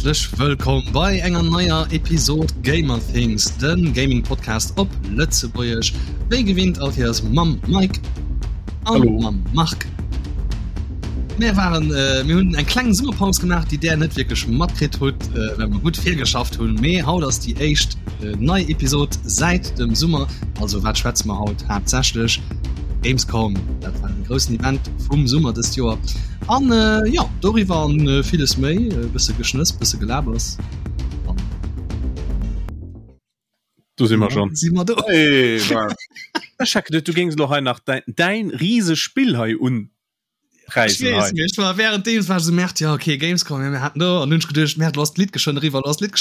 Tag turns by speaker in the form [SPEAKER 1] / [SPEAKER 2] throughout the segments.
[SPEAKER 1] Häerzlech wëllkomm bei enger neier Episod Gamer Things, den Gaming Podcast op Lëtzebuergesch. Wéi gewinnt all Kéiers mam Mike an mam Marc. Mir waren äh, mir hunn eng kleng Summerpaus gemaach, déi där net wierklech matkritt hutt, äh, well mer gutt virgeschafft hunn. Mee haut ass déi éischt äh, nei Episod säit dem Summer. Also wat schwätze mer haut haaptsächlech? Gamescom, dat war den groussen Event vum Summer dëst Joer. An äh, ja, doriwwer an äh, villes méi, e bësse Geschnëss, bësse Gelabers. An
[SPEAKER 2] Do si mer schon.
[SPEAKER 1] Si mer do.
[SPEAKER 2] Hey, Ech hat geduet, du géings lo hei nach däin, däin rieseg Spill hei un
[SPEAKER 1] Ech weess nicht, war während deem war so merkt ja okay Gamescom ja, mir hatten do an hunn geduecht Merd lass d'Lidd geschwënn eriwwer lass d'Lidd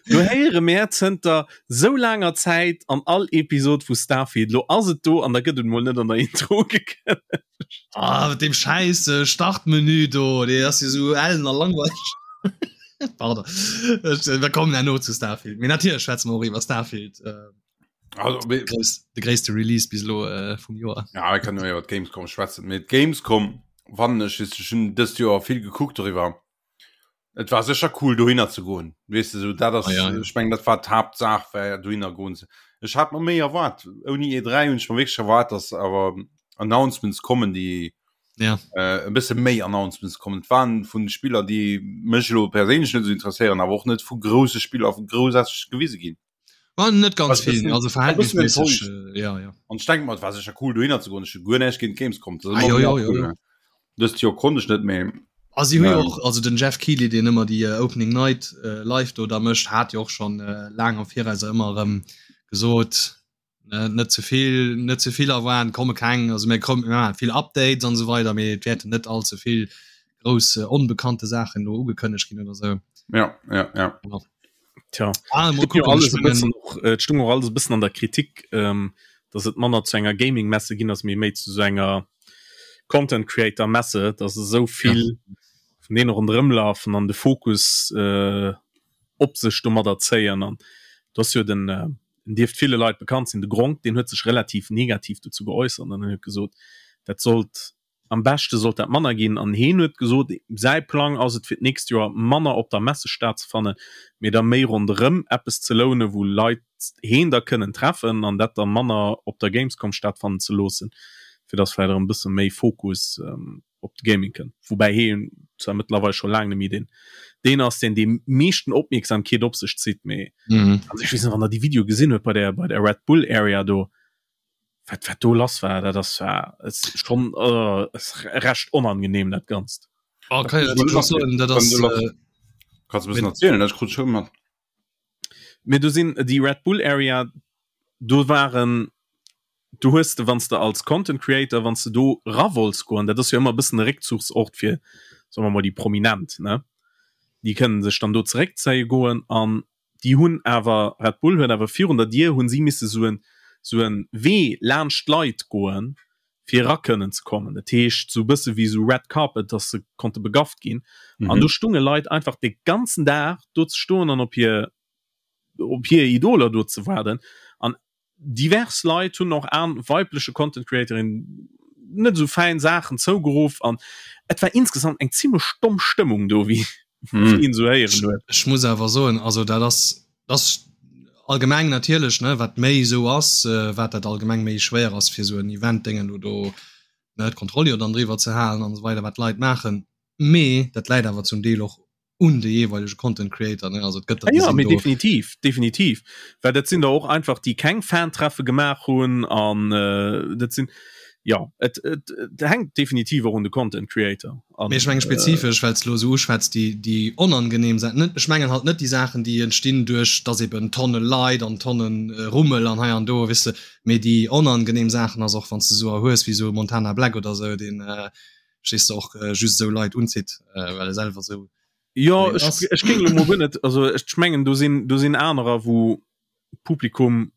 [SPEAKER 2] Du héiere mär zënter sou laanger Zäit an all Episod vu Starfield, lo ass et do an da gëtt et mol net an der Intro ugekënnegt.
[SPEAKER 1] Ah, mat deem schäiss Startmenü do, dee ass jo sou ellen a langweileg. Pardon, ech, mir kommen herno zu Starfield. Mee natierlech schwätze mer och iwwer Starfield. Äh,
[SPEAKER 3] Also,
[SPEAKER 1] de grouss, de gréisste Release bis elo äh, vum Joer.
[SPEAKER 3] Ja, ich kann nur iwwer d'Gamescom schwätzen. Mee d'Gamescom, wann ech ech hunn dëst Joer vill gekuckt doriwwer. Et war sécher cool dohinner ze goen. Weess de, sou dat ass, ah, ja, ja. ech meng dat war d'Haaptsaach war dohinner goen. Ech hat mer méi erwaart. Ouni E3 hunn ech mer wierklech erwaart, dass awer Announcements kommen, déi
[SPEAKER 1] ja.
[SPEAKER 3] äh, e bësse méi Announcements kommen. Et waren vun Spiller, déi mech elo perséinlech net esou interesséieren, awer och net vu grousse Spiller vu groussaarteg gewise ginn.
[SPEAKER 1] War net ganz vill, also verhältnismäßig.
[SPEAKER 3] Äh, ja, ja. An ich denke mal, war sicher cool dohinner zu goen. Ech hu guer näischt géint Gamescom.
[SPEAKER 1] Das ah, jo, jo, jo, jo.
[SPEAKER 3] Dëst Joer konnt ech net méi.
[SPEAKER 1] Ah, si hu jo och, also den Jeff Keighley, deen ëmmer déi äh, Opening Night äh, live do da mécht, hat jo och schon äh, laang am Viraus ëmmer erëm gesot, ne, net ze vill, net ze vill erwaarden, komme keng, also mir kommen ja, vill Updates an esou weider, mee et wäerten net all ze vill grouss äh, onbekannte Saachen do ugekënnegt ginn oder sou.
[SPEAKER 3] Ja, ja, ja.
[SPEAKER 1] Ja.
[SPEAKER 2] Tja,
[SPEAKER 1] ah,
[SPEAKER 2] mal gucken, alles e bëssen och, äh, stung och alles e bëssen an der Kritik, ähm, dass et manner zu enger Gaming-Messe ginn ass, mee méi zu so enger Content Creator Messe, dass esou vill ja. vun deene ronderëm lafen an de Fokus äh, op sech domadder zéien an du ass jo den äh, den dierft ville Leit bekannt sinn, de Gronk, deen huet sech relativ negativ dozou geäussert an huet gesot, dat sollt Am beschte sollt dat manner ginn an heen huet gesot, säi Plang ass et fir d'nächst Joer manner op der Messe stattzefannen, mee da méi ronderëm eppes ze lounen, wou Leit heen da kënnen treffen an dat da manner op der Gamescom stattfannen ze loossen, fir dass vläicht erëm e bësse méi Fokus op de Gaming kënnt. Woubäi heen zwar mëttlerweil scho laang net méi deen deen ass, deen déi meeschten Opmierksamkeet op sech zitt, mee also ech weess net, wann der déi Videoe gesinn huet bei der bei der Red Bull Area do, wat wat do lass war dat ass war es schon äh, es recht onangenehm dat ganzt
[SPEAKER 1] oh, kann ich das soen, dat ass, äh,
[SPEAKER 3] Kannst du erzählen dat krut schon mat
[SPEAKER 2] mir du sinn die Red Bull Area do waren du hues de wanns de als Content Creator wanns de do ra wolls goen dat ass jo ëmmer e bëssen e Réckzuchsort fir soen mer mol déi Prominent ne déi kënnen sech dann do zeréckzéie goen an déi hunn awer, Red Bull huet awer virun der Dier hunn si misse sou en sou en Wee laanscht d'Leit goen, fir era kënnen ze kommen. Dat heescht sou e bësse wéi sou Red Carpet, dass se konnte begafft ginn. An do stunge Leit einfach de ganzen Dag do ze stoen an op hir op hir Idoler do ze waarden. An divers Leit hunn och an weibleche Content Creatorin net esou fäin Saachen zougeruff an et war insgesamt eng zimmlech domm Stëmmung do wéi
[SPEAKER 1] hm.
[SPEAKER 2] een sou héieren huet.
[SPEAKER 1] Ech muss awer soen also dat ass das allgemeng natierlech ne wat méi sou ass äh, wat dat allgemeng méi schwéier ass fir sou en Event Déngen do do ne d'Kontroll jo dann driwwer ze halen an esou weider wat d'Leit maachen mee dat läit awer zum Deel och un de jeeweilege Content Creator ne also et gëtt
[SPEAKER 2] der, ja, mee definitiv definitiv well dat sinn der och einfach déi keng Fantreffe gemaach hunn an äh, dat sinn ja et, et, et hänkt definitiv och un de Content Creator
[SPEAKER 1] an Mee ech menge spezifesch well s lo esou uschwätz déi déi onangenehm Saachen net ech mengen halt net déi Saachen déi entstinn duerch dass eben Tonne Leit an Tonnen Rummel an hei an do weess de mee déi onangenehm Saachen ass och wann s de esou hues wéi esou Montana Black oder esou deen äh, verstees de och äh, just esou Leit unzitt äh, well e selwer esou
[SPEAKER 2] Jo ech, ech géing lo mol guer net also ech mengen do sinn do sinn anerer wou Publikum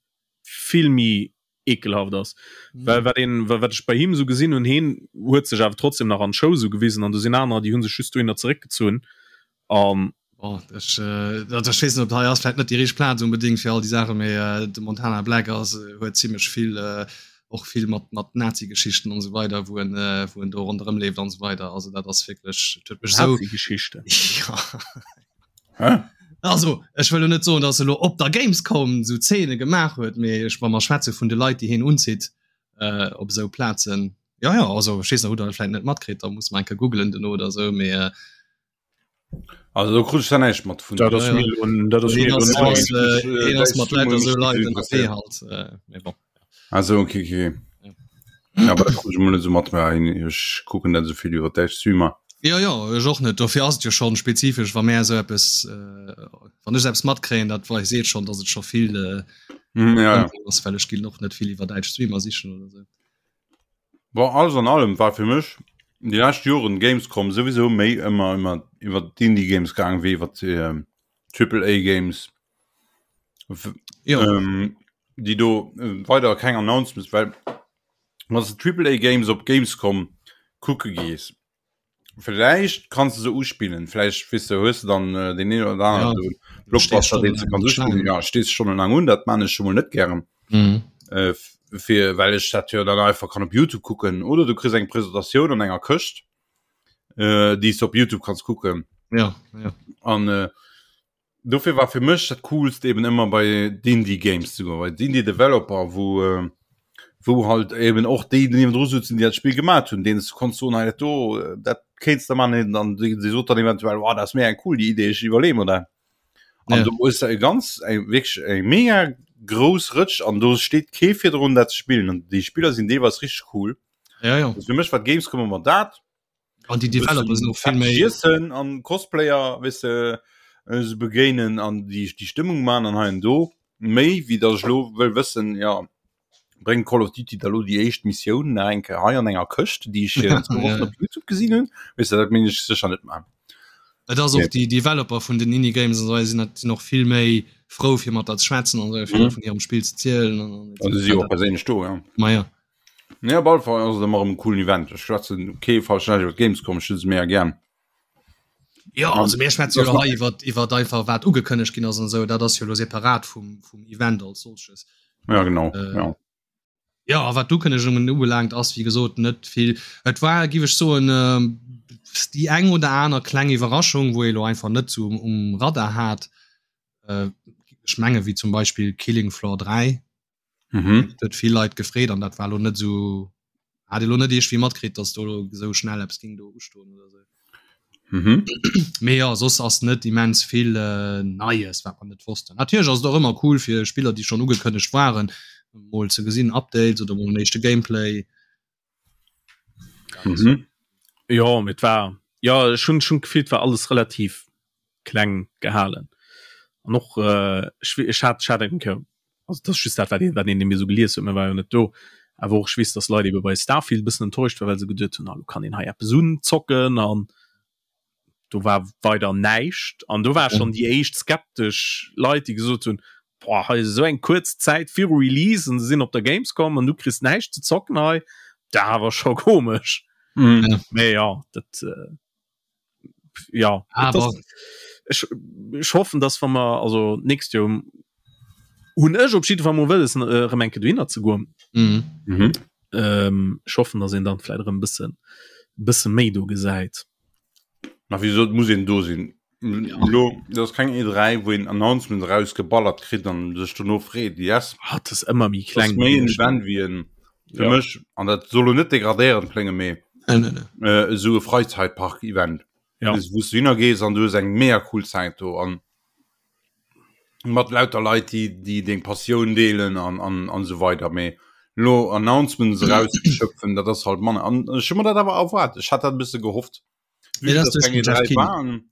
[SPEAKER 2] vill méi ekelhaft ass mhm. well wat een wat ech bei him sou gesinn hunn heen huet sech awer trotzdem nach an Show sou gewisen an do sinn anerer déi hunn sech just dohinner zeréckgezunn
[SPEAKER 1] an Oh, ech, äh, dat ech weess net, ob hei ass vläit net déi richteg Plaz unbedingt fir all déi Saachen, mee äh, de Montana Black ass, äh, huet zimmlech vill äh, och vill mat mat Nazi-Geschichten an esou weider, wou en äh, wou en do ronderëm leeft an esou weider. Also dat ass wierklech, et huet mech esou
[SPEAKER 2] Nazi-Geschichten.
[SPEAKER 1] Ja.
[SPEAKER 3] Hä?
[SPEAKER 1] Also ech wëll lo net soen, datt e lo op der Gamescom esou Zeene gemaach huet, mee ech wa mer schwätze vun de Leit, déi hien unzitt äh, op esou Plazen. Ja ja, also ech weess net, hutt der dat vläit net matkritt, da muss mer eng Kéier googelen duerno oder esou, mee äh,
[SPEAKER 3] Also do krut ech da näischt mat vun.
[SPEAKER 2] Dat ass mir elo, dat ass mir elo nei.
[SPEAKER 1] Hien ass mat lauter esou Leit ënnerwee halt, mee bon.
[SPEAKER 3] Ah sou, okay, okay. Ja, aber dat krut ech emol net esou mat, mä ech kucken net esou vill iwwer däitsch Streamer.
[SPEAKER 1] Jo, jo, ech och net. Dofir ass et jo schonn spezifesch, wa mär esou eppes, wann ech esou eppes matkréien, dat wei seet schonn, datt et scho vill
[SPEAKER 3] ja, ja.
[SPEAKER 1] ass, well ech ginn och net vill iwwer däitsch Streamer sichen oder esou.
[SPEAKER 3] Bon, alles an allem war fir mech déi lescht Joren Gamescom souwisou méi ëmmer ëmmer iwwer d'Indie Games gaang wéi iwwer ähm, Triple A Games.
[SPEAKER 1] Jo.
[SPEAKER 3] Ähm, déi do äh, weider keng Announcements, well wann du Triple A Games op Gamescom kucke gees, Vielleicht kannst du se uspillen vielleicht wis du hues du dann äh, den een oder anderen ja. Blockbuster den du kannst uspillen ja stehst schon lang un dat man ich schon mal net gern
[SPEAKER 1] mhm.
[SPEAKER 3] äh, fir well ich dat ja dann einfach kann op YouTube kucken oder du kriegst eng Präsentation an enger Këscht äh, die du op YouTube kannst kucken
[SPEAKER 1] ja, ja.
[SPEAKER 3] an äh, Dofir war fir mech dat coolst eben ëmmer bei d'Indie Games ze goen, bei d'Indie Developer, wou äh, wou halt eben och déi niewendru sutzen, déi dat Spill gemat hunn, deenen s du konns soen, hei dat do, dat kéints de man, an déi déi sot dann eventuell, oh dat ass méi eng cool déi Idee, ech iwwerleeë mer dat. An
[SPEAKER 1] Ja.
[SPEAKER 3] do hues de e ganz eng wierklech eng mega grouss Rëtsch an do steet kee virdrun dat ze spillen an déi Spiller sinn deelweis richteg cool.
[SPEAKER 1] Ja, ja.
[SPEAKER 3] Also fir mech war d'Gamescom ëmmer dat.
[SPEAKER 1] An déi Developer sinn och vill méi
[SPEAKER 3] Iessen an Cosplayer weess de se begéinen an déi déi Stëmmung man an hei an do méi wéi datt ech lo wëll wëssen ja bréngt Call of Duty da lo déi éischt Missioun nach eng Kéier hei an enger Këscht déi ech zwou Wochen op Youtube gesinn hunn weess de dat minn ech sécher net man.
[SPEAKER 1] Et ass och déi Developer vun den Indie Games an esou sinn sinn och vill méi frou fir mat der ze schwätzen an esou vill vun hirem Spill ze zielen an
[SPEAKER 3] an An se si och perséinlech do ja.
[SPEAKER 1] Ma ja.
[SPEAKER 3] Nee, op alle Fall ass et ëmmer erëm e coolen Event. Ech schwätzen kee falschen Näischt iwwer d'Gamescom, ech hu se mega gär.
[SPEAKER 1] Jo, also mir schwätze jo hei iwwer iwwer einfach wat ugekënnegt ginn ass an esou, dat ass jo elo separat vum vum Event als solches.
[SPEAKER 3] Ja, genau, äh, ja.
[SPEAKER 1] Ja, a wat d'Ukënnegungen ubelaangt, ass wéi gesot net vill. Et war, giff ech soen, äh, déi eng oder aner kleng Iwwerraschung, wou ee lo einfach net sou um, um Radar hat. Äh, ech menge wéi zum Beispill Killing Floor 3.
[SPEAKER 3] Mhm.
[SPEAKER 1] huet vill Leit gefreet an dat war lo net so hat lo net eescht wie matkritt, dass do sou schnell Apps ging do ustoen oder so.
[SPEAKER 3] Mhm.
[SPEAKER 1] Mee ja soss ass net immens vill äh, Neies wat man net wossten. Natierlech ass et och ëmmer cool fir Spiller déi schon ugekënnegt waren mol ze gesinn Updates oder mol en éischte Gameplay.
[SPEAKER 2] Mhm. Ja mit war ja schon schon gefielt war alles relativ kleng gehalen an och äh, ech, ech hat hat eng Kéier also das just dat wat een wat een mir so gelies huet mir war jo net do awer och ech weess dass Leit ebe bei Starfield bëssen enttäuscht war well se geduet hunn ah, lo kann een hei eppes unzocken an do war weider näischt an do war schon déi éischt skeptesch Leit déi gesot hunn boah, hei ist esou eng kuerz Zäit viru Release an se sinn op der Gamescom an du kriss näischt ze zocken hei da war scho komesch
[SPEAKER 3] Mhm.
[SPEAKER 1] Ja.
[SPEAKER 2] mee ja dat äh, ja
[SPEAKER 1] Aber
[SPEAKER 2] ech, ech hoffen dass wa mer also nächst Joer hunn ech op jidde Fall mol wëlles äh, erëm eng Kéier dohinner ze goen
[SPEAKER 1] mhm.
[SPEAKER 3] Mhm.
[SPEAKER 2] ähm, ech hoffen dass een dann vläit erëm bëssen bësse méi do gesäit.
[SPEAKER 3] Ma wieso muss een do sinn? Lo dat ass keng E3 wou een Announcement rausgeballert kritt an sech dono freet yes.
[SPEAKER 2] Ah, dat ass ëmmer méi
[SPEAKER 3] Dat
[SPEAKER 2] kleng
[SPEAKER 3] ass méi en
[SPEAKER 2] gewiescht.
[SPEAKER 3] Event wéi en fir
[SPEAKER 2] Ja.
[SPEAKER 3] mech an dat soll lo net degradéierend klénge mee
[SPEAKER 1] Nee, nee, nee.
[SPEAKER 3] äh, esou e Freizeitpark-Event.
[SPEAKER 2] Ja.
[SPEAKER 3] Wou s du hinner gees an du hues eng mega cool Zäit do an mat lauter Leit déi déi deng Passioun deelen an an an esou weider mee lo Announcements erauszeschöpfen dat ass halt manner an ech hu mer dat awer erwaart ech hat dat e bësse gehofft
[SPEAKER 1] Nee,
[SPEAKER 3] Vue
[SPEAKER 1] dat ass
[SPEAKER 3] dass
[SPEAKER 1] duerch
[SPEAKER 3] keng
[SPEAKER 1] den Jeff
[SPEAKER 3] E3
[SPEAKER 1] Keighley.
[SPEAKER 3] waren.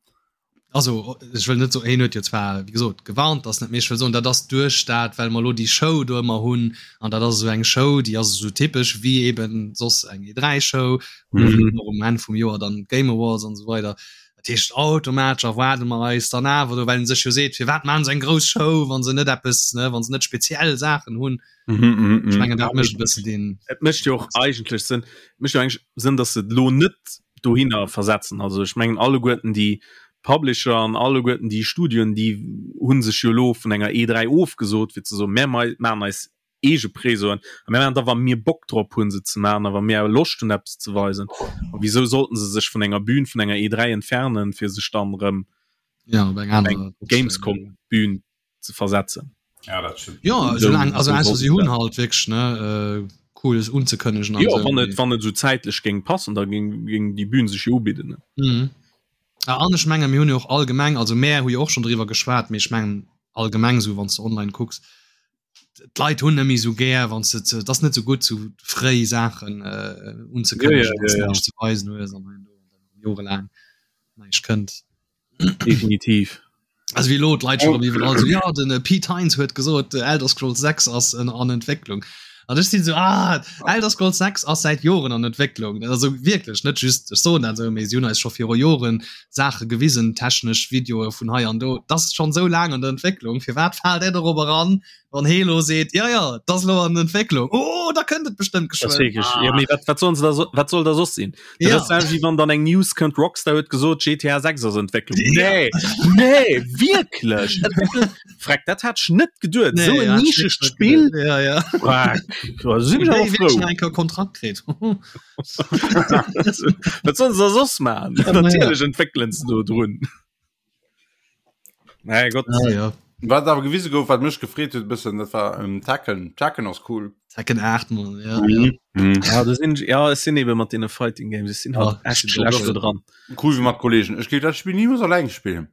[SPEAKER 1] Also ech wëll net soen, hien huet jo zwar wéi gesot gewarnt, dass net, mee ech wëll soen, dat ass duerch dat, well mer elo déi Show do ëmmer hunn an dat ass esou eng Show, déi ass esou typesch wéi eben soss eng E3-Show,
[SPEAKER 2] Mhm.
[SPEAKER 1] och um Enn vum Joer dann d'Game Awards an esou weider. Dat heescht automatesch erwaarde mer eis dann awer do, well en sech jo seet, firwat maachen se eng grouss Show, wa se net eppes, ne, wa se net speziell Saachen hunn.
[SPEAKER 3] Mhm, mhm,
[SPEAKER 1] Ech
[SPEAKER 3] mhm.
[SPEAKER 1] mengen dat mécht e bëssen deen.
[SPEAKER 2] Et mécht jo och eigentlech Sënn, et mécht jo eigentlech Sënn, datt se et elo net dohinner versetzen. Also ech mengen alleguerten déi Publisher an alleguerten déi Studioen, déi hu sech jo elo vun enger E3 ofgesot, fir ze soen, mär maachen eis. eege Presoen. A mir maachen da wa mir Bock drop hunn se ze maachen a wa mir Loscht hunn eppes ze weisen. A wisou sollten se sech vun enger Bühn vun enger E3 entfernen, fir sech dann erëm
[SPEAKER 1] ja, op eng aner
[SPEAKER 2] Gamescom Bühn ze versetzen?
[SPEAKER 3] Ja, dat stimmt.
[SPEAKER 1] Ja, soulaang, also ausser si hunn halt wierklech ne äh, cooles unzekënnegen.
[SPEAKER 2] Jo, wann et wann et sou zäitlech géing passen, da géing géing déi Bühn sech jo ubidden. Ne?
[SPEAKER 1] Mhm. Ah, an ech menge mir hunn jo och allgemeng, also mär hu jo och schonn driwwer geschwat, mee ech mengen allgemeng sou wann s de online kucks, d'Leit hunn net méi sou gär wann s de ze, et ass net sou gutt sou fréi Saachen äh, unzekënnegen,
[SPEAKER 2] Ja, ja, ja, ja.
[SPEAKER 1] näischt ze weisen hues an dann jorelaang näischt kënnt.
[SPEAKER 2] Definitiv.
[SPEAKER 1] Also wéi elo d'Leit schon iwwerall so, ja den äh, Pete Hines huet gesot, äh, Elder Scrolls 6 ass en, an Entwécklung. An ech sinn so ah, Elder Scrolls 6 ass säit Joren an Entwécklung. Also wierklech net just ech soen dat sou, mee si hunn eis scho viru Joren Saache gewisen, technesch Videoe vun hei an do. Dat ass schonn sou laang an der Entwécklung. Firwat faalt där dorop eran, wann hee lo seet, ja ja, dat ass lo an Entwécklung. Oh, da kënnt et bestëmmt
[SPEAKER 2] Das geschwënn. wirklich, ja, mee wat, wat sollen se da so, wat soll da soss sinn? Dat
[SPEAKER 1] Ja.
[SPEAKER 2] ass selwecht wéi wann dann eng News kënnt, Rockstar huet gesot, GTA 6 ass Entwécklung.
[SPEAKER 1] Ja.
[SPEAKER 2] Nee, nee, wierklech? Entwécklung? Freck, dat hat ech net geduet.
[SPEAKER 1] Nee,
[SPEAKER 2] Esou en
[SPEAKER 1] ja, hat ech
[SPEAKER 2] nischegt
[SPEAKER 1] net
[SPEAKER 2] Spill.
[SPEAKER 1] geduet. Ja, ja.
[SPEAKER 2] Freck, da sinn ech
[SPEAKER 1] Déi
[SPEAKER 2] awer
[SPEAKER 1] wierklech
[SPEAKER 2] frou.
[SPEAKER 1] nach eng Kéier Kontrakt kritt.
[SPEAKER 2] Wat sollen se da soss maachen?
[SPEAKER 1] Ja, na ja.
[SPEAKER 2] Natierlech entwéckelen se do drun. Nee, Gott.
[SPEAKER 1] Ah, ja.
[SPEAKER 3] Wat awer gewise gouf, wat mech gefreet huet bëssen, dat war ähm, Tekken. Tekken ass cool.
[SPEAKER 1] Tekken 8 man, ja, mhm.
[SPEAKER 2] ja. Mhm. Ja, das sind, ja, es sind eben mat den Fighting Games, es sind halt
[SPEAKER 1] ja,
[SPEAKER 2] echt schlecht do dran.
[SPEAKER 3] Cool wie mat Kollegen. Ech géif dat Spiel niemals alleng spillen.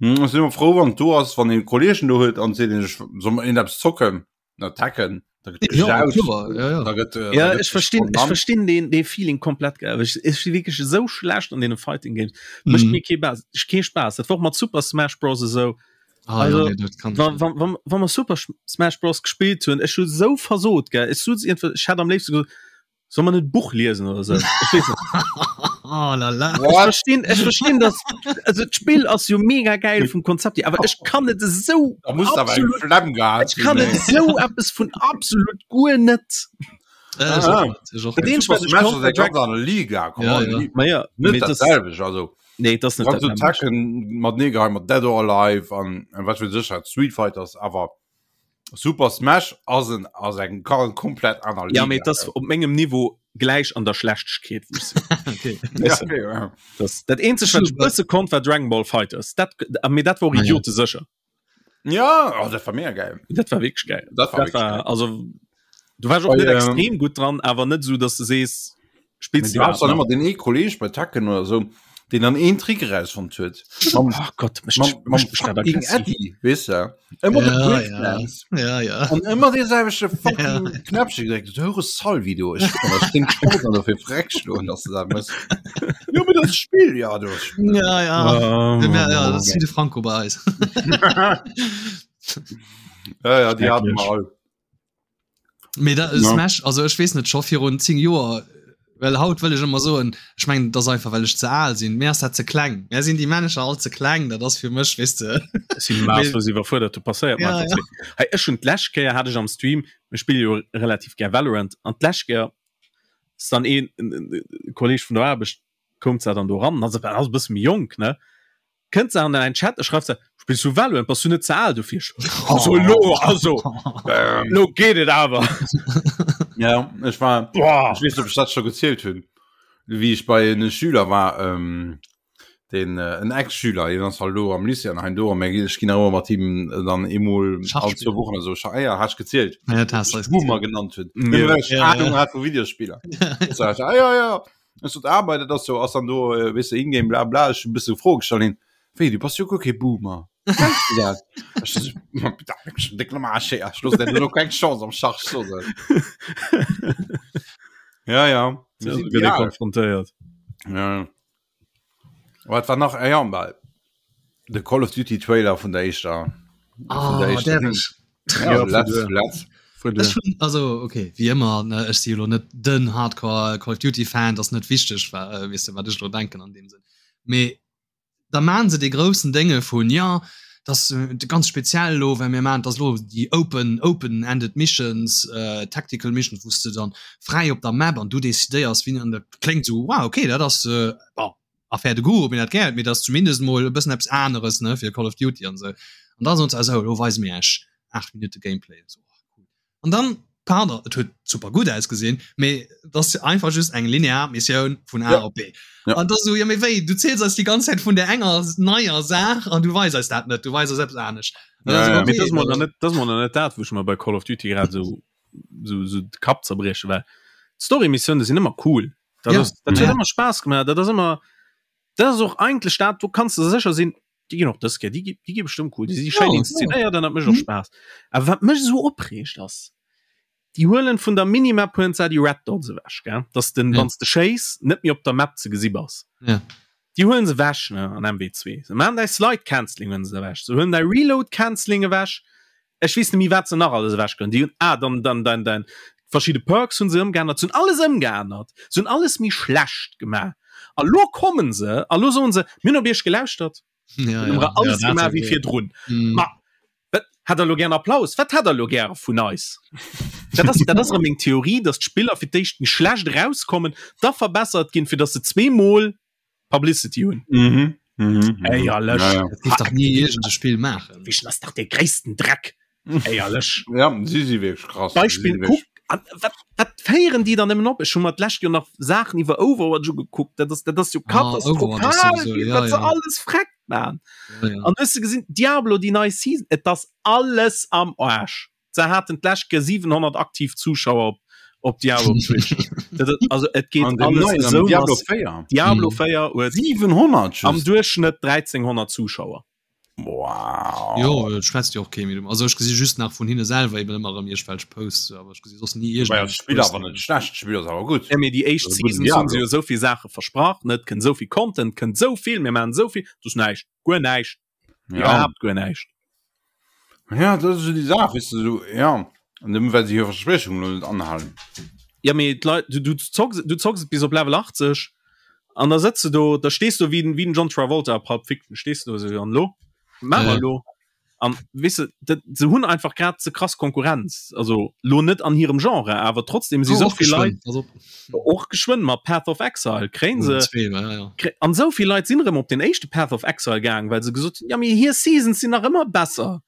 [SPEAKER 3] Hm, ech sinn immer froh, wann du ass, wann een Kollegen do huet an seet, ech soll mer een eppes zocken. Na Tekken. Da gëtt
[SPEAKER 1] Ja,
[SPEAKER 3] gejaut,
[SPEAKER 1] kloer, ja, ja.
[SPEAKER 3] da gëtt, äh,
[SPEAKER 2] Ja,
[SPEAKER 3] da gëtt
[SPEAKER 2] ech verstinn, ech
[SPEAKER 3] genannt.
[SPEAKER 2] verstinn den, den Feeling komplett geil. Ech, ech si wierklech esou schlecht an deene Fighting Games. Mécht
[SPEAKER 1] Mhm.
[SPEAKER 2] mir kee Bas, kee Spaass. Dat war och mat Super Smash Bros. esou.
[SPEAKER 1] Ah,
[SPEAKER 2] Also,
[SPEAKER 1] ja, nee, dat kann ich
[SPEAKER 2] Wa
[SPEAKER 1] net.
[SPEAKER 2] wa wa wa mer Super Smash Bros. gespillt hunn, ech hu sou versot, gell. Ech sot iergendwann, ech hätt am léifste gesot, Soll man net Buch liesen oder so? Ech weess net.
[SPEAKER 1] Oh la la.
[SPEAKER 2] Ech verstinn, ech verstinn das also d'Spill ass jo mega geil vum Konzept hier, awer ech kann et esou
[SPEAKER 3] Da muss awer eng
[SPEAKER 2] absolut
[SPEAKER 3] Flemm gehat
[SPEAKER 2] ech kann
[SPEAKER 3] hunn,
[SPEAKER 2] et
[SPEAKER 3] ey.
[SPEAKER 2] esou eppes vun absolut guer net.
[SPEAKER 1] Äh,
[SPEAKER 3] Ah,
[SPEAKER 1] ech
[SPEAKER 3] ah.
[SPEAKER 1] och net, ech och
[SPEAKER 2] Dat
[SPEAKER 1] net.
[SPEAKER 2] eenzegt,
[SPEAKER 3] Super
[SPEAKER 2] wat ech
[SPEAKER 3] Smash
[SPEAKER 2] konnt,
[SPEAKER 3] ass
[SPEAKER 2] war
[SPEAKER 3] eng ganz
[SPEAKER 2] Dragon
[SPEAKER 3] aner Liga, come
[SPEAKER 1] Ja,
[SPEAKER 3] on.
[SPEAKER 1] ja.
[SPEAKER 2] Ma ja,
[SPEAKER 3] Net
[SPEAKER 2] mee
[SPEAKER 3] dat
[SPEAKER 2] das
[SPEAKER 3] selwecht, also.
[SPEAKER 2] nee, das net
[SPEAKER 3] Kannst
[SPEAKER 2] dat
[SPEAKER 3] du
[SPEAKER 2] nämmlecht.
[SPEAKER 3] Tekken mat nee geheim mat Dead or Alive an an wat weess ech wat, Street Fighters, awer Super Smash ass en ass eng komplett aner
[SPEAKER 2] Ja, mee das op mengem Niveau gläich an der Schlechtegkeet wou ech sinn.
[SPEAKER 1] Okay.
[SPEAKER 3] Ja, okay, ja.
[SPEAKER 2] Das, dat eenzegt wat ech bësse konnt war Dragon Ball Fighters. Dat mee dat war och
[SPEAKER 1] Ah, ja.
[SPEAKER 2] idiote sécher.
[SPEAKER 3] Ja, oh, dat war mega geil.
[SPEAKER 2] Dat war wierklech geil.
[SPEAKER 3] Dat war
[SPEAKER 2] Dat
[SPEAKER 3] wierklech
[SPEAKER 2] war
[SPEAKER 3] geil.
[SPEAKER 2] also du warst och
[SPEAKER 3] Bei,
[SPEAKER 2] net
[SPEAKER 3] ähm,
[SPEAKER 2] extrem gutt dran, awer net sou dass du sees spillst
[SPEAKER 3] Du hast dann immer den ee Kolleg bei Tekken oder so, den dann een Trick erausfonnt huet. Mam,
[SPEAKER 2] Oh Gott, mech,
[SPEAKER 3] mam, mam
[SPEAKER 2] mech dat
[SPEAKER 3] fucking
[SPEAKER 2] aggressiv.
[SPEAKER 3] Eddie, weess de? Ëmmer de
[SPEAKER 1] Ja, ja.
[SPEAKER 3] Breakdance.
[SPEAKER 1] Ja, ja.
[SPEAKER 3] An ëmmer dee selwechte fucking Knäppche gedréckt. Du höre Salvi, du. Ech ech den Sport an dofir freck schloen, dass du dat mëss. Jo, mee dat Spill, ja, du.
[SPEAKER 1] Ja, ja.
[SPEAKER 2] Oh,
[SPEAKER 1] Ja, ja, dat ass wéi de Franco bei eis.
[SPEAKER 3] Ja, ja, déi haten mer all.
[SPEAKER 1] Mee dat
[SPEAKER 3] Ja.
[SPEAKER 1] Smash, also ech weess net scho virun 10 Joer, well haut wëll ech ëmmer soen, ech mengen dat ass einfach well ech ze al sinn, mir ass dat ze kleng, mär sinn déi Männecher all ze kleng, dat ass fir mech weess de.
[SPEAKER 2] Ech sinn maßlos iwwerfuerdert, do passéiert mer
[SPEAKER 1] Ja,
[SPEAKER 2] einfach
[SPEAKER 1] ja.
[SPEAKER 2] ze. Hey, ech hunn d'lescht Kéier hat ech am Stream, mir spille jo relativ gär Valorant, an d'lescht Kéier ass dann een en Kolleg vun der Aarbecht koum zwar dann do ran, ass ass e bësse méi jonk ne, kënnt se an en Chat a schreift se, spills du Valorant, bass du net ze al dofir? Also elo, also
[SPEAKER 3] Ähm,
[SPEAKER 2] elo geet et awer.
[SPEAKER 3] ja, ech war
[SPEAKER 2] Boah.
[SPEAKER 3] Ich weess net, ob ech dat scho gezielt hunn, wéi ech bei en Schüler war, ähm, den äh, en Ex-Schüler, deen ass halt elo am Lycée an hein do, an mir ginn, ech ginn nach ëmmer mat him äh, dann eemol
[SPEAKER 1] Schach
[SPEAKER 3] all zwou
[SPEAKER 1] spillen.
[SPEAKER 3] Wochen oder sou Schach, ah ja, hat ech gezielt,
[SPEAKER 1] Ja, dat has
[SPEAKER 3] ech
[SPEAKER 1] du eis
[SPEAKER 3] Boomer
[SPEAKER 1] gezielt.
[SPEAKER 3] genannt hunn,
[SPEAKER 2] Ja.
[SPEAKER 3] nëmme well ech
[SPEAKER 1] Ja,
[SPEAKER 3] Ahnung
[SPEAKER 1] ja.
[SPEAKER 3] hat vu Videospiller. So, ich, ah, ja, ja, Ech sot, ah, bei dat ass jo, ass dann do, äh, weess de, Ingame, bla bla, ech hunn e bësse Froe gestallt, hien, wéi, du bass jo guer kee Boomer. Kenns du dat? Ech so, ma bitte, ech bin déck am Aarsch, ey, ech looss der do keng Chance am Schach, ech so se. Ja, ja, mir
[SPEAKER 2] So
[SPEAKER 3] sinn
[SPEAKER 2] gëtt ee
[SPEAKER 3] déi Al.
[SPEAKER 2] konfrontéiert.
[SPEAKER 3] Ja. Wat war nach? Ah, ja, well de Call of Duty Trailer vun der éischter, vun der
[SPEAKER 1] Ah,
[SPEAKER 3] éischter
[SPEAKER 1] därf
[SPEAKER 3] Ding.
[SPEAKER 1] ech?
[SPEAKER 3] Ja,
[SPEAKER 2] Ja,
[SPEAKER 3] letz,
[SPEAKER 2] vun
[SPEAKER 3] letz.
[SPEAKER 2] Vun
[SPEAKER 1] Ech hunn, also okay, wéi ëmmer, ne, ech si elo net den Hardcore Call of Duty Fan, dat ass net wichteg, wa, äh, weess de, wat ech elo denken an deem Sënn. Mee da maan se dee groussen Dénge vun, jo, dat ass ganz speziell elo, well mir maan, dat ass elo déi open, open-ended missions, äh, tactical missions, wou s de dann fräi op der Map an du decidéiers, wien, an dat kléngt esou, wow, okay, dat ass, äh, bon, Affaire de goût, ob een dat gär huet, mee dat ass zumindest emol e bëssen eppes aneres, ne, fir Call of Duty an esou. An da soen se, esou, elo weise mir iech 8 Minutte Gameplay. Esou, oh, cool. An dann, pardon, et huet super gutt ausgesinn, mee et ass einfach just eng linear Missioun vun A op B. An da sou, jo mee wéi, du ziels eis déi ganz Zäit vun där enger neier Saach an du weis eis dat net, du weis eis eppes anescht.
[SPEAKER 2] Ja, ja. Mee dat ass mol nach net, dat ass mol nach net dat, wou ech mer bei Call of Duty grad esou, esou, esou de Kapp zerbrieche, well d'Story-Missiounen sinn ëmmer cool. Dat ass, dat huet ëmmer Spaass gemaach, dat ass ëmmer, dat ass och eigentlech dat, do kanns de sécher sinn, déi ginn och dës Kéier, déi gi, déi gi bestëmmt cool, déi si schéin ja, inszenéiert an dat mécht och mhm. Spaass. Awer wat mech esou opreegt ass, déi huelen vun der Minimap huelen se déi Red Dots ewech, gell? Dass den, ja. wanns de schéiss, net méi op der Map ze gesi bass.
[SPEAKER 1] Ja.
[SPEAKER 2] Déi huelen se ewech, ne, an MW2. Se maachen däi Slide Canceling huelen se ewech. Se huelen däi Reload Canceling ewech. Ech weess net méi wat se nach alles ewech gënn. Déi hunn ah dann dann dein dein verschidde Perks hunn se ëmgeännert, se hunn alles ëmgeännert, se hunn alles méi schlecht gemaach. A lo kommen se a lo soen se, mir hunn op iech gelauschtert,
[SPEAKER 1] Ja,
[SPEAKER 2] mir hunn
[SPEAKER 1] ja,
[SPEAKER 2] alles
[SPEAKER 1] ja, dat
[SPEAKER 2] gemaach wéi
[SPEAKER 1] okay.
[SPEAKER 2] virdrun.
[SPEAKER 1] Mm.
[SPEAKER 2] Ma wat hätt der lo gären Applaus? Wat hätt der lo gäre vun eis? Dat ass dat ass erëm meng Theorie, datt d'Spiller fir d'éischt méi schlecht erauskommen, da verbessert ginn, fir datt se zweemol Publicity hunn.
[SPEAKER 3] Mhm. Mhm.
[SPEAKER 2] Éierlech.
[SPEAKER 3] Ja, ja.
[SPEAKER 1] Dat dierf dach ni iergend e Spill maachen.
[SPEAKER 2] Wéi ass dach dee gréissten Dreck. Éierlech.
[SPEAKER 3] Ja, si si wierklech krass.
[SPEAKER 2] Beispill
[SPEAKER 3] Si si wierklech-
[SPEAKER 2] kuck an wat wat féieren déi dann ëmmen op? Ech hu mer d'lescht Joer nach Saachen iwwer Overwatch ugekuckt. Dat ass dat ass jo
[SPEAKER 1] Ah,
[SPEAKER 2] katastrophal,
[SPEAKER 1] Overwatch ass sowieso,
[SPEAKER 2] wéi
[SPEAKER 1] ja,
[SPEAKER 2] wat se
[SPEAKER 1] ja.
[SPEAKER 2] alles freckt man.
[SPEAKER 1] Ja, ja.
[SPEAKER 2] An hues de gesinn Diablo déi nei Season, et ass alles am Aarsch. Se haten d'lescht Kéier 700 aktiv Zuschauer op op Diablo op Twitch. Dat ass- also et geet
[SPEAKER 3] An dem
[SPEAKER 2] alles
[SPEAKER 3] neien, am
[SPEAKER 2] esou
[SPEAKER 3] Diablo
[SPEAKER 2] massiv.
[SPEAKER 3] 4.
[SPEAKER 2] Diablo
[SPEAKER 1] Mhm.
[SPEAKER 2] 4 huet
[SPEAKER 3] 700
[SPEAKER 2] am
[SPEAKER 3] just.
[SPEAKER 2] Duerchschnëtt 1300 Zuschauer.
[SPEAKER 3] Wow.
[SPEAKER 1] Jo, et schwätzt jo och kee méi drüber. Also ech gesi just nach vun hinne selwer eben ëmmer erëm iergendwelch Posts, awer ech gesi soss ni
[SPEAKER 3] Wobei
[SPEAKER 1] iergendeng
[SPEAKER 3] ass d'Spill awer net schlecht, d'Spill ass awer gutt.
[SPEAKER 2] Ja, mee déi éischt
[SPEAKER 3] Also gudden
[SPEAKER 2] Seasons hunn se
[SPEAKER 3] Diablo.
[SPEAKER 2] jo esou vill Saache versprach, ne? Et kënnt esou vill Content, et kënnt esou vill, mir maachen esou vill, et ass näischt, guer näischt,
[SPEAKER 3] Ja.
[SPEAKER 2] iwwerhaapt guer näischt.
[SPEAKER 3] Ja, dat ass esou déi Saach, weess de, esou, ja. An nëmme well se hir Verspriechungen elo net anhalen.
[SPEAKER 2] Ja, mee d'Leit, du, du zocks, du zocks et bis op Level 80 an da sëtz de do, da stees du wéi den, wéi den John Travolta a Pulp Fiction, stees du do esou, an elo? Wat maache mer
[SPEAKER 1] Ja.
[SPEAKER 2] elo? An weess de, dat, se hunn einfach grad ze krass Konkurrenz, also lo net an hirem Genre, awer trotzdem si
[SPEAKER 1] Oh,
[SPEAKER 2] sou
[SPEAKER 1] och
[SPEAKER 2] vill Leit
[SPEAKER 1] geschwënn, pass op.
[SPEAKER 2] och geschwënn mat Path of Exile kréien se
[SPEAKER 1] Zwee, ja, ja.
[SPEAKER 2] kré an sou vill Leit sinn erëm op den éischte Path of Exile gaang, well se gesot hunn, ja mee hir Seasons sinn nach ëmmer besser.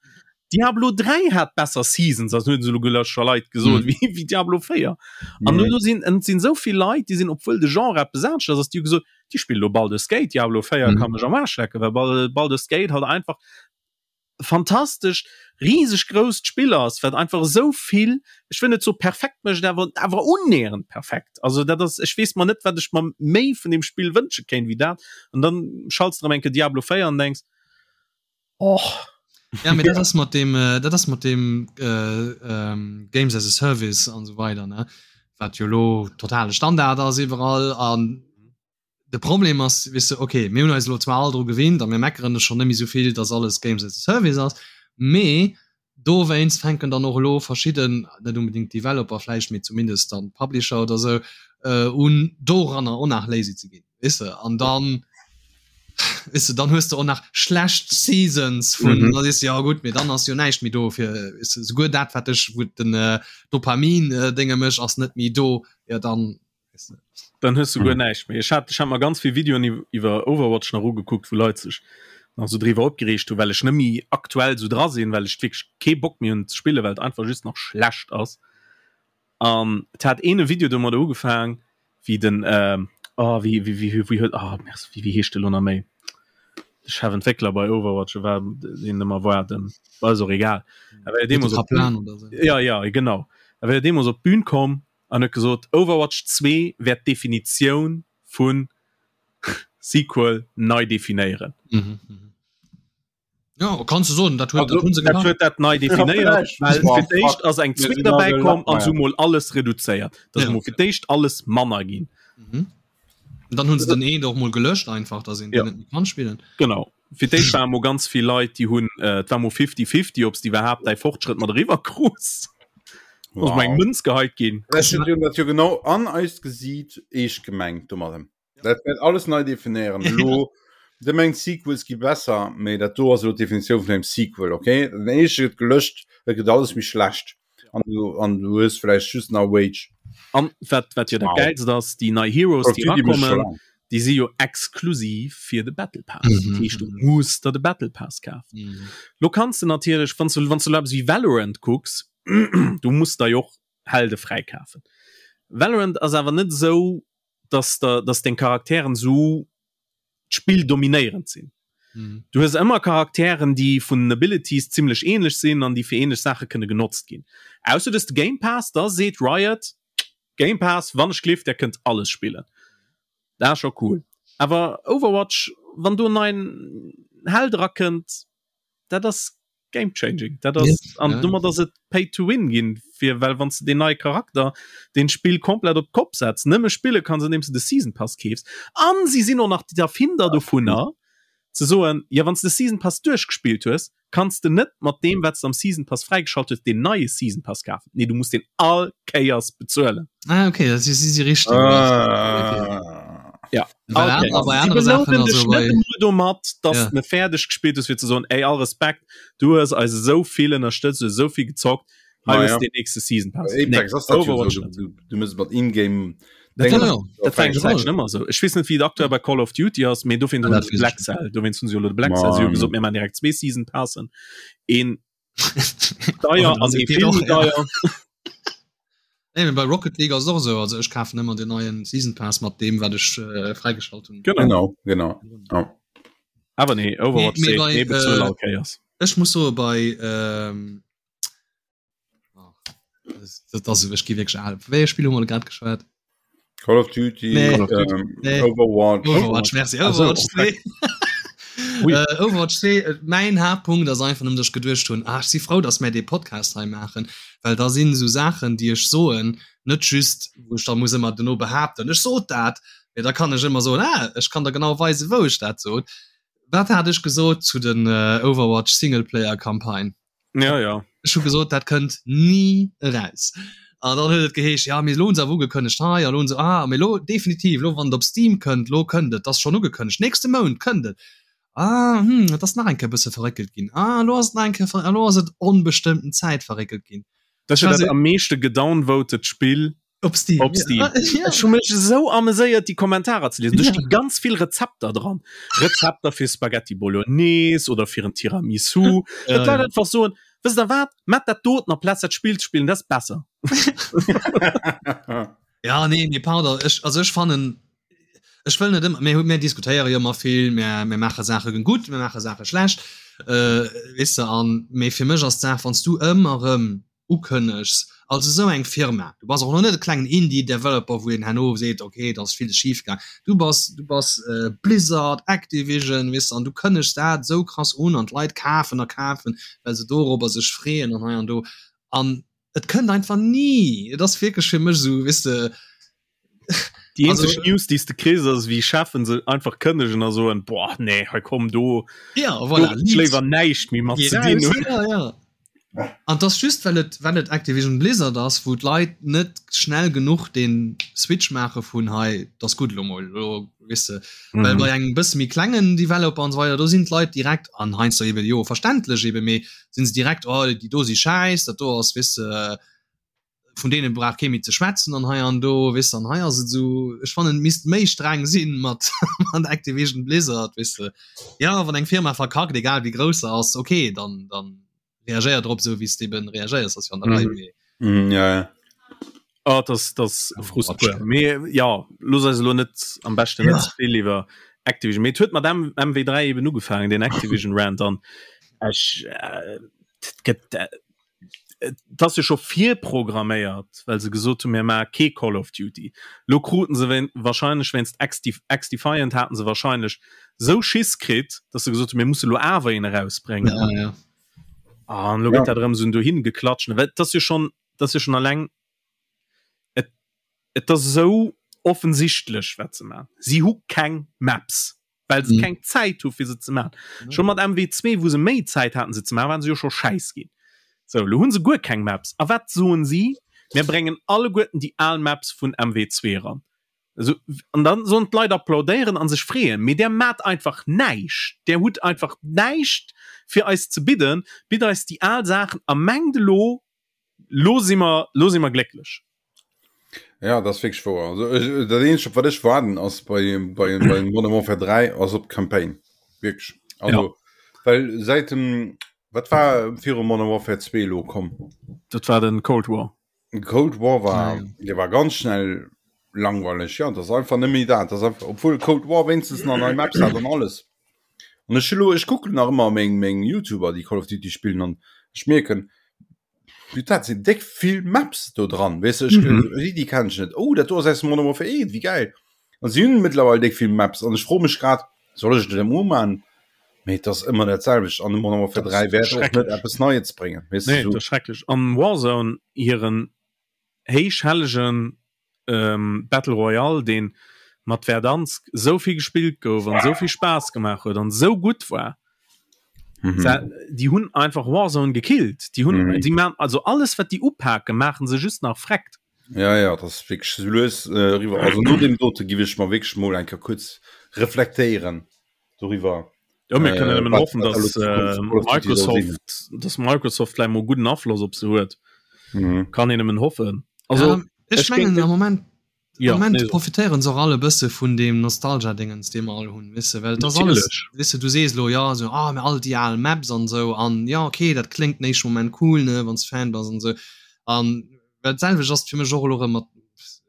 [SPEAKER 2] Diablo 3 hat besser Seasons, also hunn se elo gelöscht scho Leit gesot,
[SPEAKER 1] Mhm.
[SPEAKER 2] wéi wéi Diablo 4. An
[SPEAKER 3] Mhm.
[SPEAKER 2] elo sinn et sinn sou vill Leit, déi sinn, obwuel de Genre eppes anescht ass, ass, déi hu gesot, déi spille lo Baldur's Gate, Diablo 4
[SPEAKER 1] Mhm.
[SPEAKER 2] ka mech am Aarsch lecken, well Bal Baldur's Gate halt einfach fantastescht, riseg grousst Spill ass, wat einfach esou vill, ech wëll net soe perfekt mécht, awer awer unnähernd perfekt. Also dat ass, ech weess mer net, wat ech mer méi vun deem Spill wënsche kéint wéi dat. An dann schalts de erëm eng Kéier Diablo 4 an denks, och.
[SPEAKER 1] Ja, mee dat ass mat deem, dat ass mat deem Games as a Service an esou weider, ne, wat jo elo totale Standard ass iwwerall an De Problem ass, weess de, okay, mir hunn eis elo zwar all dru gewinnt a mir meckeren schonn net méi esou vill, dass alles Games as a Service ass, mee dowéinst fänken dann och elo verschidden, net unbedingt Developer vläicht, mee zumindest dann Publisher oder esou, un doranner och nach lazy ze ginn, weess de. An dann, weess de, dann hues de och nach schlecht Seasons vun, da sees de, jo gutt, mee dann ass jo näischt méi do fir, weess de, souguer dat wat dech, wou den Dopamin-Dénge mécht, ass net méi do, jo dann
[SPEAKER 2] Dann hues du guer näischt méi. Ech hat, ech hat mer ganz vill Videoen iwwer Overwatch nach ugekuckt, wou Leit sech nach sou driwwer opgereegt hunn, well ech net méi aktuell sou dra sinn, well ech wierklech kee Bock méi hunn ze spillen, well et einfach just nach schlecht ass. An et hat een e Video domadder ugefaang, wéi den, oh wéi, wéi, wéi, wéi huet, oh merci, wéi, wéi heescht de lo nach méi? De Chefentwéckler bei Overwatch, e war deen ëmmer war, den, ass och egal. A wéi er deemools op
[SPEAKER 1] Kaplan oder sou.
[SPEAKER 2] Ja, ja, genau. A wéi er deemools op d'Bün komm an huet gesot, Overwatch 2 wäert d'Definitioun vu Sequel nei definéieren.
[SPEAKER 1] Mhm, mhm. Ja, kannst du soen, dat huet,
[SPEAKER 3] Also,
[SPEAKER 1] dat hunn se
[SPEAKER 2] Dat
[SPEAKER 1] gemaach.
[SPEAKER 2] huet dat nei definéiert, well fir d'éischt ass eng Zwee derbäi komm an se hu mol alles reduzéiert. Dat ass
[SPEAKER 1] Ja.
[SPEAKER 2] mol fir d'éischt alles manner ginn.
[SPEAKER 1] Mhm. Und dann hunn se den een och mol gelöscht einfach, dass een
[SPEAKER 2] Ja.
[SPEAKER 1] den net méi kann spillen.
[SPEAKER 2] Genau. Fir d'éischt ware mol ganz vill Leit, déi hunn, äh, et war mol fifty-fifty, ob s de iwwerhaapt däi Fortschrëtt mat eriwwer krus. Ass mol eng Mënz geheit ginn.
[SPEAKER 3] Ech hunn dat jo genau an eist Gesiit eescht gemengt domadden. Dat wäert alles nei definéieren. Elo, de mengt Sequels gi besser, mee dat do ass elo d'Definitioun vun engem Sequel, okay? Den éischte gëtt gelöscht, et gëtt alles méi schlecht an du, an du hues vläicht just nach Wage.
[SPEAKER 2] An wat, wat jo dat
[SPEAKER 3] Wow.
[SPEAKER 2] Gäilst ass, déi nei Heroes, déi
[SPEAKER 3] Call of Duty mécht scho
[SPEAKER 2] erakommen,
[SPEAKER 3] laang.
[SPEAKER 2] déi si jo exklusiv fir de Battle Pass.
[SPEAKER 1] Mhm.
[SPEAKER 2] Dat heescht, du muss der de Battle Pass kafen.
[SPEAKER 1] Mhm.
[SPEAKER 2] Lo kanns de natierlech, wann s du, wann s du elo eppes wéi Valorant kucks, Du muss der jo och Helde fräikafen. Valorant ass awer net esou, dass der, dass deng Charakteren esou d'Spill dominéierend sinn. Mhm. Du hues ëmmer Charakteren, déi vun den Abilities zimmlech ähnlech sinn an déi fir ähnlech Saache kënne genotzt ginn. Ausser du hues de Game Pass, da seet Riot, Game Pass, wann ech gleeft, der kënnt alles spillen. Dat ass scho cool. Awer Overwatch, wann do en neien Held erakënnt, dat ass game changing dat ass an ja. domat ass et pay to win ginn fir well wann du den neie Charakter den Spill komplett op Kopf setzt nëmme spille kann se nimmst du de Season Pass keefs an sie sinn och nach die Erfinder dovunner ze soen ja wann du de Season Pass duerchgespillt hues kannst du net mat dem wat du am Season Pass fräigeschalt hues den neie Season Pass kafen nee du musst den all Kéiers bezuelen
[SPEAKER 1] ah, okay das ist sie richtig ah.
[SPEAKER 2] ja domat dass ja. ne fäerdeg gespielt ist fir ze soen ey all Respekt du hues eis esou vill ënnerstëtzt du esou vill gezockt hei hues den nächste Season Pass
[SPEAKER 3] nee, Overwatch du, du, du muss mat in-game
[SPEAKER 2] Dat war, dat war eng Zäitchen ëmmer sou. Ech weess net wéi et aktuell bei Call of Duty ass, mee dofir hunn se Black Cell, dowéinst hunn se jo elo de Black Cell, si hu gesot mir maachen direkt zwee Season Passen, een deier an ee vill méi deier.
[SPEAKER 1] Nee, mee bei Rocket League ass et och esou, also ech kafen ëmmer den neien Season Pass mat deem wat ech äh, fräigeschalt hunn.
[SPEAKER 3] Genau, genau.
[SPEAKER 2] Ja. Awer nee, Overwatch
[SPEAKER 1] nee,
[SPEAKER 2] nee,
[SPEAKER 1] bei,
[SPEAKER 2] äh,
[SPEAKER 1] all Kéiers. Ech muss soe bei ähm, oh, das, das, ech gi wierklech al. Wéi e Spill hu mer grad geschwat?
[SPEAKER 3] Call of Duty,
[SPEAKER 1] nee.
[SPEAKER 3] Call of Duty. Ähm,
[SPEAKER 1] nee.
[SPEAKER 3] Overwatch.
[SPEAKER 1] Overwatch, merci. Overwatch 2. äh, Overwatch 2, äh, mein Hauptpunkt ass einfach nëmmen, dass ech geduecht hunn, ah, ech si frou, dass mär dee Podcast hei maachen, well da sinn esou Saachen, déi ech soen, net just, wou ech da muss ëmmer dono behaapten, ech sot dat, mee da kann ech ëmmer soen, ah, ech kann der genau weisen, wou ech dat sot. Wat hat ech gesot zu den äh, Overwatch Singleplayer-Campagne?
[SPEAKER 2] Ja, ja.
[SPEAKER 1] Ech hu gesot, dat kënnt ni eraus. An dann huet et geheescht, ja, mee elo hunn se awer ugekënnegt hei, a lo hunn se, ah, mee elo definitiv, elo wann et op Steam kënnt, elo kënnt et, ass schonn ugekënnegt, nächste Mount kënnt et. Ah, hm, et ass nach eng Kéier e bësse verréckelt ginn. Ah, elo ass et nach eng Kéier, elo ass et onbestëmmten Zäit verréckelt ginn.
[SPEAKER 2] Dat ass jo dat am meeschte gedownvotet Spill
[SPEAKER 1] Op Steam.
[SPEAKER 2] Op Steam. Ja. Ja. Ech hu mech esou ameséiert déi Kommentarer ze liesen. Do sti ganz vill Rezepter dran. Rezepter fir Spaghetti Bolognese oder fir en Tiramisu. Ja, dat Leit einfach soen, wësst der wat, mat dat doten amplaz dat Spill ze spillen, dat ass besser.
[SPEAKER 1] ja, nee, nee, pardon. Ech, also ech fannen, ech wëll net ëmmer, mir, mir diskutéiere jo ëmmer vill, mir, mir maache Saache gutt, mir maache Saache schlecht, äh, weess de, an, mee fir mech ass d'Saach, wann s du ëmmer erëm ukënnegs als esou eng Firma, du bass och elo net e klengen Indie-Developer, wou een herno seet, ok, et ass villes schif gaang, du bass, du bass Blizzard, Activision, weess de, an du kënnegs dat esou krass un an d'Leit kafen a kafen, well se dorobber sech freeën an hei an do an et kënnt einfach ni. Et ass wierklech fir mech esou, weess de.
[SPEAKER 2] Déi eenzeg News, déi s de kriss, ass wéi Cheffen se einfach kënnegen a soen, boah, nee, hei komm do,
[SPEAKER 1] ja, voilà,
[SPEAKER 2] do léiwer näischt méi mat ze dinn hunn.
[SPEAKER 1] Ja, ja. An das just well et well et Activision Blizzard ass, wou d'Leit net schnell genuch den Switch maache vun hei, das gutt lo mol, lo weess de. Mm. Well bei engem bësse méi klengen Developer an so weider, do sinn d'Leit direkt an heiansdo eben jo verständlech eben, mee sinn se direkt oh déi do si schäiss, dat do ass weess de vun deenen brauch kee méi ze schwätzen an hei an do weess de an hei ass et esou ech fannen et misst méi streng sinn mat mat Activision Blizzard weess de ja wann eng Firma verkackt egal wéi grouss se ass okay dann dann reagéier drop esou wéi s de eben reagéiers ass jo an der Rei
[SPEAKER 3] mee mm, ja, ja.
[SPEAKER 2] Oh, das das Frust pur. Mee ja looss eis elo net am beschten net ze vill iwwer Activision mee et huet mat M MW3 eben ugefaangen den Activision Rant an ech äh, et gëtt äh, Et ass jo scho virprogramméiert, well se gesot hunn, mir maache kee Call of Duty. Lo kruten se wahrscheinlech wéinst XDefiant haten se wahrscheinlech sou Schiss kritt, datt se gesot hunn, mir musse lo awer een erausbréngen.
[SPEAKER 1] Ja, ja.
[SPEAKER 2] An lo gëtt dat erëm esou dohin geklatscht. Well et ass jo schonn, et ass jo schonn alleng, et, et ass esou offensichtlech, wat se maachen. Si hu keng Maps. well se mm. keng Zäit hu fir se ze man. Mm. Schon mat MW2 wou se méi Zäit haten se ze man, waren se jo scho schäiss ginn. So lo hunn se guer keng Maps. A wat soen si? Mir bréngen alleguerten déi al Maps vun MW2 ran. Also, an dann sollen d'Leit applaudéieren an sech freeën, mee där mat einfach näischt. Där hutt einfach näischt fir eis ze bidden, bitt eis déi al Saachen a mengt elo lo si mer lo si mer glécklech.
[SPEAKER 3] Ja das wierklech wouer. Also ech, dat eenzegt op wat ech waarden ass bei bei bei Modern Warfare 3 ass op d'Campaign wierklech. Also ja. well säit dem. Wat war viru Modern Warfare 2 elo komm?
[SPEAKER 2] Dat war den Cold War.
[SPEAKER 3] Cold War war, ja. der war ganz schnell langweilig. Ja, das einfach net méi dat. Das einfach, obwohl Cold War wenigstens nach nei Maps hat an alles. An ech lo, ech kucken nach ëmmer meng meng YouTuber, déi Call of Duty spillen an ech mierken, dat sinn déck vill Maps do dran. Weess du, ech, mhm. déi, déi kenn ech net. Oh, dat do ass aus Modern Warfare 1, wéi geil. An si hunn mittlerweile déck vill Maps an ech froe mech grad, soll ech et emol man? Mee et ass ëmmer dat selwecht an de Modern Warfare 3 wäert och net eppes Neies bréngen.
[SPEAKER 2] Weess du, Nee, dat ass schrecklech. An Warzone hiren héichhellegen ähm, Battle Royale, deen mat Verdansk esou vill gespillt gouf an esou vill Spaass gemaach huet an esou gutt war. Mhm. Déi hunn einfach Warzone gekillt. Déi hunn, mhm. déi man, also alles wat déi upaken, maachen se just nach freckt.
[SPEAKER 3] Ja ja, das ist wirklich so lues äh, riwwer. Also no dem dote gi ech mal wirklich mol enker kurz reflektéieren doriwwer.
[SPEAKER 2] Ja, mir können äh, hoffen, dass äh, Microsoft, dass Microsoft vielleicht mal guten Afloss op se huet. Mhm. Kann een nëmmen hoffen.
[SPEAKER 1] Also ja, ech, ech mengen am Moment ja, Moment nee. profitéieren se och alle bësse vun dem Nostalgia-Dingens, dee mer all hunn, weess de, well et ass alles, weess de, du sees elo, ja, sou, ah, mä all déi al Maps an esou an ja, okay, dat kléngt den éischte Moment cool, ne, wann s Fan bass an esou an well d'selwecht ass et fir mech och elo erëm mat,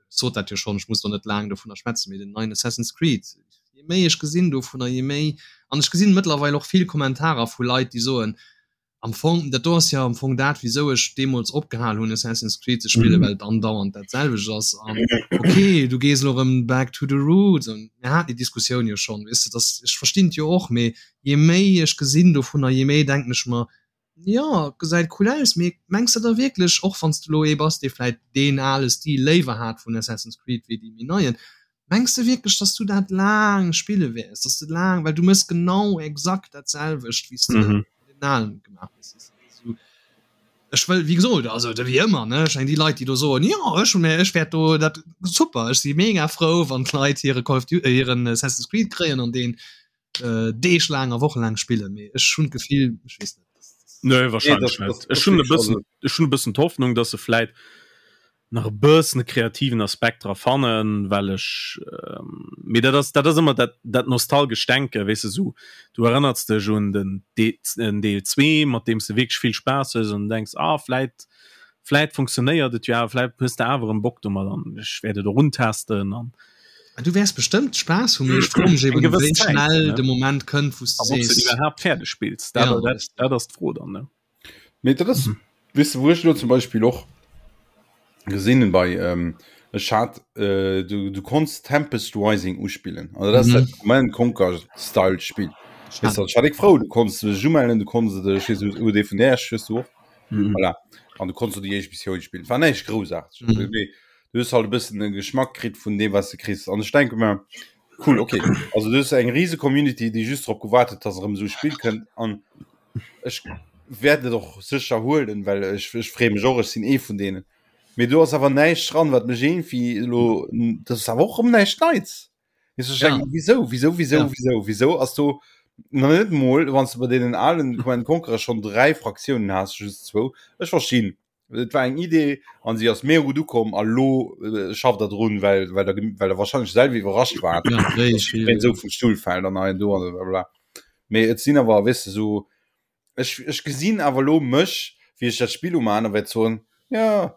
[SPEAKER 1] sot dat jo schonn, ech muss do net laang dovunner schwätzen, mee den neien Assassin's Creed, je méi ech gesinn dovunner, je méi, an ech gesinn mëttlerweil och vill Kommentarer vu Leit, déi soen, am Fong, dat do ass jo am Fong dat, wisou ech deemools opgehal hunn Assassin's Creed ze spillen, well et andauernd dat selwecht ass an okay, du gees elo erëm back to the roots an mir haten déi Diskussioun jo schonn, weess de, dass, ech verstinn et jo och, mee je méi ech gesinn dovunner, je méi denken ech mer, jo, gesäit cool aus, mee mengs de da wierklech, och wann s de elo ee bass, dee vläit deen ale Stil léiwer hat vun Assassin's Creed wéi dee méi neien, Mengs de wierklech, dass du dat laang spille wäers, dass de laang, well du mëss genau exakt dat selwecht, wéi s de mm -hmm. den alen gemaach hues. Ech wëll, wéi gesot, also wéi ëmmer, ne, ech meng déi Leit, déi do soen, jo, ech hunn, ech wäert do dat super, ech si mega frou, wann d'Leit hire Call of Duty, äh, hiren Assassin's Creed kréien an deen äh, Deeg laang a Woche laang spillen, mee ech hunn d'Gefill, ech weess net.
[SPEAKER 2] Nee, wahrscheinlich nee, net. Ech hunn e bëssen, ech hunn e bëssen d'Hoffnung, dass se vläit nach e bëssen e kreativen Aspekt dra fannen, well ech mee dat ass dat ass ëmmer dat dat nostalgescht Denken, weess de, sou du erënnerts dech un den den Deel 2, mat deem s de wierklech vill Spaass hues an denks, ah vläit vläit funktionéiert et jo awer, vläit hues de awer erëm Bock domat an ech wäert et och untesten an
[SPEAKER 1] Du wäers bestëmmt Spaass hunn, mee ech froe mech eben, wéi schnell de Moment kënnt, wou s
[SPEAKER 2] de sees. Ob s de iwwerhaapt fäerdeg spills, dat dat ass d'Fro dann, ne?
[SPEAKER 3] Mee dat ass, weess de, wou ech elo zum Beispill och gesinn hunn bei, ech hat, du, du konns Tempest Rising uspillen. Also dat ass dat Command Conquer Style Spill. Weess de, ech war déck frou, du konns dech umellen, du konns et, ech weess net, UD vun der hues du och. Voilà. An du konns do déi éischt Missioun spillen. Et war näischt Groussaarteges, mee du hues halt e bëssen e Geschmack kritt vun deem, wat s de kriss. An ech denke mer, cool, okay, also du hues eng rise Community, déi just drop gewaart huet, dass erëm esou e Spill kënnt. An Ech wäert et och sécher huelen, well ech, ech freeë mech och, ech sinn ee vun deenen. Mee do ass awer näischt dran, wat mech iergendwéi elo, dat ass awer och erëm näischt Neits. Weess du, ech Ja. denken, wieso, wieso, wieso, Ja. wieso, wieso ass do nach net mol, wann s de bei deenen alen Command Conqueror schonn 3 Fraktiounen has, just zwou, ech verstinn, et war eng Idee an si ass mega gutt ukomm a lo äh, schafft der drun, well, well der, well der wahrscheinlech selwer iwwerrascht waart, Ja, wéi dass vill, jiddereen esou vum Stull fält an hei an do an blablabla. Mee et sinn awer, weess de, sou, ech, ech gesinn awer lo mech, wéi ech dat Spill umaan a wäert soen, ja,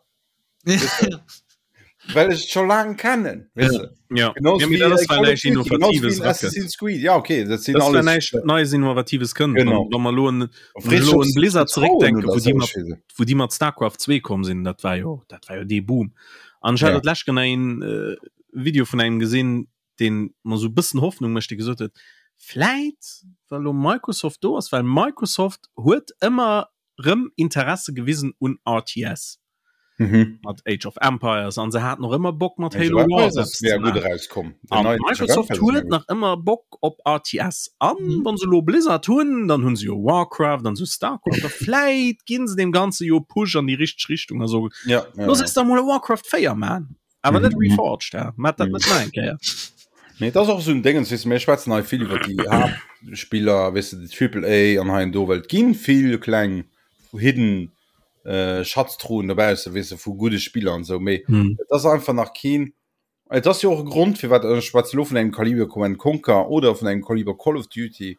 [SPEAKER 3] well ech et scho laang kennen, weess de.
[SPEAKER 2] Ja, Genauso ja, mee dat ass, well näischt Innovatives erakënnt.
[SPEAKER 3] Creed, ja okay,
[SPEAKER 2] dat sinn alles näischt Neies Innovatives kënnt. Genau. Wa mer elo un elo un Blizzard zeréckdenken, wou déi mat wou déi mat Starcraft 2 komm sinn, dat war jo dat war jo dee Boom. An ech hat ja. dat lescht een äh, Video vun engem gesinn, deen mer sou bëssen Hoffnung mécht, dee gesot huet, vläit well elo Microsoft do ass, well Microsoft huet ëmmer rëm Interesse gewisen un RTS. Mhm. Mat Age of Empires an se haten och ëmmer Bock mat Halo Wars eppes ze
[SPEAKER 3] maachen.
[SPEAKER 2] An Microsoft huet nach ëmmer Bock op RTS an mhm. wann se lo Blizzard hunn, dann hunn se jo Warcraft an sou Starcraft a vläit ginn se dem Ganze jo Push an déi richteg Richtung a so
[SPEAKER 3] ja, ja,
[SPEAKER 2] Los ja. da mol Warcraft 4 man. Awer net mhm. Reforged, ja. Mat dat net nach eng Kéier.
[SPEAKER 3] Nee, dat ass och esou en Déngens, weess de, mir schwätzen hei vill iwwer déi Haaptspiller, weess de, déi Triple A an hei an do, well et ginn vill kleng hidden äh, Schatztruhen dobausse, weess de, vu gudde Spiller an esou, mee mm. et ass einfach nach keen. Et ass jo och e Grond, firwat ech schwätze lo vun engem Kaliber Command Conquer oder vun engem Kaliber Call of Duty.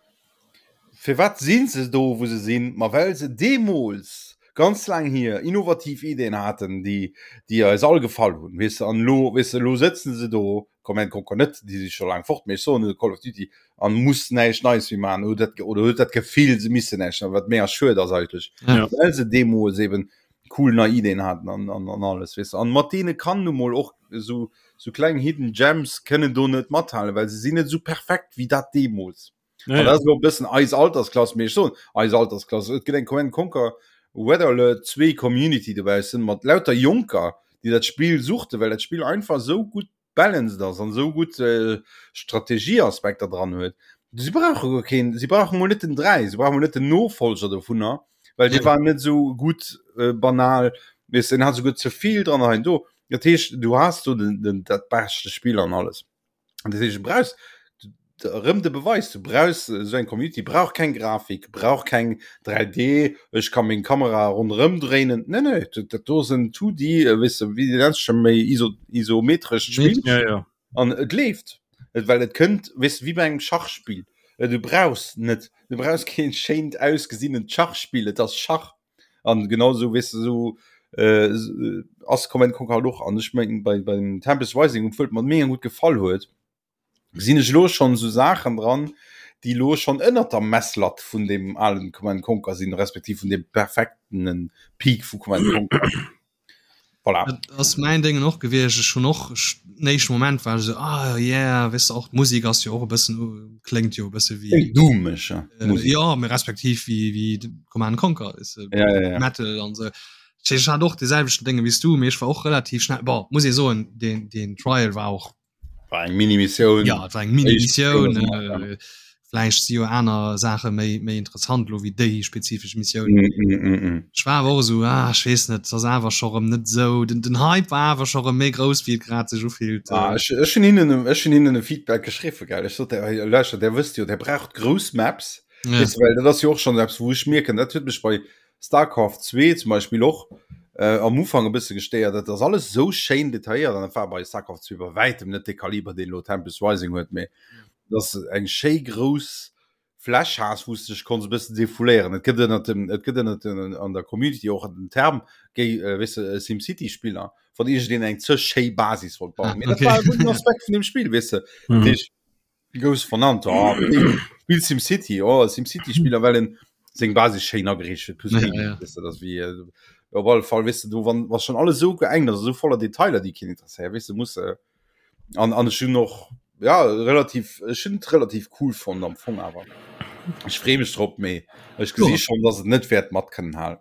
[SPEAKER 3] Firwat sinn se do wou se sinn? Ma well se deemools, ganz laang hier, innovativ Ideen haten, déi déi eis all gefall hunn, weess de. An elo, weess de, elo sëtzen se do, Command Conquer net, déi si scho laang fort, mee ech soen Call of Duty, an muss näischt Neies méi maachen, oder dat oder huet dat Gefill, se missten näischt, wat mega schued ass eigentlech,
[SPEAKER 2] Ja.
[SPEAKER 3] well se deemools eben cool nei Ideen haten an an an alles, weess de. An mat deene kann nu mol och esou sou kleng Hidden Gems kënnen do net mathalen, well se sinn net esou perfekt wéi dat deemools.
[SPEAKER 2] Ja,
[SPEAKER 3] ja. Dat bëssen eis Altersklass mee schon eis Altersklass. Et gëtt eng Command Conquer Weather Alert 2 Community dobaussen mat lauter Jonker, déi dat Spill suchten, well dat Spill einfach sou gutt balanced ass an sou gutt äh, Strategieaspekter dran huet. Si brauche guer keen, si brauche mol net den 3, si brauche mol net den Nofolger dovunner, well dee war net sou gutt äh, banal, weess den hat souguer ze vill dran hei do. Dat heescht, du has do den, den, dat beschte Spill an alles. An dat heescht, du brauchst erëm de Beweis, du brauchst esou eng Community, brauch keng Grafik, brauch keng 3D, ech ka meng Kamera ronderëm dréinen. Nee, nee, dat, dat do ass en 2D, äh, weess de, wéi nenns du méi iso, isometrescht Spill.
[SPEAKER 2] Ja, ja.
[SPEAKER 3] An et leeft. Et, well et kënnt, weess de, wéi bei engem Schachspill. Äh, Du brauchs net, du brauchs keen schéint ausgesinnent Schachspill, et ass Schach. An genau sou, weess de, sou äh, ass Command Conquer halt och. An ech mengen, bei, beim Tempest Rising, obwuel et mer mega gutt gefall huet, gesinn ech elo schonn esou Saachen dran, déi elo schonn ënnert der Messlatt vun deem alen Command Conquer sinn, respektiv vun deem perfektenen Peak vu Command Conquer. Voilà.
[SPEAKER 1] Dat ass mäin Déngen och gewiescht. Ech hunn och ech den éischte Moment war ech esou, ah yeah, weess de och d'Musek ass jo och e bëssen, kléngt jo e bësse wéi.
[SPEAKER 3] Kléngt doomeg, ja,
[SPEAKER 1] d'Musek. Jo, mee respektiv wéi wéi Command Conquer, weess de,
[SPEAKER 3] Ja, ja, ja.
[SPEAKER 1] Metal an esou. Dat heescht, ech hat och dee selwechten Dénge wéi s du, mee ech war och relativ schnell, bon, muss ee soen, deen deen Trial war och
[SPEAKER 3] War eng Mini-Missioun.
[SPEAKER 1] Ja, et war eng Mini-Missioun. Äh, Vläicht si jo aner Saache méi, méi interessant lo wéi déi spezifesch Missioun.
[SPEAKER 3] Mm, mm, mm, mm.
[SPEAKER 1] Ech war awer och esou, ah, ech weess net, ass awer scho rëm net esou. Den, den Hype war awer scho rëm méi grouss, wéi et grad sech ufillt.
[SPEAKER 3] Ah, ech, ech hunn hinnen, ech hunn hinnen e Feedback geschriwwen, gell. Ech sot, hey, lauschtert, der wësst jo, der braucht grouss Maps.
[SPEAKER 1] Ja.
[SPEAKER 3] Weißt du, well dat ass jo och schonn eppes, wou ech mierken, dat huet mech bei Starcraft 2 zum Beispill och äh, am Ufang e bësse gestéiert. Dat ass alles sou schéin detailléiert an dat war bei Starcraft 2 bei wäitem net de Kaliber, deen elo Tempest Rising huet, mee dass eng schéi grouss Fläch has, wou s dech konns e bëssen defouléieren. Et gëtt ënnert dem, et gëtt ënnert den, an der Community och den Term, géi, äh, weess de, SimCity Spiller, wann iergendeen eng ze schéi Basis wollt bauen.
[SPEAKER 1] Ah,
[SPEAKER 3] Mee dat
[SPEAKER 1] okay.
[SPEAKER 3] war e gudden Aspekt vun dem Spill, weess de.
[SPEAKER 2] Mhm.
[SPEAKER 3] Dat heescht, Gous vernannt oh, Spiel SimCity oh, SimCity Spieler well en seng Basis schéin ageriicht huet plus
[SPEAKER 1] Ja,
[SPEAKER 3] Gaming,
[SPEAKER 1] ja.
[SPEAKER 3] weißt du, das wie äh, op alle Fall weißt du, du wann was schon alles so geengt ass so voller Detailer déi keen interesséiert weißt du muss äh, an an ech hunn och ja relativ ech hunn et relativ cool fonnt am Fong awer ech free mech drop mee ech gesi
[SPEAKER 1] Ja.
[SPEAKER 3] schon dass et net wäert mat kënnen halen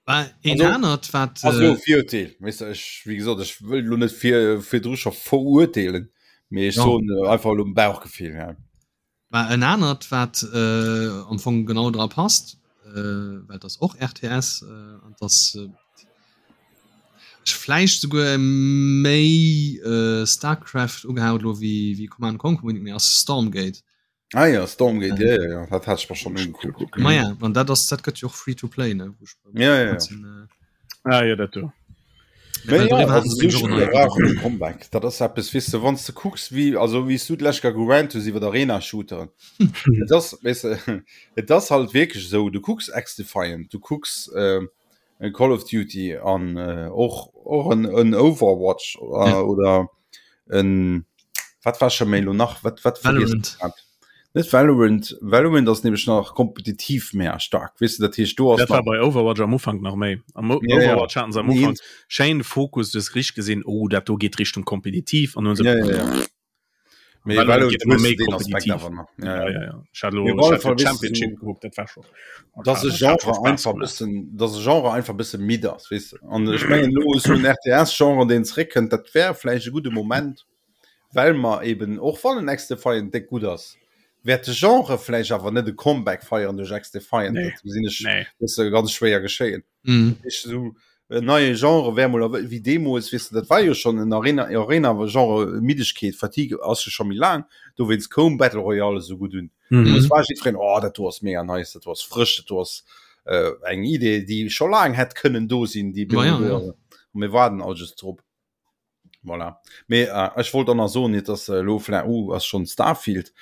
[SPEAKER 1] Een
[SPEAKER 3] Also,
[SPEAKER 1] anert wat
[SPEAKER 3] Also
[SPEAKER 1] äh,
[SPEAKER 3] Virurteel weißt du, ech wie gesagt ech wëll lo net fir virdru scho verurteelen mee ech
[SPEAKER 1] Ja.
[SPEAKER 3] soen äh, einfach lo um Bauchgefill ja.
[SPEAKER 1] War en anert wat äh, am Fong genau dra passt, äh, well das och RTS äh, an das äh, ech vläicht souguer méi äh, Starcraft ugehaut lo wéi wéi Command Conquer unbedingt, mee ass Stormgate.
[SPEAKER 3] Ah ja, Stormgate, ja, ja, ja. dat hat ich mir schon angeguckt.
[SPEAKER 1] Ma ja, an dat ass dat gëtt jo och free to play ne Wou ech beim
[SPEAKER 3] Ja, ja, ja.
[SPEAKER 1] Sinn, äh,
[SPEAKER 2] Ah, ja, dat do.
[SPEAKER 1] Mee
[SPEAKER 3] Mee
[SPEAKER 1] well
[SPEAKER 3] ja,
[SPEAKER 1] doriwwer
[SPEAKER 3] also
[SPEAKER 1] haten se
[SPEAKER 3] so
[SPEAKER 1] nämlech och en
[SPEAKER 3] Spiller
[SPEAKER 1] neie
[SPEAKER 3] brauchen e Comeback. Dat ass eppes, weess de, wann s de kucks, wéi, also wéi s du d'lescht Kéier gerannt hues iwwer Arena-Shooteren. Et ass, weess de, et ass halt wierklech esou, du kucks XDefiant, du kucks äh, en Call of Duty an äh, och, och en, en Overwatch äh,
[SPEAKER 1] Ja.
[SPEAKER 3] oder en, wat war scho méi lo nach, wat, wat vergiess
[SPEAKER 1] Valorant.
[SPEAKER 3] ech grad? Net Valorant, Valorant ass nämlech nach kompetitiv méi staark, weess de, dat heescht do ass
[SPEAKER 2] Dat war
[SPEAKER 3] nach
[SPEAKER 2] bei Overwatch am Ufank nach méi. Am O-
[SPEAKER 3] Ja, ja.
[SPEAKER 2] Overwatch haten se am
[SPEAKER 3] Nee.
[SPEAKER 2] Ufank schéin Fokus, du hues richteg gesinn, oh, dat do geet Richtung kompetitiv an nun se
[SPEAKER 3] Ja, ja, ja. Mee
[SPEAKER 2] Valorant
[SPEAKER 3] Valorant
[SPEAKER 2] geet ëmmer
[SPEAKER 3] hues du
[SPEAKER 2] méi
[SPEAKER 3] deen Aspekt
[SPEAKER 2] kompetitiv.
[SPEAKER 3] awer nach.
[SPEAKER 2] Ja,
[SPEAKER 3] Ja, ja.
[SPEAKER 2] ja, ja. Ech hat lo
[SPEAKER 3] Mee op alle
[SPEAKER 2] ech hat
[SPEAKER 3] Fall,
[SPEAKER 2] jo
[SPEAKER 3] weess du,
[SPEAKER 2] Championship
[SPEAKER 3] so,
[SPEAKER 2] gekuckt, dat war scho
[SPEAKER 3] dass e
[SPEAKER 2] dat hat scho
[SPEAKER 3] Genre
[SPEAKER 2] Spaass
[SPEAKER 3] einfach
[SPEAKER 2] gemaach.
[SPEAKER 3] bëssen, dass e Genre einfach bësse midd ass, weess de. An ech mengen elo esou en RTS-Genre, deen zeréckkënnt, dat wär vläicht e gudde Moment, well mer eben, och wann en XDefiant déck gutt ass, wäert de Genre vläicht awer net e Comeback feieren duerch XDefiant.
[SPEAKER 2] Nee,
[SPEAKER 3] Dat gesinn ech
[SPEAKER 2] nee.
[SPEAKER 3] bësse ganz schwéier geschéien.
[SPEAKER 1] Mhm.
[SPEAKER 3] Ich so en neie Genre wär mol wéi deemools weess de, dat war jo schon en Arena Arena Genre Middegkeet Fatigue ass jo scho méi laang dowéinst koum Battle Royale esou gutt un.
[SPEAKER 2] Mhm.
[SPEAKER 3] Es war jiddwereen oh dat do ass mega nice, dat do ass frësch, dat do ass äh, eng Idee déi scho laang hätt kënnen do sinn, déi
[SPEAKER 1] Ma ja,
[SPEAKER 3] do
[SPEAKER 1] ja.
[SPEAKER 3] ass. Mir waarden all just drop. Voilà. Mee äh, ech wollt dann nach soen, net dass äh, lo vläicht uh, ass schon Starfield.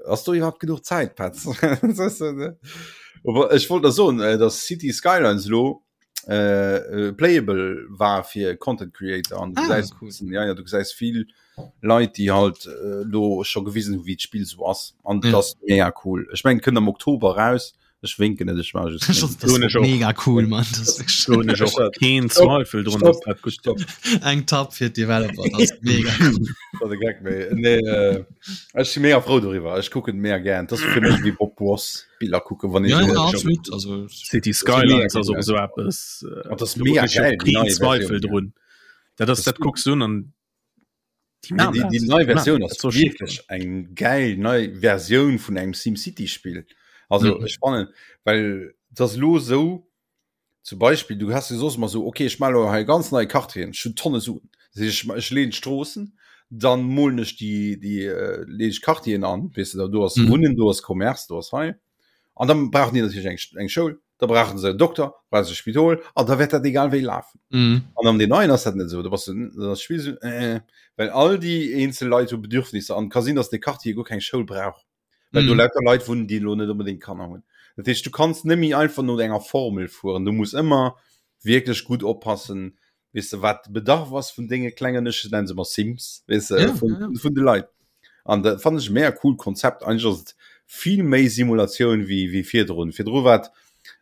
[SPEAKER 3] Ass do iwwerhaupt genuch Zäit, Petz? Aber ech wollt da soen, äh, dass City Skylines lo äh, äh, playable war fir Content Creator an du ah, gesäis cool. ja, ja, du gesäis vill Leit, déi halt äh, lo scho gewisen hu wéi d'Spill so ass an ja. das mega cool. Ech meng kënnt am Oktober raus. Ech winken net ech war just
[SPEAKER 1] mega cool man
[SPEAKER 2] keen Zweifel drun
[SPEAKER 1] dass dat gutt gëtt. Eng Tapp fir d'Developer mega
[SPEAKER 3] nee, äh, Ech si mega frou doriwwer ech kucken mega gern dat fir mech wéi Bob Ross Biller kucken wann
[SPEAKER 2] ja, ja, absolut also City Skylines ass och esou eppes
[SPEAKER 3] äh, dat mega
[SPEAKER 2] geil keen Zweifel drun dat ass dat kucks du an
[SPEAKER 3] Die, die, die nei Version ass so wirklich eng geil nei Version vun engem SimCity Spiel. Also mhm. spannend, weil das lo so zum Beispiel du hast sos mal so okay ich mal he ganz neue Quartieren schon Tonne Suen. Ich, ich lehn Stroßen, dann molen ich die die äh, leg Quartieren an, weißt du, da du hast mhm. Wunnen, du hast Commerce, du hast hei. An dann brauchen die natürlich eng, eng Schoul. da brauchen se en Dokter, brauchen se e Spidol an da wäert dat egal wéi lafen.
[SPEAKER 1] Mhm.
[SPEAKER 3] An am den neien ass dat net esou, do bass du das Spiel so, äh, well all déi eenzel Leit hu Bedürfnisser an ka sinn, dass de Quartier guer keng Schoul brauch, well do
[SPEAKER 1] Mhm.
[SPEAKER 3] lauter Leit wunnen, déi elo net onbedéngt Kanner hunn. Dat heescht, du kanns net méi einfach no enger Formel fueren, du muss ëmmer wierklech gutt oppassen, weess de, wat de Bedarf ass vun denge klengen, ech nennen se ëmmer Sims, weess de,
[SPEAKER 1] Ja,
[SPEAKER 3] vun,
[SPEAKER 1] ja, ja.
[SPEAKER 3] vun de Leit. An dat fannen ech e mega coolt Konzept. Eigentlech ass et vill méi Simulatioun wéi, wéi virdrun. Virdru war et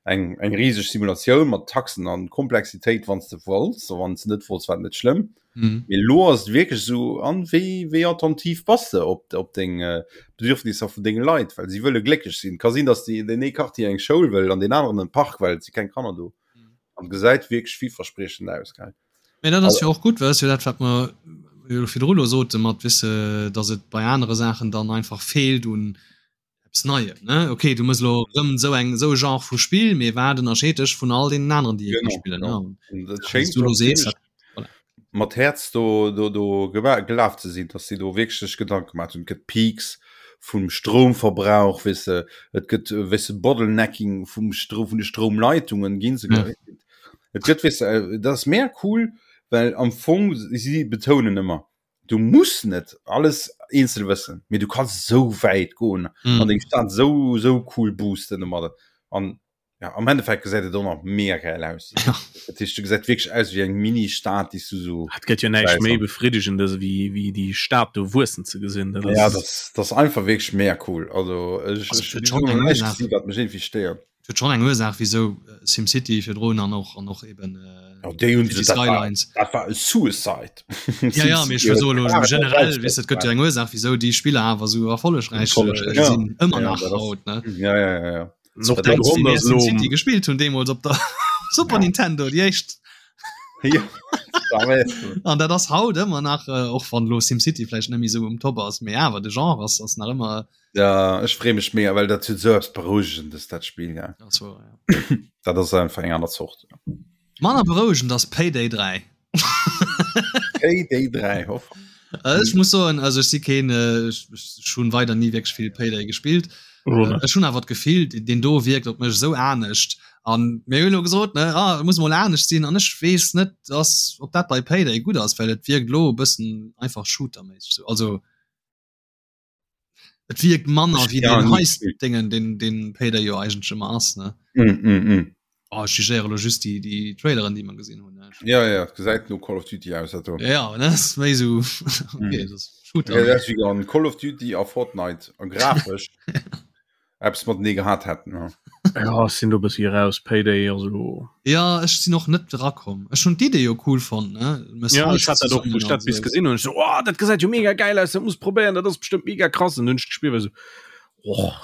[SPEAKER 3] eng, eng riseg Simulatioun mat Taxen an Komplexitéit, wann s de wollts, a wann s de net wollts, war et net schlëmm.
[SPEAKER 1] Mhm.
[SPEAKER 3] Mee elo ass et wierklech esou, an wéi, wéi attentiv bass de op, op deng Bedürfnisser vun denge Leit, well si wëlle glécklech sinn. Ka sinn, datt déi, deen ee Quartier eng Schoul wëll an deen aneren en Park, well et si keng Kanner do. An gesäit wierklech villverspriechend aus, gell?
[SPEAKER 1] Mee dat ass jo och gutt, well dat ass jo dat, wat mer jo virdru elo sote mat, weess de, datt et bei anere Saachen dann einfach feelt un eppes Neiem, ne? Okay, du mëss elo erëm esou eng, esou e Genre vu Spill, mee wat ënnerscheet dech vun all deenen aneren, déi ee ka
[SPEAKER 3] Genau,
[SPEAKER 1] spillen, ne?
[SPEAKER 3] genau.
[SPEAKER 1] An
[SPEAKER 3] An dat
[SPEAKER 1] wéi s
[SPEAKER 3] schéngt
[SPEAKER 1] du elo
[SPEAKER 3] och
[SPEAKER 1] sees,
[SPEAKER 3] zimmlech
[SPEAKER 1] dat, voilà.
[SPEAKER 3] mat Häerz do, do, do gema gelaf ze sinn, datt si do wierklech sech Gedanke gemaach hunn. Et gëtt Peaks vum Stroumverbrauch, weess de, et gëtt, weess de, Bottlenecking vum Stro vun de Stroumleitungen ginn se.
[SPEAKER 1] Ja.
[SPEAKER 3] Et gëtt, weess de, dat ass mega cool, well am Fong si betounen ëmmer, du muss net alles eenzel wëssen, mee du kanns esou wäit goen
[SPEAKER 1] Mhm.
[SPEAKER 3] an deng Stad esou, esou cool boosten domadder. An ja, am Endeffekt gesäit et och nach mega geil aus.
[SPEAKER 1] Ja.
[SPEAKER 3] Dat heescht, du gesäit wierklech aus wéi eng Mini-Stad, déi s du so
[SPEAKER 2] Et gëtt jo näischt
[SPEAKER 3] Scheiße.
[SPEAKER 2] méi befriddegendes wéi wéi déi Stad do wuessen ze gesinn. Dat
[SPEAKER 3] Ja,
[SPEAKER 2] ass
[SPEAKER 3] das, das einfach wierklech mega cool. Also ech,
[SPEAKER 1] Also,
[SPEAKER 3] ech
[SPEAKER 1] et huet
[SPEAKER 3] hunn
[SPEAKER 1] schon
[SPEAKER 3] nach
[SPEAKER 1] eng
[SPEAKER 3] näischt
[SPEAKER 1] Ursaach.
[SPEAKER 3] gesinn, wat mech iergendwéi stéiert.
[SPEAKER 1] Et huet schon eng Ursaach, wieso SimCity virdrun an och an och eben äh,
[SPEAKER 3] Ja, déi hunn
[SPEAKER 1] City
[SPEAKER 3] se, dat war,
[SPEAKER 1] Skylines.
[SPEAKER 3] dat war e Suicide.
[SPEAKER 1] Ja, ja, mee ech wëll soen, elo generell, weess de, et gëtt jo eng Ursaach, wieso déi Spiller awer esou erfollegräich
[SPEAKER 2] Erfollegräich,
[SPEAKER 1] äh,
[SPEAKER 3] ja.
[SPEAKER 1] sinn, ëmmer
[SPEAKER 3] Ja,
[SPEAKER 1] nach
[SPEAKER 3] dat ass,
[SPEAKER 1] haut, ne?
[SPEAKER 3] ja, ja, ja, ja.
[SPEAKER 2] Och der
[SPEAKER 1] Grond
[SPEAKER 2] Grond ass lo
[SPEAKER 1] City gespielt hun deemools op der Super
[SPEAKER 3] ja.
[SPEAKER 1] Nintendo déi éischt.
[SPEAKER 3] Ja,
[SPEAKER 1] an dat ass haut ëmmer nach äh, och wann lo SimCity vläicht net méi sou um Top ass, mee awer de Genre ass ass nach ëmmer.
[SPEAKER 3] Ja ech free mech mega, well dat huet sou eppes Berouegendes dat Spill ja.
[SPEAKER 1] Das war, ja.
[SPEAKER 3] Dat ass einfach eng aner Zort. Ja.
[SPEAKER 1] Manner berouegend ass Payday 3.
[SPEAKER 3] Payday 3 hoff.
[SPEAKER 1] Äh, ech muss soen also ech si keen äh, ech, ech hunn weider nie wierklech vill Payday gespillt.
[SPEAKER 2] Oder?
[SPEAKER 1] Äh, ech hunn awer d'Gefill den do wierkt op mech esou anescht an mir hunn elo gesot ne ah, muss mol anescht sinn an ech weess net dass ob dat bei Payday gutt ass, well et wierkt lo e bëssen einfach shooterméisseg sou also Et wierkt manner wéi
[SPEAKER 3] Ja,
[SPEAKER 1] den
[SPEAKER 3] nie
[SPEAKER 1] Heist
[SPEAKER 3] gespielt.
[SPEAKER 1] Dingen den den Payday jo eigentlech ëmmer ass ne.
[SPEAKER 3] Mm, mm, mm.
[SPEAKER 1] Oh, ech jugéiere lo just déi déi Traileren déi mer gesinn hunn ne.
[SPEAKER 3] Ja, ja, et gesäit no Call of Duty aus dat do.
[SPEAKER 1] Ja, ja, ne ass méi sou okay,
[SPEAKER 3] Mm.
[SPEAKER 1] das Shooter.
[SPEAKER 3] Ja, dat ass wéi an Call of Duty a Fortnite a grafesch eppes matenee gehat hätten. Ja.
[SPEAKER 2] Ja, ech sinn do e bëssi raus, Payday also.
[SPEAKER 1] Ja, ech sinn och net erakomm. Ech hunn d'Idee jo cool fonnt, ne? Mëss
[SPEAKER 2] Ja, ech
[SPEAKER 1] Heist
[SPEAKER 2] hat dat och,
[SPEAKER 1] zesummen
[SPEAKER 2] wou ech
[SPEAKER 1] an
[SPEAKER 2] dat bis
[SPEAKER 1] sou.
[SPEAKER 2] gesinn hunn, ech so, oh, dat gesäit jo mega geil aus, dat muss probéieren, dat ass bestëmmt mega krass. An hunn ech gespillt, war so, och,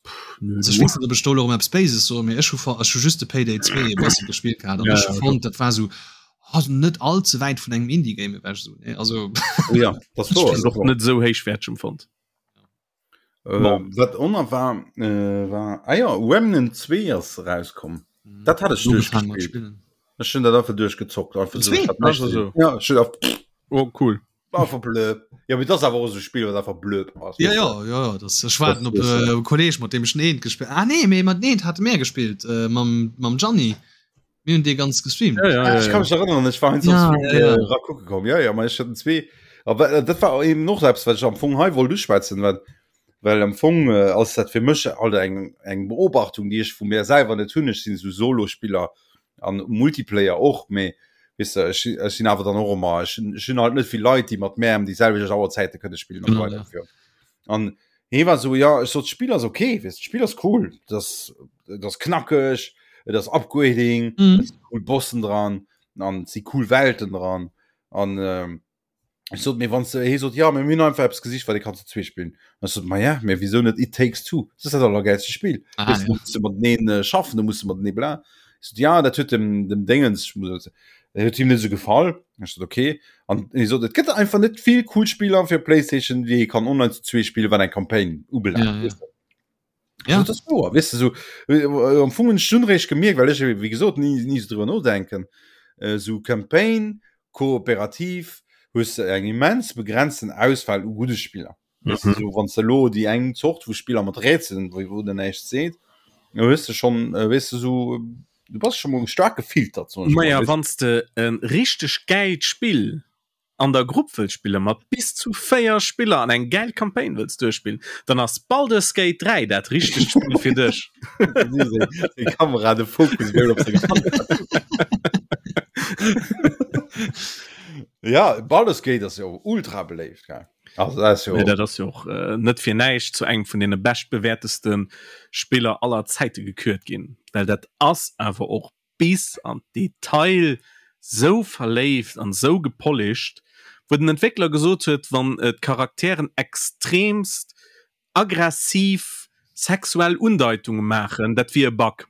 [SPEAKER 2] pff, nö,
[SPEAKER 1] Also ech
[SPEAKER 2] du.
[SPEAKER 1] weess net, ob ech do elo erëm eppes Béises soen, mee ech hu ech hu just de Payday 2 e bësse gespillt gehat an
[SPEAKER 2] Ja,
[SPEAKER 1] ech hu
[SPEAKER 2] ja,
[SPEAKER 1] fonnt, dat war sou, oh, net all ze wäit vun engem Indie-Game ewech sou, ne? Also
[SPEAKER 3] Ja, dat
[SPEAKER 2] Ech
[SPEAKER 3] wor,
[SPEAKER 2] hunn
[SPEAKER 3] dat
[SPEAKER 2] och
[SPEAKER 3] wor.
[SPEAKER 2] net esou héichwäerteg empfonnt.
[SPEAKER 3] Äh,
[SPEAKER 2] Bon.
[SPEAKER 3] wat oner war äh, war ah ja, Remnant 2 ass rauskomm. Dat hat ech
[SPEAKER 1] Ugefaangen mat
[SPEAKER 3] duerchgespillt.
[SPEAKER 1] spillen.
[SPEAKER 3] Ech hun dat einfach duerchgezockt einfach so,
[SPEAKER 1] Zwee?
[SPEAKER 3] ich hat näischt
[SPEAKER 2] Also
[SPEAKER 3] ze
[SPEAKER 2] so.
[SPEAKER 3] dinn. Ja, ech hun auf,
[SPEAKER 2] Oh, cool.
[SPEAKER 3] einfach blöd. Ja, mee dat ass awer och esou e Spill, wat einfach blöd ass.
[SPEAKER 1] Ja,
[SPEAKER 3] weess
[SPEAKER 1] ja,
[SPEAKER 3] de.
[SPEAKER 1] ja, ja, das, ech waarden
[SPEAKER 3] Das
[SPEAKER 1] op
[SPEAKER 3] weess de.
[SPEAKER 1] äh, e Kolleg, mat deem ech en eent gespillt Ah nee, mee mat eent hate mir gespillt, äh, mam, mam Gianni. Mir hunn dee ganz gestreamt.
[SPEAKER 3] Ja, ja, ja, ich kann mich erinnern, ich war ja, ja, ja. Äh, kucke komm. Ja, ja, ich hatten zwee. Aber äh, dat war eben noch selbst, wat ich am Fong hei wollt uschwätzen, well well am Fong äh, ass dat fir mech alt eng eng Beobachtung, déi ech vu mir selwer net hunn. Ech sinn sou Solospiller an Multiplayer och, mee weißt du, ech, ech sinn awer dann och ëmmer ech, ech hunn halt net vill Leit, déi mat mär ëm déi selwecht Auerzäite kënne spillen an
[SPEAKER 1] Genau, ja.
[SPEAKER 3] ja. An hee war sou, ja, ech sot, d'Spill ass okay, weißt du, d'Spill ass cool, das, das knackeg, et ass Upgrading,
[SPEAKER 1] Mhm.
[SPEAKER 3] et si cool Bossen dran, an et si cool Welten dran. An ähm, ech sot, mee wann s de, hee sot, ja, mee mir hunn einfach eppes gesicht, wat ee kann zu zwee spillen. An ech sot, ma ja, mee wisou net It Takes Two? Dat ass dat allergäilste Spill.
[SPEAKER 1] Ah,
[SPEAKER 3] Weißt du,
[SPEAKER 1] ja.
[SPEAKER 3] du muss de mateneen äh, schaffen, du muss de matenee bla. Ech sot, ja, dat huet dem, dem Dingens, ich muss, dat huet him net esou gefall. Ech sot, okay. An hie sot, et gëtt einfach net vill cool Spiller fir PlayStation, déi ee kann online zu zwee spillen, wat eng Campaign ubelaangt.
[SPEAKER 1] Ja, ja.
[SPEAKER 3] Weißt du?
[SPEAKER 1] Ja.
[SPEAKER 3] Also, das ist wahr, weißt du, so, äh, am Fong hunn ech dunn réischt gemierkt, well ech, wéi gesot, ni, ni sou driwwer nodenken, äh, sou Campaign, kooperativ, hues de eng immens begrenzten Auswahl u gudde Spiller. Weißt du,
[SPEAKER 2] Mhm.
[SPEAKER 3] so, wann s de elo déi eng Zort vu Spiller mat Rätselen, wou, wou den näischt seet, da hues de schonn, äh, weess de, sou, du bass scho mol staark gefiltert, soen ech mol,
[SPEAKER 2] Maja,
[SPEAKER 3] weess de.
[SPEAKER 2] wann s de e richteg gäilt Spill an der Grupp wëlls spillen, mat bis zu 4 Spiller an eng gäil Campaign wëlls duerchspillen, dann ass Baldur's Gate 3 dat richtegt Spill fir dech.
[SPEAKER 3] Seng Kamera, de Fokus wéi op seng Hand. Ja, Baldur's Gate ass jo ultra beléift, gell? Also dat ass jo.
[SPEAKER 2] Nee, dat ass jo och äh, net fir näischt zu engem vun deene beschtbewäerteste Spiller aller Zäite gekürt ginn, well dat ass awer och bis an d'Detail sou verléift an sou gepolished, wou den Entwéckler gesot huet, wann d'Charakteren extremst aggressiv sexuell Undeitunge maachen, dat wier e Bug.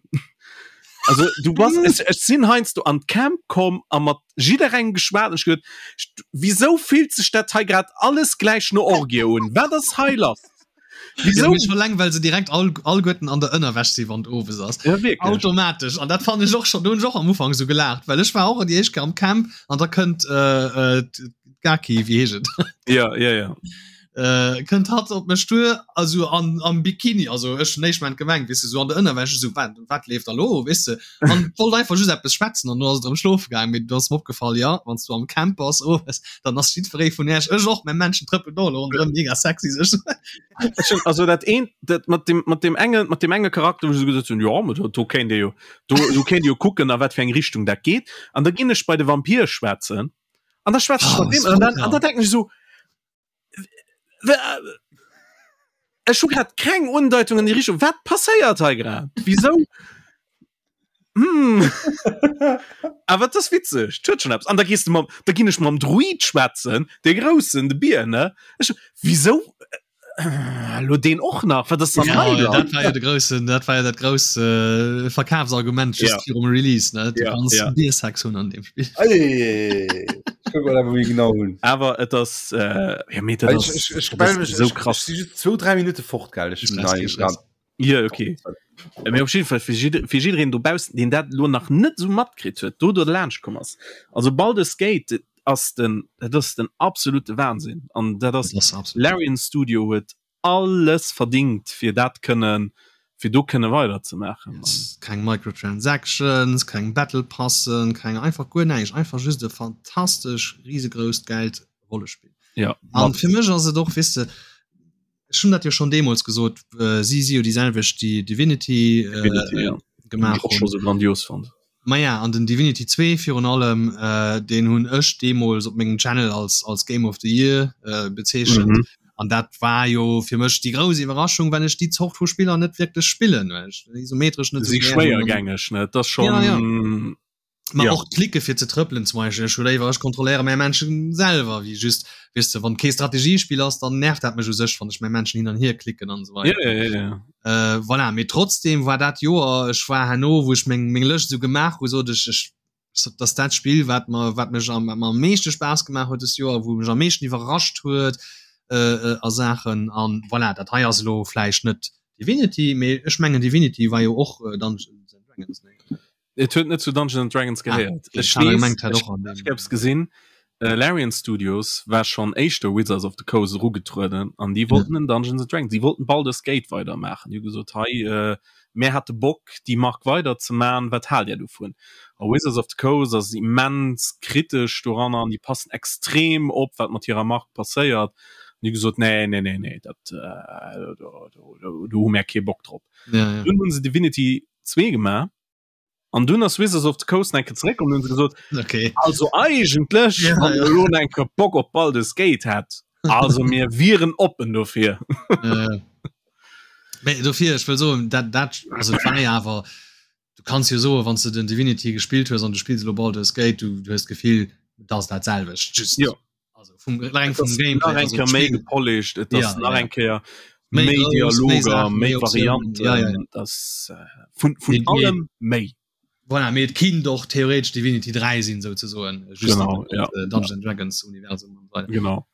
[SPEAKER 2] Also du bass, ech, ech sinn heiansdo an d'Camp komm a mat jidderengem geschwat an ech gesot, wisou fillt sech dat hei grad alles gläich no Orgie un? Wat ass hei lass?
[SPEAKER 1] Wieso? Ja, schon lang, weil se direkt all, allguerten an der Ënnerwäsch si wann owes ass.
[SPEAKER 2] Ja, wirklich.
[SPEAKER 1] Automatisch. An dat fand ich och schon, do hunn ech och am Ufank so gelaacht, well ech war och déi éischt Kéier am Camp an da kënnt äh, äh, d'Gaki, wéi heescht et?
[SPEAKER 2] Ja, ja, ja.
[SPEAKER 1] Äh, kënnt hatt op mech duer, also an, am Bikini, also ech hunn éischt Moment gemengt, weess de, so an der Ënnerwäsch, so wat, wat leeft da lo, weess de? An wollt einfach just eppes schwätzen an du ass et erëm schlofe gaangen, mee du ass mir opgefall, ja, wann s du am Camp bass owes, dann ass jiddweree vun iech, ech och, mäi Männchen trëppelt och elo ronderëm, mega sexy sech.
[SPEAKER 2] Ech hunn also dat eent, dat mat dem, mat dem enge, mat dem enge Charakter, wou ech esou gesot hunn, jo, ma do, do kéint ee jo, do, do kéint ee jo kucken, a wat fir eng Richtung dat geet. An da ginn ech bei de Vampir schwätzen an da schwätze ech
[SPEAKER 1] Oh,
[SPEAKER 2] mat deem an dann, an da denken ech esou, Ech hu grad keng Undeutung an die Richtung. Wat passéiert hei grad? Wieso? Hm. Awer das witzeg huet schon eppes. An da gehst du mam, da ginn ech mam Druid schwätzen, de groussen, de Bier ne. Ech, wieso? Äh, lo deen och nach? Wat ass dann
[SPEAKER 1] Ja,
[SPEAKER 2] hei lass?
[SPEAKER 1] dat war ja de groussen, dat war ja dat grouss äh, Verkafsargument just
[SPEAKER 2] Ja.
[SPEAKER 1] virum Release, ne? Du
[SPEAKER 2] Ja,
[SPEAKER 1] kannst
[SPEAKER 2] ja.
[SPEAKER 1] Biersex hunn an dem Spiel.
[SPEAKER 3] Ei, ich guck mal, wie genau hunn.
[SPEAKER 2] Awer et ass äh, ja, mee dat
[SPEAKER 3] Ich,
[SPEAKER 2] ass,
[SPEAKER 3] ich, ich,
[SPEAKER 2] dat ass
[SPEAKER 3] melde mich,
[SPEAKER 2] so
[SPEAKER 3] ich,
[SPEAKER 2] krass.
[SPEAKER 3] ich si just zwou, dräi Minute fort, gell? Ich
[SPEAKER 1] Stress,
[SPEAKER 3] nein,
[SPEAKER 1] kein Stress.
[SPEAKER 2] Ja, okay. Äh, Mee op jeden Fall fir jidder, fir jiddereen dobaussen, deen dat lo nach net sou matkritt huet, do do laanscht komm ass. Also Baldur's Gate ass den, dat ass den absolute Wahnsinn. An dat ass
[SPEAKER 1] Dat ass absolut.
[SPEAKER 2] Larian Studio huet alles verdingt fir dat kënnen, fir do kënne weiderzemaachen.
[SPEAKER 1] Yes. Keng Microtransactions, keng Battle Passen, keng einfach guer näischt, einfach just e fantastesch risegrousst gäilt Rollespill.
[SPEAKER 2] Ja,
[SPEAKER 1] An
[SPEAKER 2] mat
[SPEAKER 1] fir mech ass et och, weess de, ech hunn dat jo schonn deemools gesot, äh, si si jo déi selwecht déi Divinity, äh,
[SPEAKER 2] Divinity, ja.
[SPEAKER 1] gemaach
[SPEAKER 2] och scho
[SPEAKER 1] hunn.
[SPEAKER 2] so grandios fand.
[SPEAKER 1] Maja, an den Divinity 2 virun allem, äh, deen hunn ech deemools op mengem Channel als, als Game of the Year äh, bezeechent.
[SPEAKER 2] Mhm.
[SPEAKER 1] An dat war jo fir mech déi grouss Iwwerraschung, well ech déi Zort vu Spiller net wierklech spillen, well ech isometresch net
[SPEAKER 2] Si
[SPEAKER 1] esou gär hunn an
[SPEAKER 2] schwéiergängeg, ne? Dat ass schon.
[SPEAKER 1] Ja, ja. Ma
[SPEAKER 2] Ja.
[SPEAKER 1] och d'Klicke fir ze trëppelen zum Beispiel, ech hu léiwer ech kontrolléiere mäi Männchen selwer wéi just, weess de, wann kee Strategiespill ass, dann nervt dat mech u sech, wann ech mäi Männchen hin an hier klicken an esou
[SPEAKER 2] Ja,
[SPEAKER 1] weider.
[SPEAKER 2] ja, ja, ja.
[SPEAKER 1] Äh, voilà, mee trotzdem war dat Joer, ech war herno, wou ech meng meng Lëscht esou gemaach hu, sot ech, ech sot, dass dat Spill wat mer wat mech am wat mer am meeschte Spaass gemaach huet dëst Joer, wou mech am meeschten iwwerrascht huet äh, äh, a Saachen an voilà, dat hei ass elo vläicht net Divinity, mee ech mengen Divinity war jo och äh, Dungeons and Dragons, nee?
[SPEAKER 2] Et huet net zu Dungeons and Dragons
[SPEAKER 1] Ah,
[SPEAKER 2] gehéiert.
[SPEAKER 1] okay.
[SPEAKER 2] Ech
[SPEAKER 1] Ech hat
[SPEAKER 2] weess,
[SPEAKER 1] gemengt, hat
[SPEAKER 2] ech
[SPEAKER 1] och an
[SPEAKER 2] ech
[SPEAKER 1] dem.
[SPEAKER 2] hab's gesinn, äh, Larian Studios war schonn éischter Wizards of the Coast erugetrueden an déi wollten en Dungeons and Dragons, déi wollten Baldur's Gate weidermaachen. Déi hu gesot, hei, äh,
[SPEAKER 1] Ja.
[SPEAKER 2] Mär hätte Bock déi Mark weider ze man, wat haalt Är dovun? A Wizards of the Coast ass immens kritesch doranner an déi passen extrem op wat mat hirer Mark passéiert an déi hu gesot, nee, nee, nee, nee, dat do hu mär kee Bock drop. Dunn hu se Divinity 2 gemaach an dunn ass Wizards of the Coast nach eng Kéier zeréckkomm an hunn se gesot,
[SPEAKER 1] okay.
[SPEAKER 2] also eigentlech,
[SPEAKER 1] Ja,
[SPEAKER 2] wann
[SPEAKER 1] ja.
[SPEAKER 2] Der elo nach eng Kéier Bock op Baldur's Gate hätt, also mir wieren oppen dofir.
[SPEAKER 1] Ja. Mee dofir, ech wëll soen, dat, dat, also et war jo awer, du kanns jo soen, wann s de den Divinity gespillt hues an du spills elo Baldur's Gate, du, du hues d'Gefill, et ass dat selwecht, just
[SPEAKER 2] Jo.
[SPEAKER 1] also vum, reng vum Gameplay,
[SPEAKER 2] nach eng
[SPEAKER 1] also
[SPEAKER 2] Kéier méi
[SPEAKER 1] d'Spill.
[SPEAKER 2] gepolished, et ass
[SPEAKER 1] Ja,
[SPEAKER 2] nach
[SPEAKER 1] ja.
[SPEAKER 2] eng Kéier
[SPEAKER 1] Méi
[SPEAKER 2] méi
[SPEAKER 1] grouss, méi
[SPEAKER 2] Dialoger,
[SPEAKER 1] Saachen,
[SPEAKER 2] méi
[SPEAKER 1] méi Optiounen,
[SPEAKER 2] Varianten,
[SPEAKER 1] ja, ja, ja.
[SPEAKER 2] et ass vun, vun
[SPEAKER 1] Mee, mee,
[SPEAKER 2] allem méi.
[SPEAKER 1] Voilà, mee et kinnt och theoretesch Divinity 3 sinn, souzesoen, just
[SPEAKER 2] Genau, ja.
[SPEAKER 1] Dungeons and Dragons Universum an
[SPEAKER 2] weider. Genau.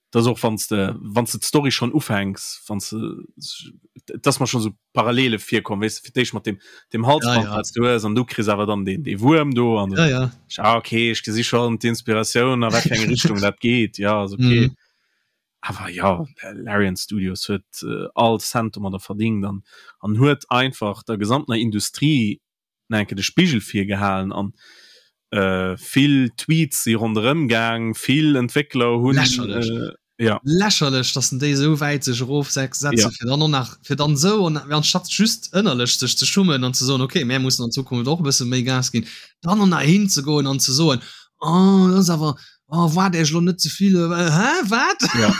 [SPEAKER 2] Das och wann de wann de d'Story schon ufänks, wann de dass mer schon so Parallele virkomm, weess de, fir d'éischt mat dem dem Halsband
[SPEAKER 1] ja, ja.
[SPEAKER 2] wat du hues an du kriss awer dann den dee Wuerm do an
[SPEAKER 1] ja, ja.
[SPEAKER 2] Ah, okay, ech gesi schon d'Inspiratioun a wat fir eng Richtung dat geet, ja, ass okay.
[SPEAKER 1] Mhm.
[SPEAKER 2] Awer ja, Larian Studios huet äh, all Cent domadder verdingt an an huet einfach der gesamtener Industrie nach eng Kéier de Spigel virgehalen an äh, vill Tweets si ronderëm gaang, vill Entwéckler hunn
[SPEAKER 1] Lächerlech.
[SPEAKER 2] äh, ja.
[SPEAKER 1] Lächerlech, dass en déi esou wäit sech erofsetzen,
[SPEAKER 2] Ja.
[SPEAKER 1] fir dann och nach, fir dann esou, an anstatt just ënnerlech sech ze schummen an ze soen, okay, mär mussen an Zukunft och e bësse méi Gas ginn, dann och nach hinzegoen an ze soen, oh, dat ass awer, oh, waart Iech elo net ze vill, hä, wat?
[SPEAKER 2] Ja.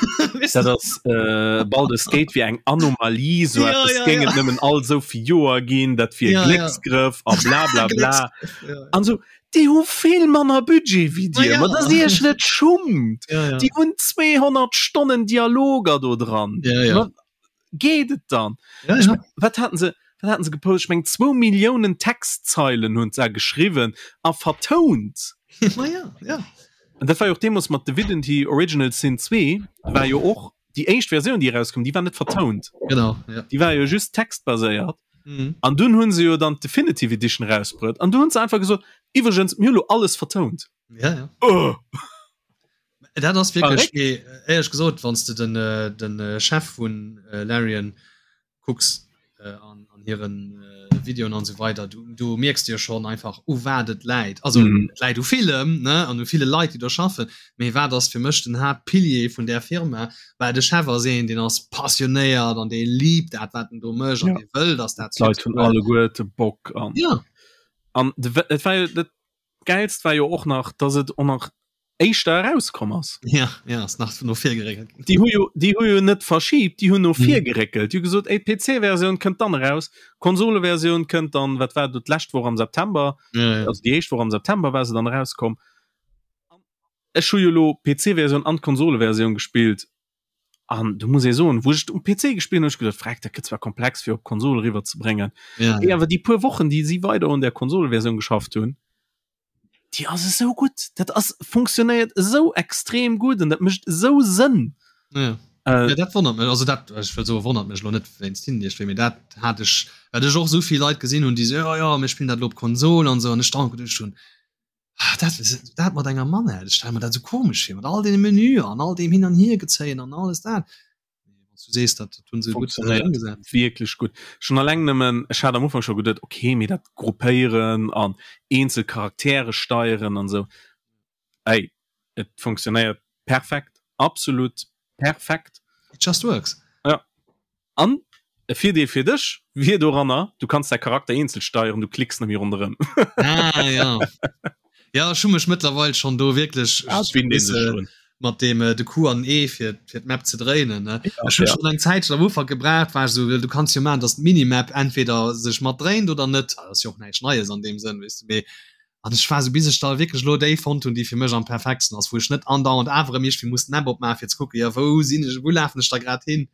[SPEAKER 2] Dat ass äh, Baldur's Gate wier eng Anomalie, sou
[SPEAKER 1] Ja,
[SPEAKER 2] eppes
[SPEAKER 1] ja,
[SPEAKER 2] géing
[SPEAKER 1] ja.
[SPEAKER 2] et nëmmen all sou vill Joer ginn, dat wier
[SPEAKER 1] Ja, ja.
[SPEAKER 2] Glécksgrëff a bla bla bla.
[SPEAKER 1] Glécksgrëff, ja.
[SPEAKER 2] An sou, déi hu vill manner Budget wéi
[SPEAKER 1] Ma
[SPEAKER 2] dir,
[SPEAKER 1] ja.
[SPEAKER 2] ma dass dir iech net schummt.
[SPEAKER 1] Ja, ja.
[SPEAKER 2] Déi hunn 200 Stonnen Dialoger do dran.
[SPEAKER 1] Ja, ja.
[SPEAKER 2] Ma geet et dann?
[SPEAKER 1] Ja,
[SPEAKER 2] Ech
[SPEAKER 1] ja.
[SPEAKER 2] mein, wat haten se, wat haten se gepost? Ech meng zwou Milliounen Textzeilen hunn se geschriwwen a vertount.
[SPEAKER 1] Ma ja, ja.
[SPEAKER 2] An dat war jo och deemools mat Divinity Original Sin 2 war jo och déi éischt Versioun déi erauskoum, déi war net vertount.
[SPEAKER 1] Genau, ja.
[SPEAKER 2] Déi war jo just textbaséiert.
[SPEAKER 1] Mhm.
[SPEAKER 2] An dunn hunn se jo dann d'Definitive Edition erausbruet an du hunn se einfach gesot, iwwregens, mir hu lo alles vertount.
[SPEAKER 1] Ja, ja.
[SPEAKER 2] Oh.
[SPEAKER 1] Dat ass wierklech, mee éierlech gesot, wann s de den, den Chef vun Larian kucks an, an hiren Videoen an esou weider, du, du mierks de jo schonn einfach, u wat et läit. Also
[SPEAKER 2] Mhm.
[SPEAKER 1] et läit u villem, ne, an u ville Leit, déi do schaffen, mee wat ass fir mech den Haaptpilier vun där Firma? Well de Chef ass een, deen ass passionéiert an dee liebt dat, wat en do mécht an
[SPEAKER 2] Ja.
[SPEAKER 1] dee wëll, dass dat
[SPEAKER 2] D'Leit hunn
[SPEAKER 1] huet.
[SPEAKER 2] alleguerte Bock an
[SPEAKER 1] Ja.
[SPEAKER 2] an de, et war jo dat Gäilst war jo och nach, dass et och nach éischter erauskomm ass.
[SPEAKER 1] Ja, ja, ass nach no vir geréckelt.
[SPEAKER 2] Déi hu jo, déi hu jo net verschibt, déi hunn no
[SPEAKER 1] Mhm.
[SPEAKER 2] vir geréckelt. Déi hu gesot, ey, d'PC-Versioun kënnt dann eraus, d'Konsole-Versioun kënnt dann, wat war do, d'lescht Woch am September,
[SPEAKER 1] Ja, ja.
[SPEAKER 2] also déi éischt Woch am September war se dann erauskomm. Ech hu jo elo d'PC-Versioun an d'Konsole-Versioun gespillt an do muss ee soen, wou ech et um PC gespillt hunn, hu ech geduet, freck, dat gëtt zwar komplex fir op d'Konsol eriwwer ze bréngen.
[SPEAKER 1] Ja,
[SPEAKER 2] Mee
[SPEAKER 1] ja.
[SPEAKER 2] awer déi puer Wochen, déi si weider un där Konsoleversioun geschafft hunn, déi ass esou gutt. Dat ass funktionéiert esou extrem gutt an dat mécht esou Sënn.
[SPEAKER 1] Ja.
[SPEAKER 2] Äh,
[SPEAKER 1] Ja, dat wonnert mech also dat ech wëll soe wonnert mech lo net wéinst hinnen iergendwéi, mee dat hat ech well ech och esou vill Leit gesinn hunn, déi so ja ja mir spillen dat elo op Konsol an esou an ech dann geduecht hunn, ah, dat dat mat enger Manette, ech stelle mer dat esou komesch vir mat all deene Menüer an all deem hin an hier gezéien an alles dat. Mee wann s du sees, dat hunn se gutt
[SPEAKER 2] Funktionéiert
[SPEAKER 1] ëmgesat.
[SPEAKER 2] wierklech gutt. Schon alleng nëmmen, ech hat am Ufank scho geduet, okay, mee dat Gruppéieren an eenzel Charaktere steieren an esou, ey, et funktionéiert perfekt, absolut perfekt.
[SPEAKER 1] It just works.
[SPEAKER 2] Ja. An e Virdeel fir dech wier doranner, du kanns däi Charakter eenzel steieren, du klicks net méi ronderëm.
[SPEAKER 1] Ah, ja. Ja, ech hu mech mëttlerweil schonn do wierklech
[SPEAKER 2] Ah, et winnt ee sech drun.
[SPEAKER 1] mat deem äh, de Q an E fir fir d'Map ze dréinen. Ne?
[SPEAKER 2] Ja,
[SPEAKER 1] Ech hunn
[SPEAKER 2] ja.
[SPEAKER 1] schon eng Zäitchen am Ufank gebraucht, war ech so, du kanns jo maachen, dass d'Minimap entweder sech mat dréint oder net. Ah, Das ass jo och näischt Neies an deem Sënn, weess du, mee an ech war so bis ech da wierklech elo déi fonnt hunn, déi fir mech am perfektsten ass, wou ech net andauernd awer erëm iergendwéi muss d'Map opmaachen, fir ze kucken, jo wou sinn ech, wou lafen ech da grad hin.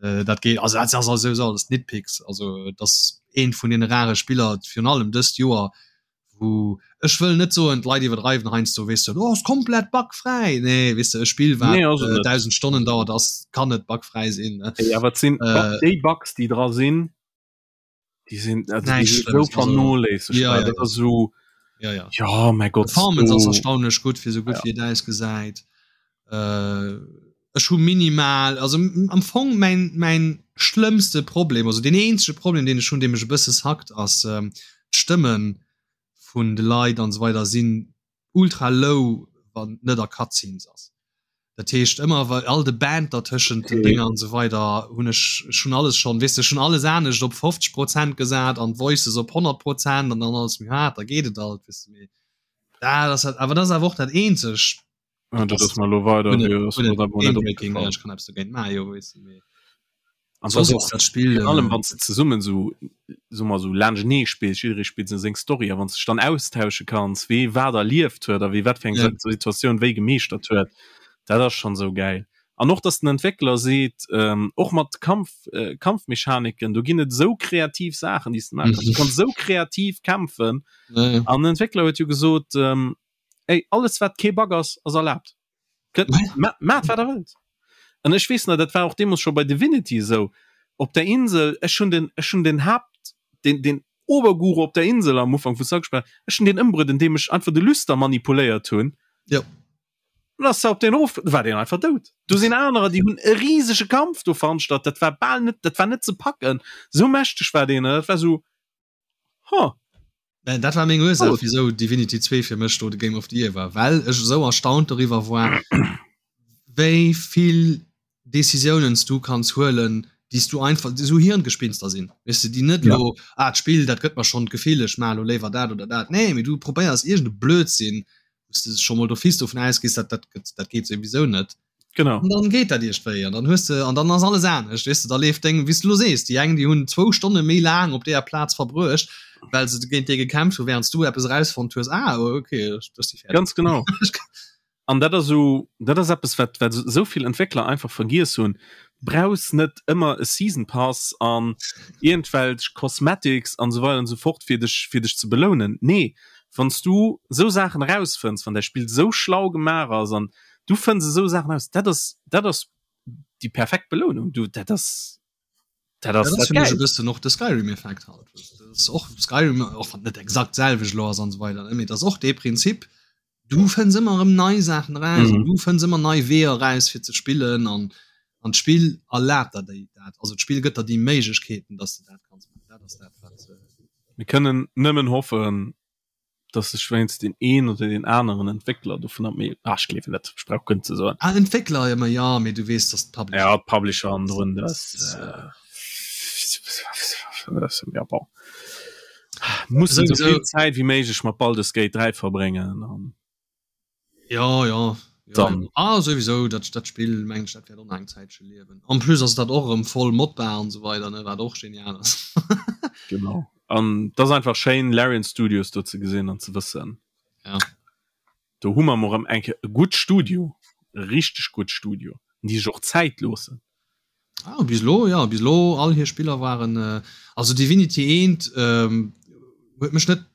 [SPEAKER 1] Äh, dat geet also dat ass also sou alles Nitpicks, also et ass eent vun deene rare Spiller, virun allem dëst Joer, wou ech wëll net soen, d'Leit iwwerdreiwen heiansdo, weess de, oh ass komplett bugfräi. Nee, weess de, e Spill wat
[SPEAKER 2] Nee, ass et net.
[SPEAKER 1] 1.000 Stonnen dauert, ass kann net bugfräi sinn, ne.
[SPEAKER 2] Ey, awer et sinn
[SPEAKER 1] Äh,
[SPEAKER 2] déi Bugs, déi dra sinn, déi sinn also déi
[SPEAKER 1] Näischt
[SPEAKER 2] sinn esou
[SPEAKER 1] Schlëmmes, also
[SPEAKER 2] vernoléissegbar.
[SPEAKER 1] ja, ja,
[SPEAKER 2] Dat
[SPEAKER 1] ja.
[SPEAKER 2] ass esou,
[SPEAKER 1] Ja, ja.
[SPEAKER 2] ja, mäi Gott,
[SPEAKER 1] Performance ass
[SPEAKER 2] do
[SPEAKER 1] erstaunlech gutt fir sou gutt
[SPEAKER 2] ja.
[SPEAKER 1] wéi et ausgesäit. Äh. Ech hu minimal, also am Fong mäin, mäin schlëmmste Problem, also deen eenzege Problem, deen ech hunn, dee mech e bësse sackt, ass d'Stëmme vun de Leit an esou weider sinn ultra low, wann net a Cutscenes ass. Dat heescht ëmmer wa all de Banter tëschent den Dénger an esou weider hunn ech, ech hunn alles schonn, weess de, ech hunn alles anescht op 50 Prozent gesat an d'Voices op 100 Prozent an dann alles méi haart, da geet et alt, weess de, mee dat ass awer, dat ass awer och dat eenzegt.
[SPEAKER 2] Ah, dat ass mal lo weider
[SPEAKER 1] Spiel
[SPEAKER 2] allem wann ze zesummen so so mal so laanschtnee spills jidderee spillt sou seng Story a wann s dech dann austausche kanns wee wat erlieft huet a wee wat fir eng ja. Situatioun wéi gemeeschtert huet dat ass schon sou geil an och dass den Entwéckler seet ähm, och mat Kampf äh, Kampfmechaniken do ginn et sou kreativ Saachen déi s de maache kanns du kanns sou kreativ kämpfen
[SPEAKER 1] ja.
[SPEAKER 2] an den Entwéckler huet jo gesot ähm, Ey, alles wat kee Bug ass, ass erlaabt. Maacht wat der wëllt. An ech weess nach, dat war och deemools scho bei Divinity esou, op der Insel, ech hunn den, ech hunn den Haapt, den, den Oberguru op der Insel am Ufank vu Sackspell, ech hunn deen ëmbruet, andeem ech einfach de Lüster manipuléiert hunn.
[SPEAKER 1] Jo.
[SPEAKER 2] An ass op deen erof, war deen einfach dout. Do sinn anerer, déi hunn e risege Kampf do veranstalt, dat war bal net, dat war net ze packen, esou mächteg war deen. Dat war esou,
[SPEAKER 1] Huh. Äh, dat war meng Ursaach, wieso Divinity 2 fir mech do de Game of the Year war, well ech esou erstaunt doriwwer war, wéi vill Decisiounen du kanns huelen, déi s du einfach esou Hirngespinster sinn, weess de, déi net lo, ja. ah, d'Spill, dat gëtt mer schonn d'Gefill, ech maache lo léiwer dat oder dat. Nee, mee du probéiers iergend e Blödsinn, wou s de scho mol d'office dovun ausgees, dat, dat, dat geet souwisou net.
[SPEAKER 2] Genau.
[SPEAKER 1] An dann geet dat iergendwéi an dann hues de an dann ass alles anescht, weess de, da leeft deng, wéi s de lo sees, déi eng déi hunn zwou Stonne méi laang op deeër Plaz verbruecht, well se géint dee gekämpft hu während s du eppes erausfonnt hues, ah okay, ech si
[SPEAKER 2] fäerdeg. Ganz genau. An dat ass esou, dat ass eppes wat wat esou vill Entwéckler einfach vergiess hunn, brauchs net ëmmer e Season Pass an iergendwelch Cosmetics an esou weider an esou fort fir dech fir dech ze belounen. Nee, wann s du esou Saachen erausfënns, wann däi Spill esou schlau gemaach ass an du fënns esou Saachen aus, dat ass dat ass déi perfekt Belounung du dat ass
[SPEAKER 1] dat ass dat ass e bëssen och de Skyrim Effekt halt dat och Skyrim och wann net exakt selwecht lo ass an esou weider mee dat ass och dee Prinzip du fënns ëmmer erëm nei Saachen eraus mm. du fënns ëmmer nei Weeër eraus fir ze spillen an an d'Spill erlaabt der déi dat also d'Spill gëtt der déi Méiglechkeeten dass du dat kanns maachen dat ass dat wat
[SPEAKER 2] äh, Mir kënnen nëmmen hoffen dass sech wéinst deen een oder deen aneren Entwéckler dovunner méi ah, ech gleewen net, ech brauch guer net ze soen.
[SPEAKER 1] Ah, Entwéckler ëmmer jo, mee du weess, dass
[SPEAKER 2] d'Publisher. Ja, d'Publisher an drun, das äh, ja, bon. Muss esou vill Zäit wéi méiglech mat Baldur's Gate 3 verbréngen an.
[SPEAKER 1] Ja, ja. Ja,
[SPEAKER 2] Dann.
[SPEAKER 1] Ah, souwisou, dat, dat Spill mengen ech, dat wäert och nach eng Zäitche liewen. En plus ass dat och erëm voll modbar an esou weider, ne, wat och genial ass.
[SPEAKER 2] Genau. An dat ass einfach schéin, Larian Studios do ze gesinn an ze wëssen.
[SPEAKER 1] Ja.
[SPEAKER 2] Do hu mer mol erëm eng Kéier e gutt Studio, e richteg gutt Studio, an déi sech och Zäit loossen.
[SPEAKER 1] Ah, bis elo, ja, bis elo all hir Spiller waren, also Divinity eent ähm, huet mech net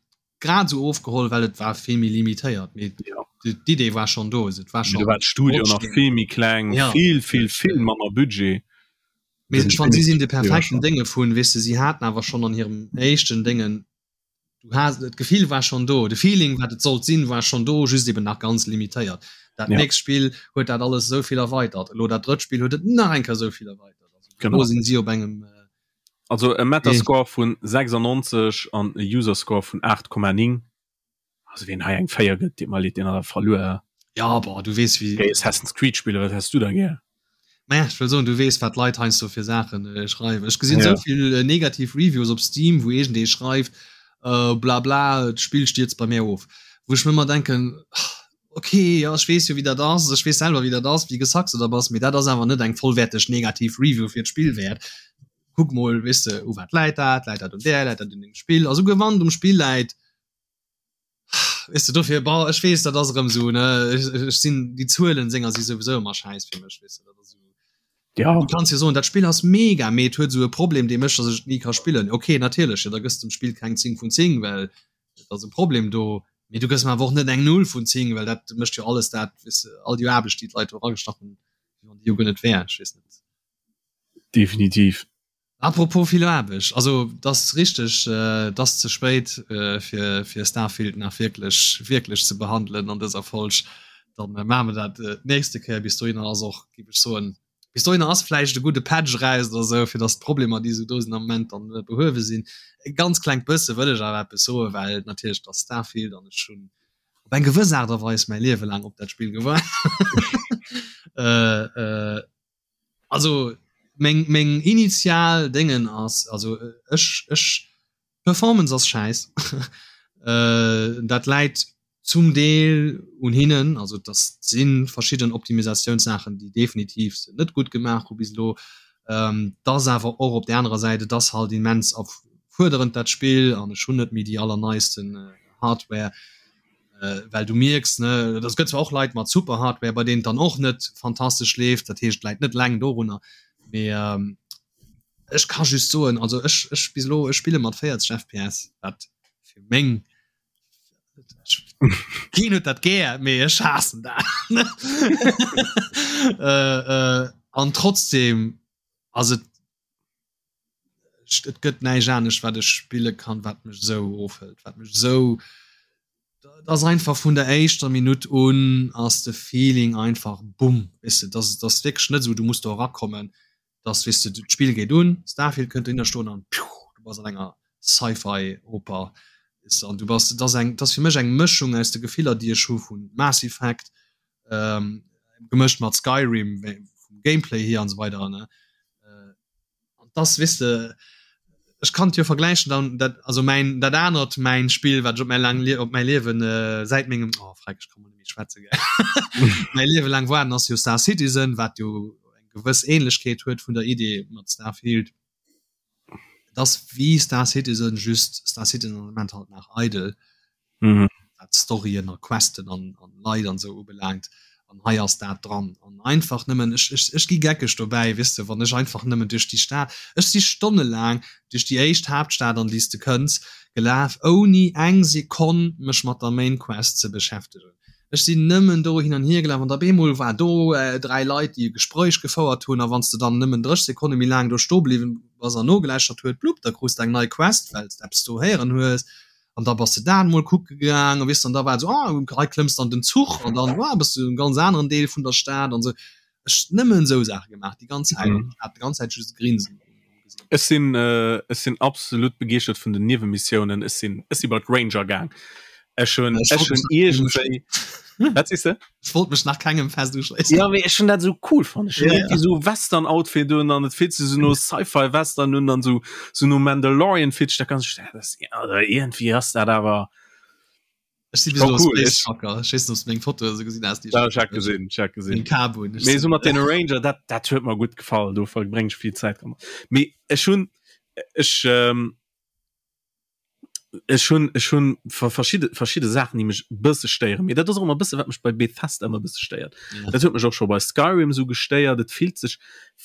[SPEAKER 1] grad esou ofgeholl, well et war vill méi limitéiert, mee
[SPEAKER 2] ja.
[SPEAKER 1] d'Idee war schon do, et war
[SPEAKER 2] schon war d'Studio nach vill méi kleng,
[SPEAKER 1] ja.
[SPEAKER 2] vill vill vill manner Budget.
[SPEAKER 1] Mee ech fand si sinn de perfekten Dénge vun, weess de, si haten awer schon an hirem éischten Déngen, du has d'Gefill war schon do, de Feeling wat et sollt sinn war schon do, just eben nach ganz limitéiert. Dat
[SPEAKER 2] ja.
[SPEAKER 1] nächst Spill huet dat alles esou vill erweitert, elo dat drëtt Spill huet et nach eng Kéier esou vill erweitert. Also,
[SPEAKER 2] genau.
[SPEAKER 1] Elo sinn si op engem äh,
[SPEAKER 2] Also e Metascore vun 96 an e Userscore vun 8,9. Also wien hei eng 4 gëtt, deet mer leed, deen hat awer verluer.
[SPEAKER 1] Ja, boah, du weess wéi.
[SPEAKER 2] Géi Assassin's Creed spillen, wat häss du da gär?
[SPEAKER 1] Naja, ech wëll soen, du weess wat d'Leit heiansdo fir Saachen äh, schreiwen. Ech gesinn
[SPEAKER 2] Ja.
[SPEAKER 1] esou vill äh, negativ Reviews op Steam, wou iergendee schreift, äh, bla bla, d'Spill stierzt bei mir of. Wou ech mir ëmmer denken, ok, jo, ech weess jo wéi dat ass, ech weess selwer wéi dat ass, wéi gesackt s de da bass, mee dat ass awer net eng vollwäerteg negativ Review fir d'Spill wäert. Kuck mol, weess de, u wat läit dat, läit dat un där, läit dat un dengem Spill? A souguer wann et um Spill läit, weess de, dofir, bon, ech weess, dat ass erëm esou, ne, ech, ech sinn, déi Zuelen senger si souwisou ëmmer schäiss fir mech, weess de, dat ass esou.
[SPEAKER 2] Ja.
[SPEAKER 1] Du kanns jo soen, dat Spill ass mega, mee et huet esou e Problem, dee mécht, datt ech et ni ka spillen. Ok, natierlech, jo, da gëss de dem Spill keng 10 vun 10, well et ass e Problem do, mee du gëss mer awer och net eng Null vun 10, well dat mécht jo alles dat, weess de, all déi Aarbecht, déi d'Leit do eragestach hunn, wéi wann déi jo guer net wär. Ech weess net.
[SPEAKER 2] Definitiv.
[SPEAKER 1] Apropos vill Aarbecht, also et ass richteg, et ass ze spéit fir fir Starfield nach wierklech wierklech ze behandelen an dëser Folg. Dann äh, maache mer dat äh, d'nächste Kéier. Bis dohinner ass och, géif ech soen, bis dohinner ass vläicht e gudde Patch eraus oder sou, fir dass d'Problemer, déi sou do sinn am Moment, dann äh, behuewe sinn. E ganz klengt bësse wëll ech awer eppes soen, well natierlech dat Starfield an ech hunn op eng gewëss Aart a Weis mäi Liewe laang op dat Spill gewaart. äh, äh, also meng, meng initial Déngen ass, also ech, ech, Performance ass schäiss. äh, dat läit zum Deel un hinnen, also das si verschidden Optimisatiounssaachen, déi definitiv se net gutt gemaach hu bis elo. Ähm, dass awer och op der anerer Säit, et ass halt immens erfuerderend dat Spill an ech hunn net méi déi allerneisten äh, Hardware. Äh, well du mierks ne, das gëtt zwar och Leit mat super Hardware, bei denen dann och net fantastesch leeft, dat heescht läit net leng dorunner, mee ähm, Ech ka just soen, also ech, ech bis elo, ech spille mat 40 FPS, wat fir meng Keen huet dat gär, mee ech haassen dat. äh, äh, an trotzdem ass et et gëtt näischt anescht wat ech spille kann, wat mech esou ofhëlt, wat mech esou dat ass einfach vun der éischter Minutt un ass de Feeling einfach bumm, weess de, dat ass wierklech net esou, du muss do erakommen, dass weess de d'Spill geet un, Starfield kënnt dohinner stoen an piu, du bass an enger Sci-Fi Oper weess de an du bass, dat ass eng, dat ass fir mech eng Mëschung aus de Gefiller déi ech hu vu Mass Effect gemëscht mat Skyrim vum Gameplay hier an esou weider ne. An dass weess de ech kann et jo vergläichen dann dat also mäin dat anert mäin Spill wat ech op mäi laang op mäi Liewen säit mengem oh freck ech ka mol net méi schwätze gell mäi Liewe laang waarden ass jo Star Citizen wat jo eng gewëss Ähnlechkeet huet vun der Idee mat Starfield. Et ass wéi Star Citizen just Star Citizen am Moment halt nach eidel. Mhm. Wat Storyen a Questen an, an Leit an sou ubelaangt. An hei ass dat dran. An einfach nëmmen, ech, ech, ech gi geckeg dobäi, weess de, wann ech einfach nëmmen duerch déi Stad, ech si stonnelaang duerch déi éischt Haaptstad, an déi s de kënns, gelaf, ouni eng Sekonn mech mat der Main Quest ze beschäftegen. Ech sinn nëmmen do hin an hier gelaf an op eemol war do 3 Leit, déi e Gespréich gefouert hunn a wann s de dann nëmmen 30 Sekonne méi laang do stoe bliwwen bass an nogelauschtert huet, blupp, da krus de eng nei Quest, well s de eppes do héieren hues an da bass de dat emol kucke gaang a weess an da war et esou, ah, hei klëmms de an den Zuch an dann, ah, bass de an engem ganz aneren Deel vun der Stad an esou. Ech nëmmen esou Saache gemaach déi ganz Zäit an ech hat déi ganz Zäit just e Grinsen um
[SPEAKER 2] Gesiicht. Ech sinn ech sinn absolut begeeschtert vun den Niewenmissiounen. Ech sinn ech si bei d'Ranger gaang. Ech hunn ech hunn iergendwéi
[SPEAKER 1] Wat sees de? Ech wollt mech nach kengem fest uschléissen.
[SPEAKER 2] Ja mee ech hunn dat esou cool fonnt. Ech hunn iergendwéi esou Western-Outfit un an et fillt sech esou no Sci-Fi-Western un an esou esou no Mandalorian fillt sech dat ganz dat ass also iergendwéi ass dat awer
[SPEAKER 1] Ech si cool. Space Trucker. Ech weess net, ob du meng Foto esou gesinn has, déi
[SPEAKER 2] ech Ja, ech gesinn, ech hat gesinn.
[SPEAKER 1] Kabun.
[SPEAKER 2] Mee esou mat deene Ranger, dat, dat huet mer gutt gefall. Do verbréng ech vill Zäit dran. Mee ech hunn, ech, ähm, ech hunn, ech hunn verschidde, verschidde Saachen, déi mech e bësse stéieren. Mee dat ass och ëmmer e bësse, wat mech bei Bethesda ëmmer e bësse stéiert. Ja. Dat huet mech och scho bei Skyrim esou gestéiert. Et fillt sech,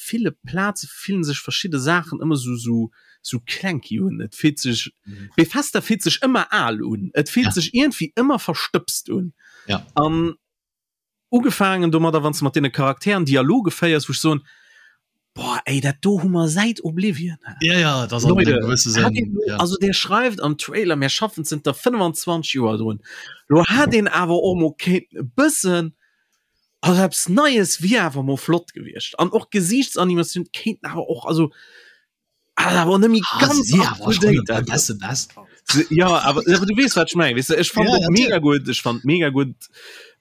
[SPEAKER 2] ville Plaze fillen sech verschidde Saachen ëmmer esou, esou, sou clanky un. Et fillt sech mhm. Bethesda fillt sech ëmmer al un. Et fillt ja. sech irgendwie ëmmer verstëbst un.
[SPEAKER 1] Ja.
[SPEAKER 2] An ugefaangen domadder, wann du mat deene Charakteren Dialoge féiers, wou ech soen, boah, ey, dat do hu mer säit Oblivion.
[SPEAKER 1] Ja, ja, das Leute,
[SPEAKER 2] Sinn, ja. Also der schreift am Trailer, mir schaffen zënter 25 Joer drun. Lo hat den awer och mo kéint e bëssen also eppes Neies wier awer mo flott gewiescht. An och Gesiichtsanimation kéinten awer och also Ah, awer net méi
[SPEAKER 1] Ah,
[SPEAKER 2] ganz
[SPEAKER 1] si
[SPEAKER 2] up
[SPEAKER 1] awer
[SPEAKER 2] to
[SPEAKER 1] schon
[SPEAKER 2] date
[SPEAKER 1] e
[SPEAKER 2] einfach.
[SPEAKER 1] besse best.
[SPEAKER 2] Ja, awer awer du weess wat ech mengen, weess de, ech fand
[SPEAKER 1] Ja,
[SPEAKER 2] et
[SPEAKER 1] ja,
[SPEAKER 2] mega gutt, ech fand mega gutt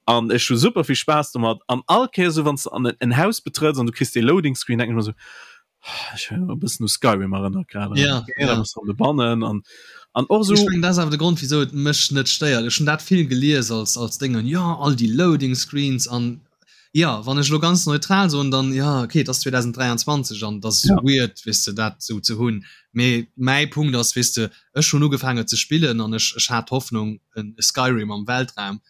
[SPEAKER 2] an ech hu super vill Spaass domat an all Kéier sou wann s de an en Haus betrëtts an du kriss dee Loading Screen denken ech mer sou, ah, ech hunn e bëssen u Skyrim erënnert grad
[SPEAKER 1] Ja,
[SPEAKER 2] okay, da
[SPEAKER 1] ja.
[SPEAKER 2] bass du an de bannen an an och sou
[SPEAKER 1] Ech mengen dat ass awer de Grond wisou et mech net stéiert. Ech hunn dat vill gelies als als Déngen, jo all déi Loading Screens an Jo, wann ech elo ganz neutral soen, dann jo, okay, et ass 2023 an et ass
[SPEAKER 2] Ja.
[SPEAKER 1] weird, weess de, dat esou ze hunn. Mee mäi Punkt ass, weess de, ech hunn ugefaangen et ze spillen an ech, ech hat d'Hoffnung, en e Skyrim am Weltraum.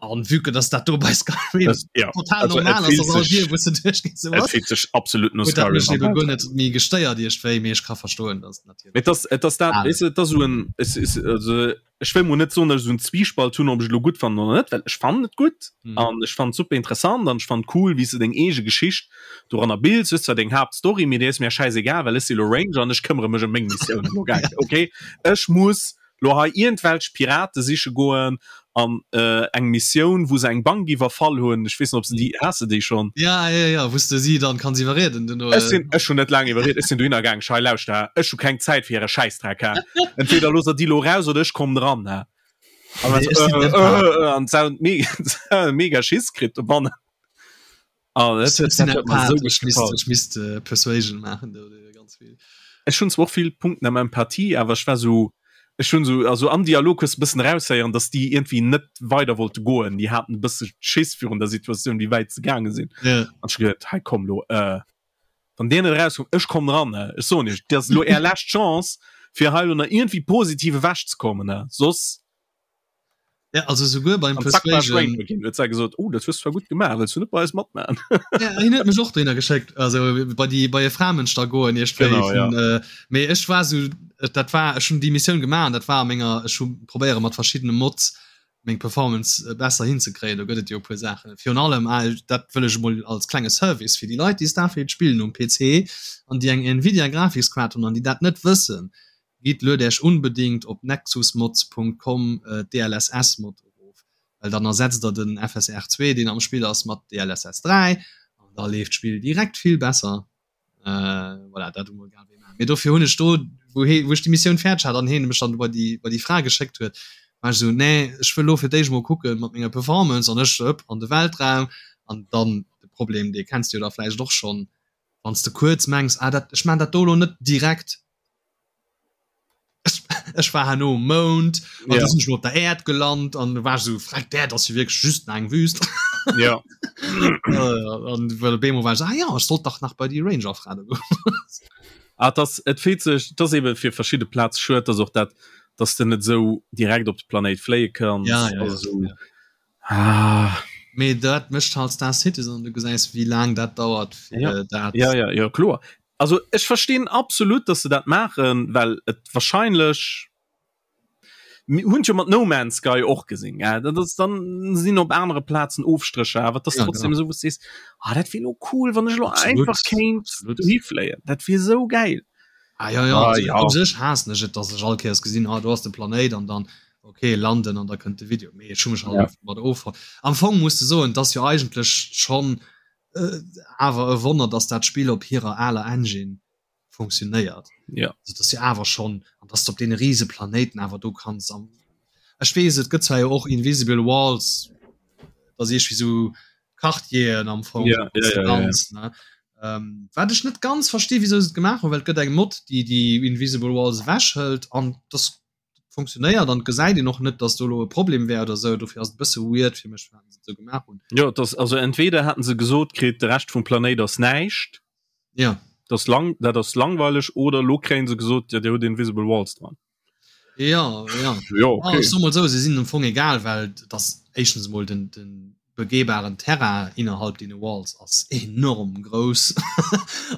[SPEAKER 1] An vue que dass dat do bei Skyrim
[SPEAKER 2] Das, ja.
[SPEAKER 1] total
[SPEAKER 2] Also, et
[SPEAKER 1] normal ass,
[SPEAKER 2] fillt
[SPEAKER 1] dass all
[SPEAKER 2] sech-
[SPEAKER 1] Dier, wou s de duerchgees, esou
[SPEAKER 2] Et
[SPEAKER 1] ass,
[SPEAKER 2] fillt sech absolut no
[SPEAKER 1] huet dat
[SPEAKER 2] Skyrim
[SPEAKER 1] mech
[SPEAKER 2] am
[SPEAKER 1] ebe guer
[SPEAKER 2] Weltraum.
[SPEAKER 1] net méi gestéiert iergendwéi. Mee ech ka verstoen, dass et natierlech
[SPEAKER 2] Et ass, et ass dat,
[SPEAKER 1] al
[SPEAKER 2] weess de, et ass esou en, es is, also Ech wëll mol net soen, datt ech esou en Zwiespalt hunn, ob ech et elo gutt fannen oder net, well ech fannen et gutt
[SPEAKER 1] Mhm.
[SPEAKER 2] an ech fannen et super interessant an ech fannen et cool, wéi s de deng eege Geschicht doranner bilds. Hues zwar deng Haaptstory, mee déi ass mir schäisegal, well ech si elo Ranger an ech këmmere mech ëm meng Missiounen elo. Gell? Okay, ech muss. Lo hei iergendwelch Pirate siche goen an eng Missioun wou se eng Bank iwwerfall hunn, ech weess net ob se déi, has de déi schonn?
[SPEAKER 1] Ja ja ja, wou s de si dann kanns iwwerrieden duerno.
[SPEAKER 2] Ech sinn, ech hunn net laang iwwerriet, ech sinn dohinner gaang, ech hei lauschter ha, ech hu keng Zäit fir äre Schäissdreck ha, entweder loosst der déi lo raus oder ech kommen dran ha. An dann sou äh an se hunn mega mega Schiss kritt dobannen.
[SPEAKER 1] Ah, dat huet, dat huet mer sou gutt gefall. Ech misst äh, Persuasion maachen do,
[SPEAKER 2] ganz vill. Ech hunn zwar och vill Punkten am Empathie, awer ech war sou, ech hunn sou, also am Dialog hues de bëssen eraushéieren, dass déi iergendwéi net weider wollte goen. Déi haten e bësse Schiss virun der Situatioun, wéi wäit se gaange sinn.
[SPEAKER 1] Ja.
[SPEAKER 2] An ech hu geduet, hei komm lo, äh, wann dir net erauskommt, ech kommen ran, ne? Ech soen iech, dat ass elo är lescht Chance, fir hei elo nach iergendwéi positiv ewechzekommen, ne? Soss
[SPEAKER 1] Ja, also souguer beim
[SPEAKER 2] Persuasion huet se gesot oh dat hues zwar gutt gemaach wëlls du net bei eis matmachen
[SPEAKER 1] ja, hien huet mech och dohinner geschéckt also bei déi bei e Framënsch da goen iech
[SPEAKER 2] genau, ja.
[SPEAKER 1] äh, mee ech war sou dat war ech hunn déi Missioun gemaach an dat war a menger ech hu probéiere mat verschiddene Mods meng Performance äh, besser hinzekréien do gëtt et jo e puer Saachen virun allem ah, dat wëll ech emol als klenge Service fir déi Leit déi Starfield spillen um PC an déi eng Nvidia Grafikskaart hunn an déi dat net wëssen Gitt, luet Äech unbedingt op nexusmods.com d'DLSS Mod erof, well dann ersetzt der den FSR 2 deen am Spill ass mat DLSS 3 an da leeft d'Spill direkt vill besser. Voilà, dat emol grad wéi maachen. Mee dofir hunn ech do, wou hee, wou ech déi Missioun fäerdeg hat an heen mech dann bei déi, bei déi Fra geschéckt huet, war ech esou, nee, ech wëll elo fir d'éischt emol kucken mat menger Performance an ech hëpp an de Weltraum an dann de Problem, dee kenns de jo da vläicht och schonn, wann s de kuerz mengs, ah dat, ech maan dat do elo net direkt, ech war herno um Mound an ja. sinn ech op der Äerd gelant an war so freck d'Äerd ass jo wierklech just eng Wüst.
[SPEAKER 2] Ja.
[SPEAKER 1] An well Bemo war ah ja ech sollt dach nach bei déi Ranger Fra do goen.
[SPEAKER 2] Ah, das et feelt sech das eben fir verschidde Plaz schued dass och dat dass de net sou direkt op de Planéit fléie kanns
[SPEAKER 1] ja, ja,
[SPEAKER 2] also, ja. Ah.
[SPEAKER 1] Mee dat mécht halt Star Citizen, du gesäis wéi laang dat dauert
[SPEAKER 2] fir ja. dat. Ja, ja, ja kloer. Also ech verstinn absolut, dass se dat maachen, well et wahrscheinlech hunn jo mat No Man's Sky och gesinn ja, dat ass dann sinn op anere Plazen Ofstrécher, awer dat ass
[SPEAKER 1] ja,
[SPEAKER 2] trotzdem
[SPEAKER 1] genau.
[SPEAKER 2] esou wou s sees ah, dat wier lo cool, wann ech lo
[SPEAKER 1] Absolut.
[SPEAKER 2] einfach kéint
[SPEAKER 1] Absolut.
[SPEAKER 2] dohi fléien, dat wier esou gäil.
[SPEAKER 1] Ah, ja, ja.
[SPEAKER 2] Ah,
[SPEAKER 1] Also,
[SPEAKER 2] ja.
[SPEAKER 1] u sech haassen ech et, dass ech all Kéiers gesinn, ah, do ass de Planéit an dann okay landen an da kënnt de Video. Mee ech hu mech halt
[SPEAKER 2] Ja.
[SPEAKER 1] einfach mat offonnt. Am Fong muss de soen, et ass jo eigentlech schonn awer e Wonner, dass dat Spill op hirer aler Engine funktionéiert.
[SPEAKER 2] Ja.
[SPEAKER 1] Also, dass jo awer schonn an dass du op deene riese Planéiten awer do kanns am Ech weess, et gëtt zwar jo och Invisible Walls, dass iergwéi sou Quartieren am Fong
[SPEAKER 2] Ja, ja, ja, ja, ja.
[SPEAKER 1] ganz, ne? Ähm, wat ech net ganz versti wieso se et gemaach hunn, well et gëtt eng Mod, déi déi Invisible Walls ewechhëlt an das funktionéiert an gesäit een och net, dass do elo e Problem wär oder sou. Dofir ass et e bësse weird fir mech, firwat se et sou gemaach hunn.
[SPEAKER 2] Jo, et ass also entweder haten se gesot kritt, de Rescht vum Planéit ass näischt,
[SPEAKER 1] Ja.
[SPEAKER 2] dat ass lang, dat ass langweileg, oder elo kréien se gesot, jo, dir hutt Invisible Walls dran.
[SPEAKER 1] Ja, ja.
[SPEAKER 2] Jo,
[SPEAKER 1] Ah,
[SPEAKER 2] okay.
[SPEAKER 1] ech soe mol sou, se sinn am Fong egal, well et ass éischtens emol den, den begehbaren Terrain innerhalb deene Walls ass enorm grouss.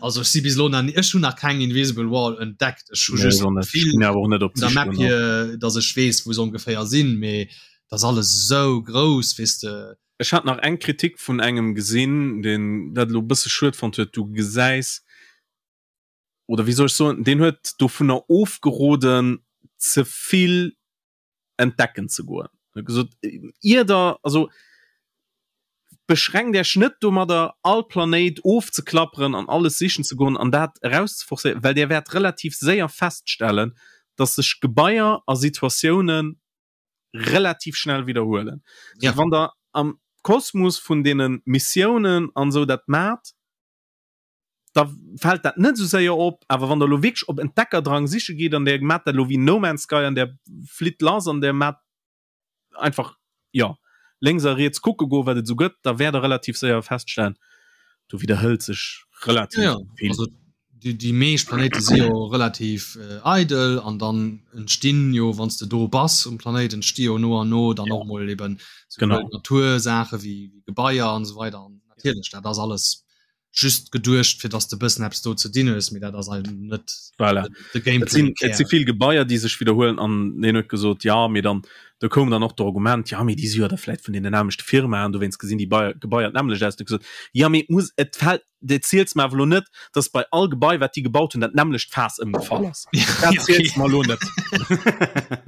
[SPEAKER 1] Also ech si bis elo nach ni, ech hunn nach keng Invisible Wall entdeckt. Ech hu
[SPEAKER 2] Nee,
[SPEAKER 1] just
[SPEAKER 2] ech och net. Ech
[SPEAKER 1] vill
[SPEAKER 2] ginn awer och net op
[SPEAKER 1] vun der
[SPEAKER 2] d'Sich
[SPEAKER 1] Map
[SPEAKER 2] dono.
[SPEAKER 1] hier, datt ech weess, wou se ongeféier sinn, mee et ass alles esou grouss, weess de.
[SPEAKER 2] Ech hat nach eng Kritik vun engem gesinn, deen dat elo e bësse schued fonnt huet, Du gesäis, oder wéi soll ech soen, deen huet dovunner ofgeroden ze vill entdecken ze goen. Huet gesot, ier der, also beschränkt Iech net domadder all Planéit ofzeklapperen an alles sichen ze goen an dat erauszeforcéieren, well Dir wäert relativ séier feststellen, dass sech Gebaier a Situatiounen relativ schnell widderhuelen.
[SPEAKER 1] Ja.
[SPEAKER 2] Wann der am Kosmos vun deene Missiounen an esou dat maacht, da fält dat net esou séier op, awer wann der elo wierklech op Entdeckerdrang siche gitt an der maacht dat elo wéi No Man's Sky an der flitt lass an der maacht einfach, jo, lénks a riets kucke goen, wat et esou gëtt, da wäert der relativ séier feststellen, do widderhëlt sech relativ
[SPEAKER 1] Ja,
[SPEAKER 2] vill.
[SPEAKER 1] also déi, déi meescht Planéite si jo relativ äh, eidel an dann entstinn jo, wann s de do bass um Planéit, entsti jo no an no dann och mol eben
[SPEAKER 2] Genau.
[SPEAKER 1] Natursaache wéi, wéi Gebaier an esou weider an natierlech, dat ass alles. Just geduecht fir dass de bëssen eppes do ze dinn hues, mee dat ass eigentlech net
[SPEAKER 2] voilà. de Gameplay. Et si vill Gebaier déi sech widderhuelen an deen huet gesot ja mee dann do koum dann och d'Argument ja mee déi si jo da vläit vun deenen nämmlechte Firmaen, dowéinst gesinn déi Gebaier d'nämmlecht aus. Huet gesot ja mee et muss et fält et ziels mer awer elo net, dass bei all Gebai wat déi gebaut hunn dat nämmlecht Faass ëmgefall ass. Dat ziels mer elo net.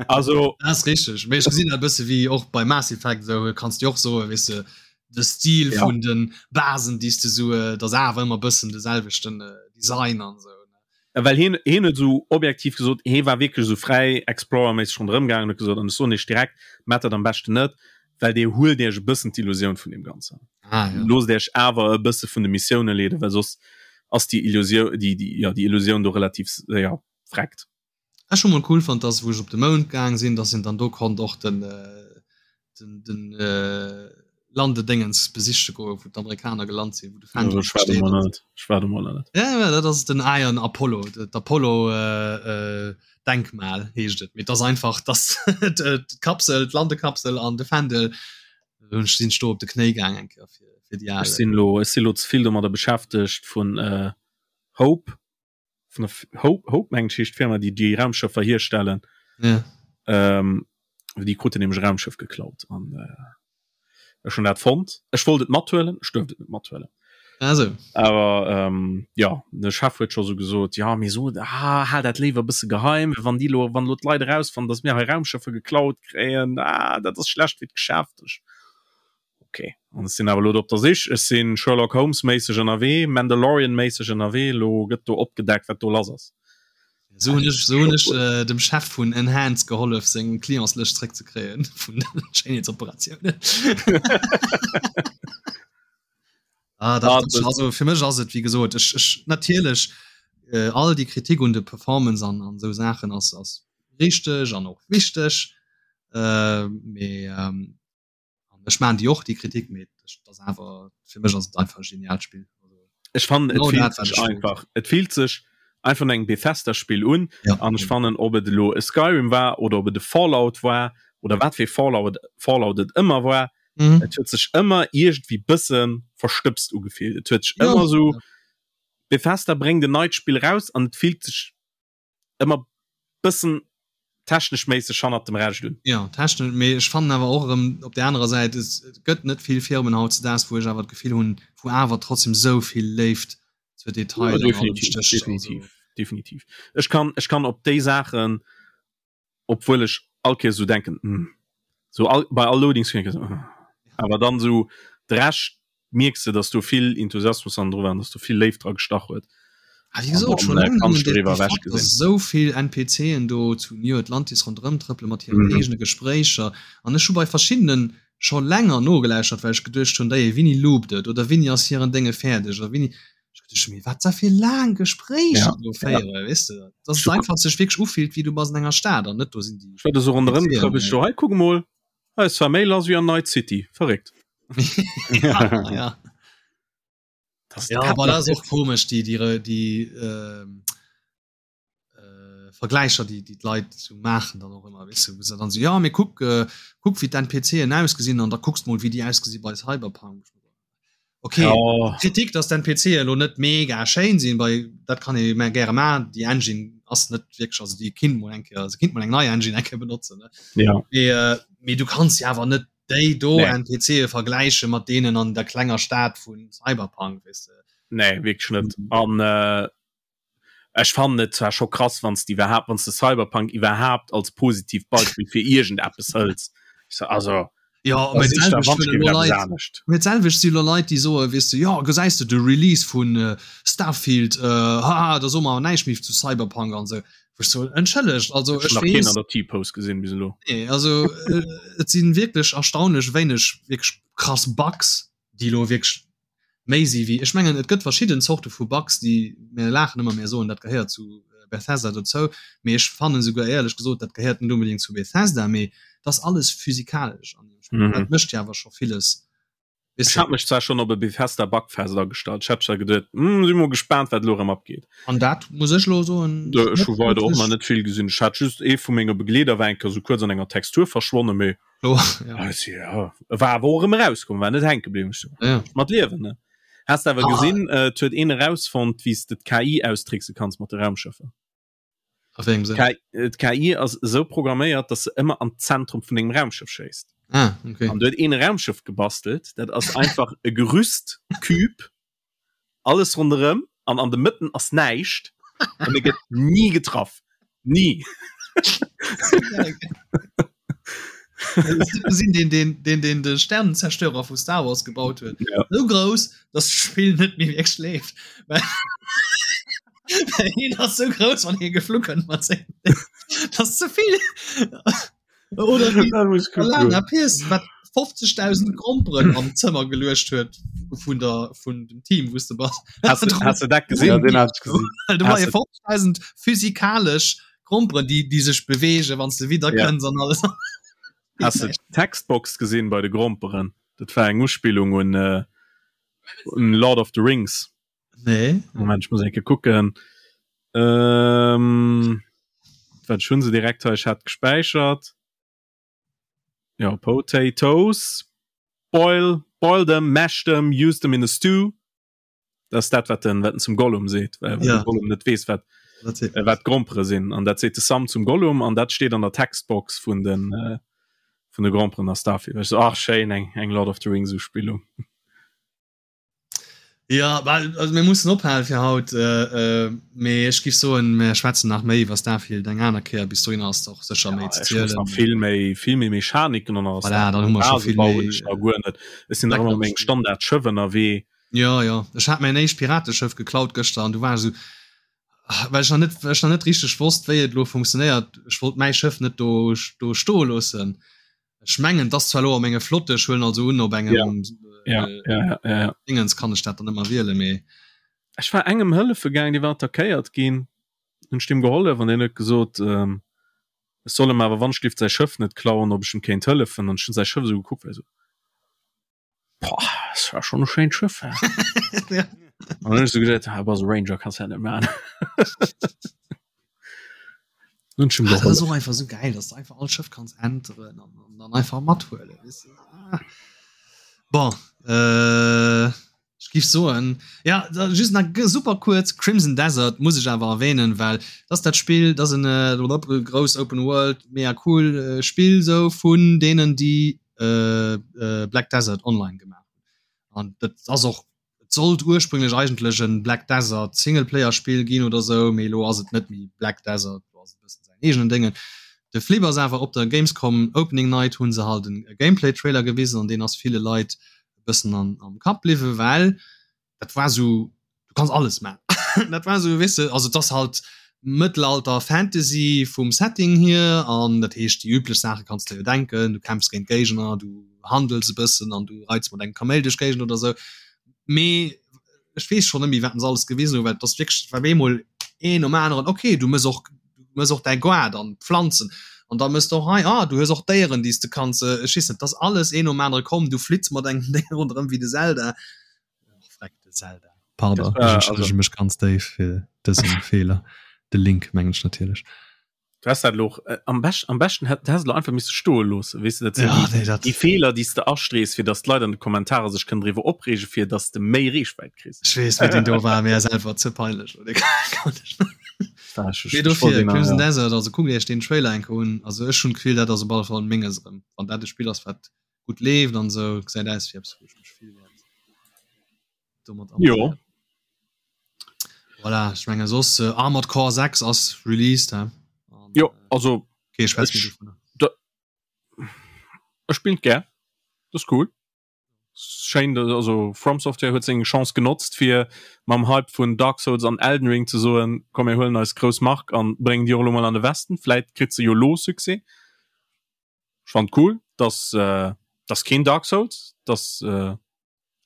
[SPEAKER 1] Also dat ass richteg, mee ech gesinn dat e bësse wéi och bei Mass Effect esou, kanns de och soen, weess de, de Stil ja. vun den Basen déi du so äh, das awer ëmmer bëssen de selwechten äh, Design an so
[SPEAKER 2] ja, well hien hien huet so objektiv gesot hie war wierklech so fräi Explorer-méisseg ronderëm gaangen huet gesot an ech soen iech direkt maacht dat am beschten net well dir huelt iech e bëssen d'Illusioun vun deem Ganzen ah, ja. loosst iech awer e bësse vun de Missioune leeden well soss ass déi Illusioun déi déi ja déi Illusioun do relativ séier vreckt.
[SPEAKER 1] Ech hu mol cool fonnt dass wou ech op de Mound gaang sinn, dass een dann do konnt och den den den Landedéngens besiche goen, wou d'Amerikaner gelant sinn, wou de
[SPEAKER 2] Fändel Ech war do mol net. Ech war do mol net.
[SPEAKER 1] Ja, ja, dat ass den Iron Apollo, d'Apollo Denkmal heescht et. Mee et ass einfach dass d'Kapsel, d'Landekapsel an de Fändel. Hunn ech sinn ech do op de Knéi gaang eng Kéier fir fir déi
[SPEAKER 2] al. Ech sinn elo ech sinn elo ze vill domadder beschäftegt vun Hope vun der Hope, Hope mengen ech heescht d'Firma, déi déi Raumschëffer hierstellen.
[SPEAKER 1] Ja.
[SPEAKER 2] Ähm, déi kruten nämlech e Raumschëff geklaut an äh, ech hunn dat fonnt. Ech wollt et mathuelen, ech duerft et net mathuelen.
[SPEAKER 1] Also.
[SPEAKER 2] Awer ähm, ja, de Chef huet scho sou gesot, ja mee so ah, hal dat léiwer e bësse geheim, wann déi lo, wann lo d'Leit erausfannen, datt mir hei Raumschëffer geklaut kréien, ah, dat ass schlecht fir d'Geschäft. Ech, Ok, an ech sinn awer elo do op der Sich. Ech si Sherlock Holmes méisseg ënnerwee, Mandalorian méisseg ënnerwee. Elo gëtt do opgedeckt, wat do lass ass.
[SPEAKER 1] Esou hunn ech, esou hunn ech dem Chef vun Enhance gehollef, seng Clientslëscht zréckzekréien vun den Schéinheetsoperatiounen. Ah, dat, ah, das, also fir mech ass et, wéi gesot, ech, ech natierlech äh, all déi Kritik un de Performance an, an esou Saachen ass, ass richteg an och wichteg. Äh, mee ähm, An ech maan déi och déi Kritik, mee dat ass awer fir mech ass et einfach e genialt Spill.
[SPEAKER 2] Ech fannen et fillt sech einfach et fillt sech einfach no engem Bethesda Spill un an ech fannen ob et elo e Skyrim war oder ob et e Fallout war oder wat fir e Fallout Fallout et ëmmer war, et huet sech ëmmer iergendwéi bësse verstëbst ugefillt. Et huet sech ëmmer esou Bethesda bréngt en neit Spill raus an et fillt sech ëmmer bëssen technesch méisseg hannert dem Rescht
[SPEAKER 1] un. Jo, technesch, mee ech fannen awer och erëm op där anerer Säit, et gëtt net vill Firmen hautzedaags, wou ech awer d'Gefill hunn, wou awer trotzdem esou vill Léift zur Detail
[SPEAKER 2] an allem stécht. Definitiv, definitiv. Ech kann, ech kann op déi Saachen, obwuel ech all Kéiers esou denken, hm, sou all, bei all Loading Screen, hm, awer dann esou de Rescht mierks de, dass do vill Enthusiasmus an dru war, dass do vill Léift dra gestach huet.
[SPEAKER 1] Ah, wéi gesot, schon laang nëmmen de Fakt, dass esou vill NPCen do zu New Atlantis ronderëm trëppele mat hiren mhm. eegene Gespréicher. An ech hu bei verschiddenen scho länger nogelauschtert, well ech geduecht hunn, déi wéini loopt et oder wéini ass hiren Dénge fäerdeg oder wéini. Ech geduecht hunn, mee wat da fir laang Gespréicher ja. do féiere, ja. weess de? Dass et einfach sech wierklech ufillt, wéi du bass an enger Stad an net do sinn
[SPEAKER 2] déi. Ech war do so ronderëm getrëppelt, ech so, hei kuck mol, hei ass zwar méi lass wéi an Night City, verréckt.
[SPEAKER 1] ja, ja. Das ja, aber das ist auch komisch die die die äh, äh, Vergleicher die die Leute zu machen dann auch immer weißt du, dann so ja mir guck äh, guck wie dein PC ausgesehen und da guckst mal wie die ausgesehen bei Cyberpunk okay ja. Kritik dass dein PC lo net mega schön sind bei dat kann ich mehr gerne mal die Engine ass net wirklich also die kind mal enke also kind mal eng neue Engine enke benutzen ne?
[SPEAKER 2] ja
[SPEAKER 1] mee, äh, mee du kannst ja aber net déi do nee. NPCe vergläiche mat deenen an der klenger Stad vun Cyberpunk
[SPEAKER 2] weess de. Nee wierklech net an äh, ech fannen et zwar scho krass wann s de iwwerhaapt wann s de Cyberpunk iwwerhaapt als positivt Beispill fir iergendeppes hëls also
[SPEAKER 1] Ja, mee d'selwecht si lo Leit déi soe weess de jo gesäis de de Release vun äh, Starfield äh, haha da soe mer awer näischt méi zu Cyberpunk an sou. Wou ech soen, entschëllegt, also
[SPEAKER 2] ech weess. Keen an der T-Pose gesinn bis elo.
[SPEAKER 1] Nee, also et sinn wierklech erstaunlech wéineg wierklech krass Bugs, déi elo wierklech méi si wéi, ech mengen et gëtt verschidden Zorte vu Bugs, déi, mir laachen ëmmer, mir soen dat gehéiert zu Bethesda dozou, mee ech fannen esouguer éierlech gesot, dat gehéiert net onbedéngt zu Bethesda, mee et ass alles physikalesch an deem Spill, dat mécht jo awer scho villes
[SPEAKER 2] Ech hat mech zwar schon op e Bethesda Bugfest agestallt. Ech hat zwar geduet, hm, si mol gespaant, wat elo erëm abgeet.
[SPEAKER 1] An dat muss ech elo soen.
[SPEAKER 2] Ech hu weider och nach net vill gesinn. Ech hat just ee vu menge Begleeder war eng Kéier sou kuerz an enger Textur verschwonnen, mee
[SPEAKER 1] oh, ja.
[SPEAKER 2] ja, war awer och erëm erauskomm, war net hänke bliwwen. Ech so,
[SPEAKER 1] ja.
[SPEAKER 2] Mat liewen, ne? Has de awer ah. gesinn, äh, huet een erausfonnt, wéi s de d'KI austrickse kanns mat de Raumschëffer. D'KI ass esou programméiert, dass se ëmmer an d'Zentrum vun dengem Raumschëff schéisst.
[SPEAKER 1] Ah, okay.
[SPEAKER 2] An du huet een Raumschëff gebastelt, dat ass einfach e Gerüst, Cube, alles ronderëm an an de Mëtten ass näischt an e gëtt ni getraff. Ni.
[SPEAKER 1] Sinn den den den den de Sternenzerstörer vu Star Wars gebaut huet.
[SPEAKER 2] Ja.
[SPEAKER 1] Sou grouss, dass d'Spill net méi wierklech leeft. Well hien ass sou grouss, wann hie geflu kënnt mat sengem Ding. Dat ass ze vill. Oder wéi Alana Pierce, wat 50.000 Gromperen am Zëmmer geluecht huet vun der vun dem Team, wou s de bass.
[SPEAKER 2] Has du, has du dat gesinn?
[SPEAKER 3] Ja, den hat ich gesinn.
[SPEAKER 1] Du war 50.000 physikalesch Gromperen, déi, déi sech bewegen, wann s de wieder
[SPEAKER 2] Ja.
[SPEAKER 1] kënns an alles.
[SPEAKER 2] Has du d'Textbox gesinn bei de Gromperen? Dat war eng Uspillung un, äh, un Lord of the Rings.
[SPEAKER 1] Nee.
[SPEAKER 2] Moment, ich muss enke kucken. Ähm, wat schon se direkt hei, ich hat gespäichert. Ja, Potatoes. Boil, boil them, mash them, use them in a stew. Das ist dat wat den, wat den zum Gollum seet, well
[SPEAKER 1] Ja.
[SPEAKER 2] de Gollum net weess wat,
[SPEAKER 1] Dat seet
[SPEAKER 2] äh, wat Grompere sinn. An dat seet de Sam zum Gollum an dat steet an der Textbox vun den, äh, vun de Gromperen a Starfield. Ech so, ach schéin, eng, eng Lord of the Rings Uspillung.
[SPEAKER 1] Ja, well, also mir mussen ophalen fir haut, äh, äh, mee ech giff soen, mir schwätzen nach méi iwwer Starfield eng aner Kéier. Bis dohinner ass och sécher méi ze
[SPEAKER 2] Ech muss
[SPEAKER 1] zielen.
[SPEAKER 2] nach vill méi vill méi Mechaniken an alles.
[SPEAKER 1] Voilà, dann hu mer scho vill méi,
[SPEAKER 2] Ech nach guer net. Ech sinn nach ëmmer meng Standard-Schëff ënnerwee.
[SPEAKER 1] Ja, ja. Ech hat mäin éischt Pirateschëff geklaut gëschter an du war ech esou, well ech nach net, well ech nach net richteg wosst, wéi et elo funktionéiert. Ech wollt mäi Schëff net do, do stoe loossen. Ech mengen, et ass zwar elo a menge Flotte, ech huelen also un, op engem
[SPEAKER 2] Ja. Ja, ja, ja, ja, ja.
[SPEAKER 1] Dingens kann ech dat dann ëmmer wielen, mee.
[SPEAKER 2] Ech war engem hëllefe gaang, dee war attackéiert ginn, hunn ech deem gehollef an deen huet gesot, ähm, ech soll em awer wannschlift säi Schëff net klauen, ob ech em kéint hëllefen. An ech hunn säi Schëff esou gekuckt, war esou, Boah, das war schon e schéint Schëff, hä?
[SPEAKER 1] Ja.
[SPEAKER 2] An dann hunn ech esou geduet, ah, bass e Ranger, kanns dat net maachen. Hunn ech em
[SPEAKER 1] Ah, dat ass
[SPEAKER 2] gehollef.
[SPEAKER 1] och einfach sou gäil, dass du einfach all Schëff kanns enteren an, an dann einfach mathuelen, weess de. Ah. Bon, äh, ech giff soen, ja, da just nach g super kuerz, Crimson Desert muss ech awer erwähnen, well dat ass dat Spill, dat ass en äh, grouss Open World, mega cool äh, Spill sou vun deenen, déi äh, äh, Black Desert Online gemaach hunn. An dat ass och et sollt ursprünglech eigentlech en Black Desert Singleplayer Spill ginn oder sou, mee elo ass et net méi Black Desert, elo ass et e bëssen säin eegenen Déngen. De Flip ass awer op der Gamescom Opening Night hu se halt e Gameplay Trailer gewisen an deen ass ville Leit e bëssen an am Kapp bliwwen, well dat war sou du kanns alles man dat war sou weess de also et ass halt Mëttelalter Fantasy vum Setting hier an dat heescht déi üblech Saache kanns de jo denken, du kämpfs géint Géigner, du handels e bëssen an du reits mat engem Kaméil duerch d'Géigend oder sou. Mee ech weess schonn net méi wat se alles gewisen hunn, well et ass wierklech et war op eemol een nom aneren, okay du mëss och du mëss och däi Gaart an d'Pflanzen an da mëss de och hei, ah du hues och Déieren déi s de kanns, ech weess net, et ass alles een nom anere komm, du flitts mat engem Déier ronderëm wéi de Zelda. Zelda. Pardon, ech entschëllege mech ganz déif fir dësen Feeler. De Link mengen ech natierlech.
[SPEAKER 2] Du hast dat lo äh, am best, am besten hätt hast du einfach misse stoe loosse weess de dat sinn
[SPEAKER 1] Ja,
[SPEAKER 2] déi,
[SPEAKER 1] nee, dat
[SPEAKER 2] déi Feeler déi s de astrees fir datt d'Leit an de Kommentarer sech kënnen driwwer opreege fir datt s de méi Reechwäit kriss.
[SPEAKER 1] Ech weess wéi deen do war, mee ass einfach ze peinlech. Oder kann ech net.
[SPEAKER 2] War ech,
[SPEAKER 1] Mee
[SPEAKER 2] ech, ech wollt
[SPEAKER 1] dofir,
[SPEAKER 2] deen,
[SPEAKER 1] Crimson
[SPEAKER 2] ja.
[SPEAKER 1] Desert, also kuckt iech deen Trailer eng Kéier un. Also ech hunn d'Gefill, dat ass op alle Fall menges erëm. Wann dat e Spill ass, wat gutt leeft an sou, gesäit aus wéi eppes, wou ech mech vill wäert domat
[SPEAKER 2] Jo.
[SPEAKER 1] amuséieren. Voilà, ech menge soss äh, Armored Core 6 ass released, hä? An,
[SPEAKER 2] Jo,
[SPEAKER 1] äh,
[SPEAKER 2] also
[SPEAKER 1] okay, schwätz méi
[SPEAKER 2] ech,
[SPEAKER 1] dovunner.
[SPEAKER 2] da, ech spillen gär. Das ist cool. Schéin, dass- also From Software huet seng Chance genotzt fir mam Hype vun Dark Souls an Elden Ring ze soen, komm mir huelen eis grouss Mark an bréngen déi och elo mol an de Westen. Vläit kritt se jo lo Succès. Ech fand cool, dass äh, dass keen Dark Souls, dass äh,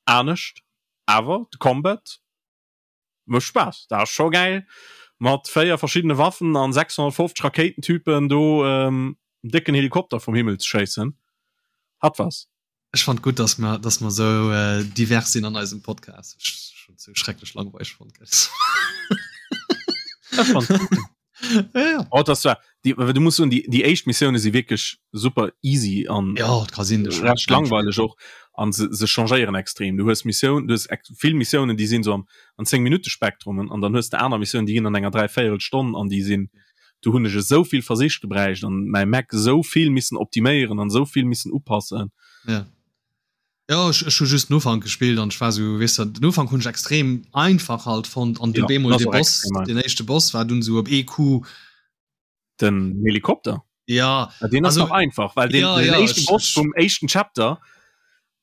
[SPEAKER 2] anescht, awer de Combat mécht Spaass. Dat ass scho gäil mat 4 verschiddene Waffen an 650 Rakéitentypen do ähm, en décken Helikopter vum Himmel ze schéissen. Hat was.
[SPEAKER 1] Ech fand gutt, dass mer, dass mer sou äh, divers sinn an eisem Podcast. Ech schon sou schrecklech langweileg fonnt.
[SPEAKER 2] Ech fand
[SPEAKER 1] ja, ja.
[SPEAKER 2] Oh, das war die, du musst soen, die, die éischt Missioune si wierklech super easy an
[SPEAKER 1] Ja, et ka sinn,
[SPEAKER 2] recht langweileg och. An se, se changéieren extrem. Du hues Missioun, du hues vill Missiounen, déi sinn so am an 10 Minutte Spektrum an dann hues de aner Missiounen, déi ginn an enger dräivéierel Stonn an déi sinn, do hunn ech esou vill Versich gebräicht an mäi Mac esou vill missen optiméieren an esou vill missen upassen.
[SPEAKER 1] Ja. Ja, ech, ech hu just den Ufank gespillt an ech war sou, weess de, den Ufank hunn ech extrem einfach halt fonnt an du ja, bemol de Boss, den éischte Boss war dunn sou op EQ.
[SPEAKER 2] Den Helikopter?
[SPEAKER 1] Ja.
[SPEAKER 2] ja den ass nach einfach, well den, ja, den ja, éischten Boss vum éischten Chapter,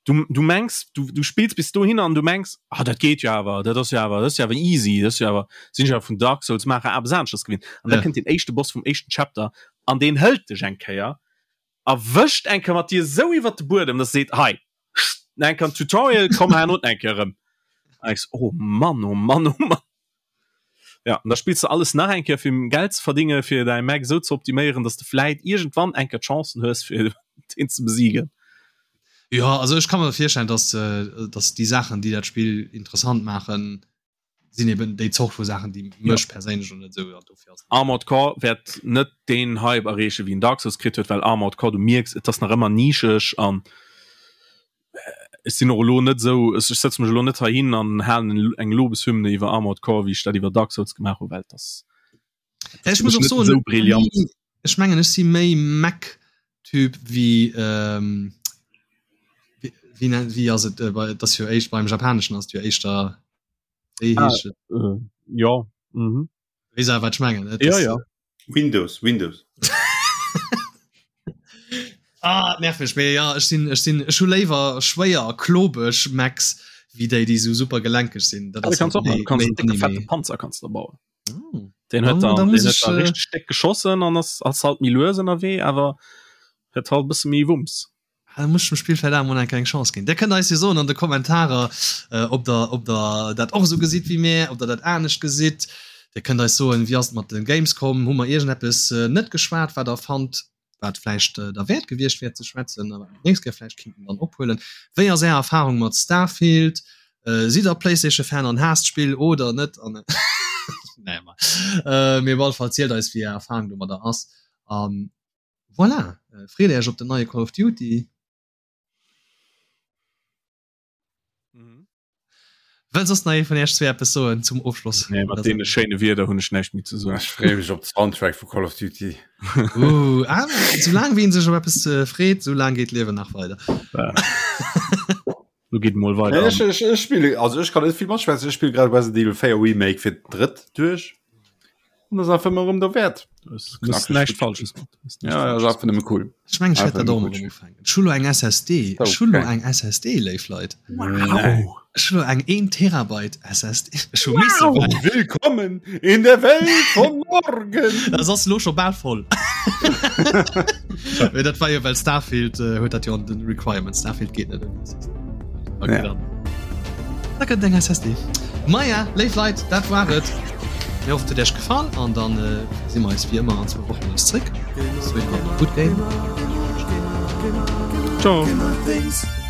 [SPEAKER 2] du, du mengs, du, du spills bis dohin an du mengs, ah, dat geet jo awer, dat ass jo awer, dat ass jo awer easy, dat ass jo awer, sinn ech awer vun Dark Souls maacher awer aneschters gewinnt. An ja. da kënnt den éischte Boss vum éischten Chapter an deen hëlt dech eng Kéier a wëscht eng Kéier mat dir esou iwwert de Buedem, dass e seet, hei, eng Kéier Tutorial, komm herno eng Kéier erëm. An ech so, oh Mann, oh Mann, oh Mann. Ja, an da spills du alles nach eng Kéier fir Geld ze verdinge fir däi Mac esou ze optiméieren, dass de vläit iergendwann eng Kéier d'Chancen hues fir deen ze besiegen.
[SPEAKER 1] Ja, also ech ka mer virstellen, dass, äh, dass déi Saachen, déi dat Spill interessant maachen, sinn eben déi Zort vu Saachen, déi mech ja. perséinlech und net sou
[SPEAKER 2] dofir ass. Armored Core wäert net deen Hype erreeche wéi en Dark Souls kritt huet, well Armored Core du mierks, et ass nach ëmmer nischeg an ech sinn och elo net esou, ech sëtze mech elo net heihin an halen eng Lobeshymne iwwer Armored Core, wéi ech dat iwwer Dark Souls gemaach hunn, well et ass
[SPEAKER 1] Ech muss och soen, esou brillant. Ech mengen ech si méi Mech-Typ wéi ähm, wéi, wéi ass et, äh, bei, dat jo éischt beim Japaneschen ass jo éischter
[SPEAKER 2] wéi ah, heescht et? Äh, ja.
[SPEAKER 1] Mhm. Wees awer wat ech mengen,
[SPEAKER 2] ne? Ja, ja.
[SPEAKER 3] Windows, Windows.
[SPEAKER 1] ah, nerv mech méi ja ech sinn ech sinn ech hu léiwer schwéier klobeg Macs wéi déi déi sou super gelenkeg sinn.
[SPEAKER 2] Dat ass kannst och du kannst en décke fette Panzer kannst du bauen. Oh. Den huet dann, den huet dann äh, richtig steck geschossen an ass ass halt méi lues ënnerwee, awer huet halt bësse méi Wumms.
[SPEAKER 1] Ah, da muss ech dem Spill vläicht awer mol eng kleng Chance ginn. Dir kënnt eis jo soen an de Kommentarer, äh, ob der, ob der dat och esou gesitt wéi mär, ob der dat anescht gesitt. Dir kënnt eis soen, wéi ass et mat de Gamescom? Hu mer iergendeppes äh, net geschwat, wat der fannt, wat vläicht äh, derwäert gewiescht wär ze schwätzen, a wat mer d'nächst Kéier vläicht kinnten dann ophuelen. Wéi ass Är Erfarung mat Starfield? Äh, sidd der PlayStation-Fan an haasst d'Spill oder net? An nee, ma. Äh, mee op alle Fall zielt eis, wéi Är Erfarung domadder ass. An Voilà, freet Äech op den neie Call of Duty. Mhm. Wëll soss nach ee vun Iech zwee eppes soen zum Ofschloss?
[SPEAKER 2] Nee, mat deene schéine Wierder hunn ech näischt méi ze soen.
[SPEAKER 3] Ech freeë mech op de Soundtrack vu Call of Duty.
[SPEAKER 1] Uh, ah, soulaang wéi een sech op eppes äh, freet, soulaang geet d'Liewen nach weider.
[SPEAKER 2] Ja. Lo geet mol weider.
[SPEAKER 3] Nee, ech, ech, ech spill, also ech kann net vill matschwätzen, ech spill grad Resident Evil 4 Remake fir d'drëtt duerch. Und das einfach immer der Wert.
[SPEAKER 2] Näischt Falsches
[SPEAKER 3] Ja, ja, einfach nëmme cool.
[SPEAKER 1] Ech mengen, ech wäert dat och emol erëm ufänken. Ech hu lo eng SSD. Ech hu lo eng SSD, léif Leit.
[SPEAKER 2] Wow.
[SPEAKER 1] Ech hu lo eng 1 Terabyte SSD. Ech hu misse
[SPEAKER 3] wow. Willkommen in der Welt von morgen.
[SPEAKER 1] Das ass lo scho bal voll. Mee dat war jo well Starfield äh, huet dat jo an den Requirements. Starfield geet net ouni SSD. Okay, ja. dann. Da kënnt eng SSD. Maja, léif Leit, dat war et. Mir hoffen, et huet Iech gefall an dann äh, si mer eis wéi ëmmer an zwou Wochen nees zréck. Bis dohin, habt e gutt Game.
[SPEAKER 2] Ciao.
[SPEAKER 1] Ciao.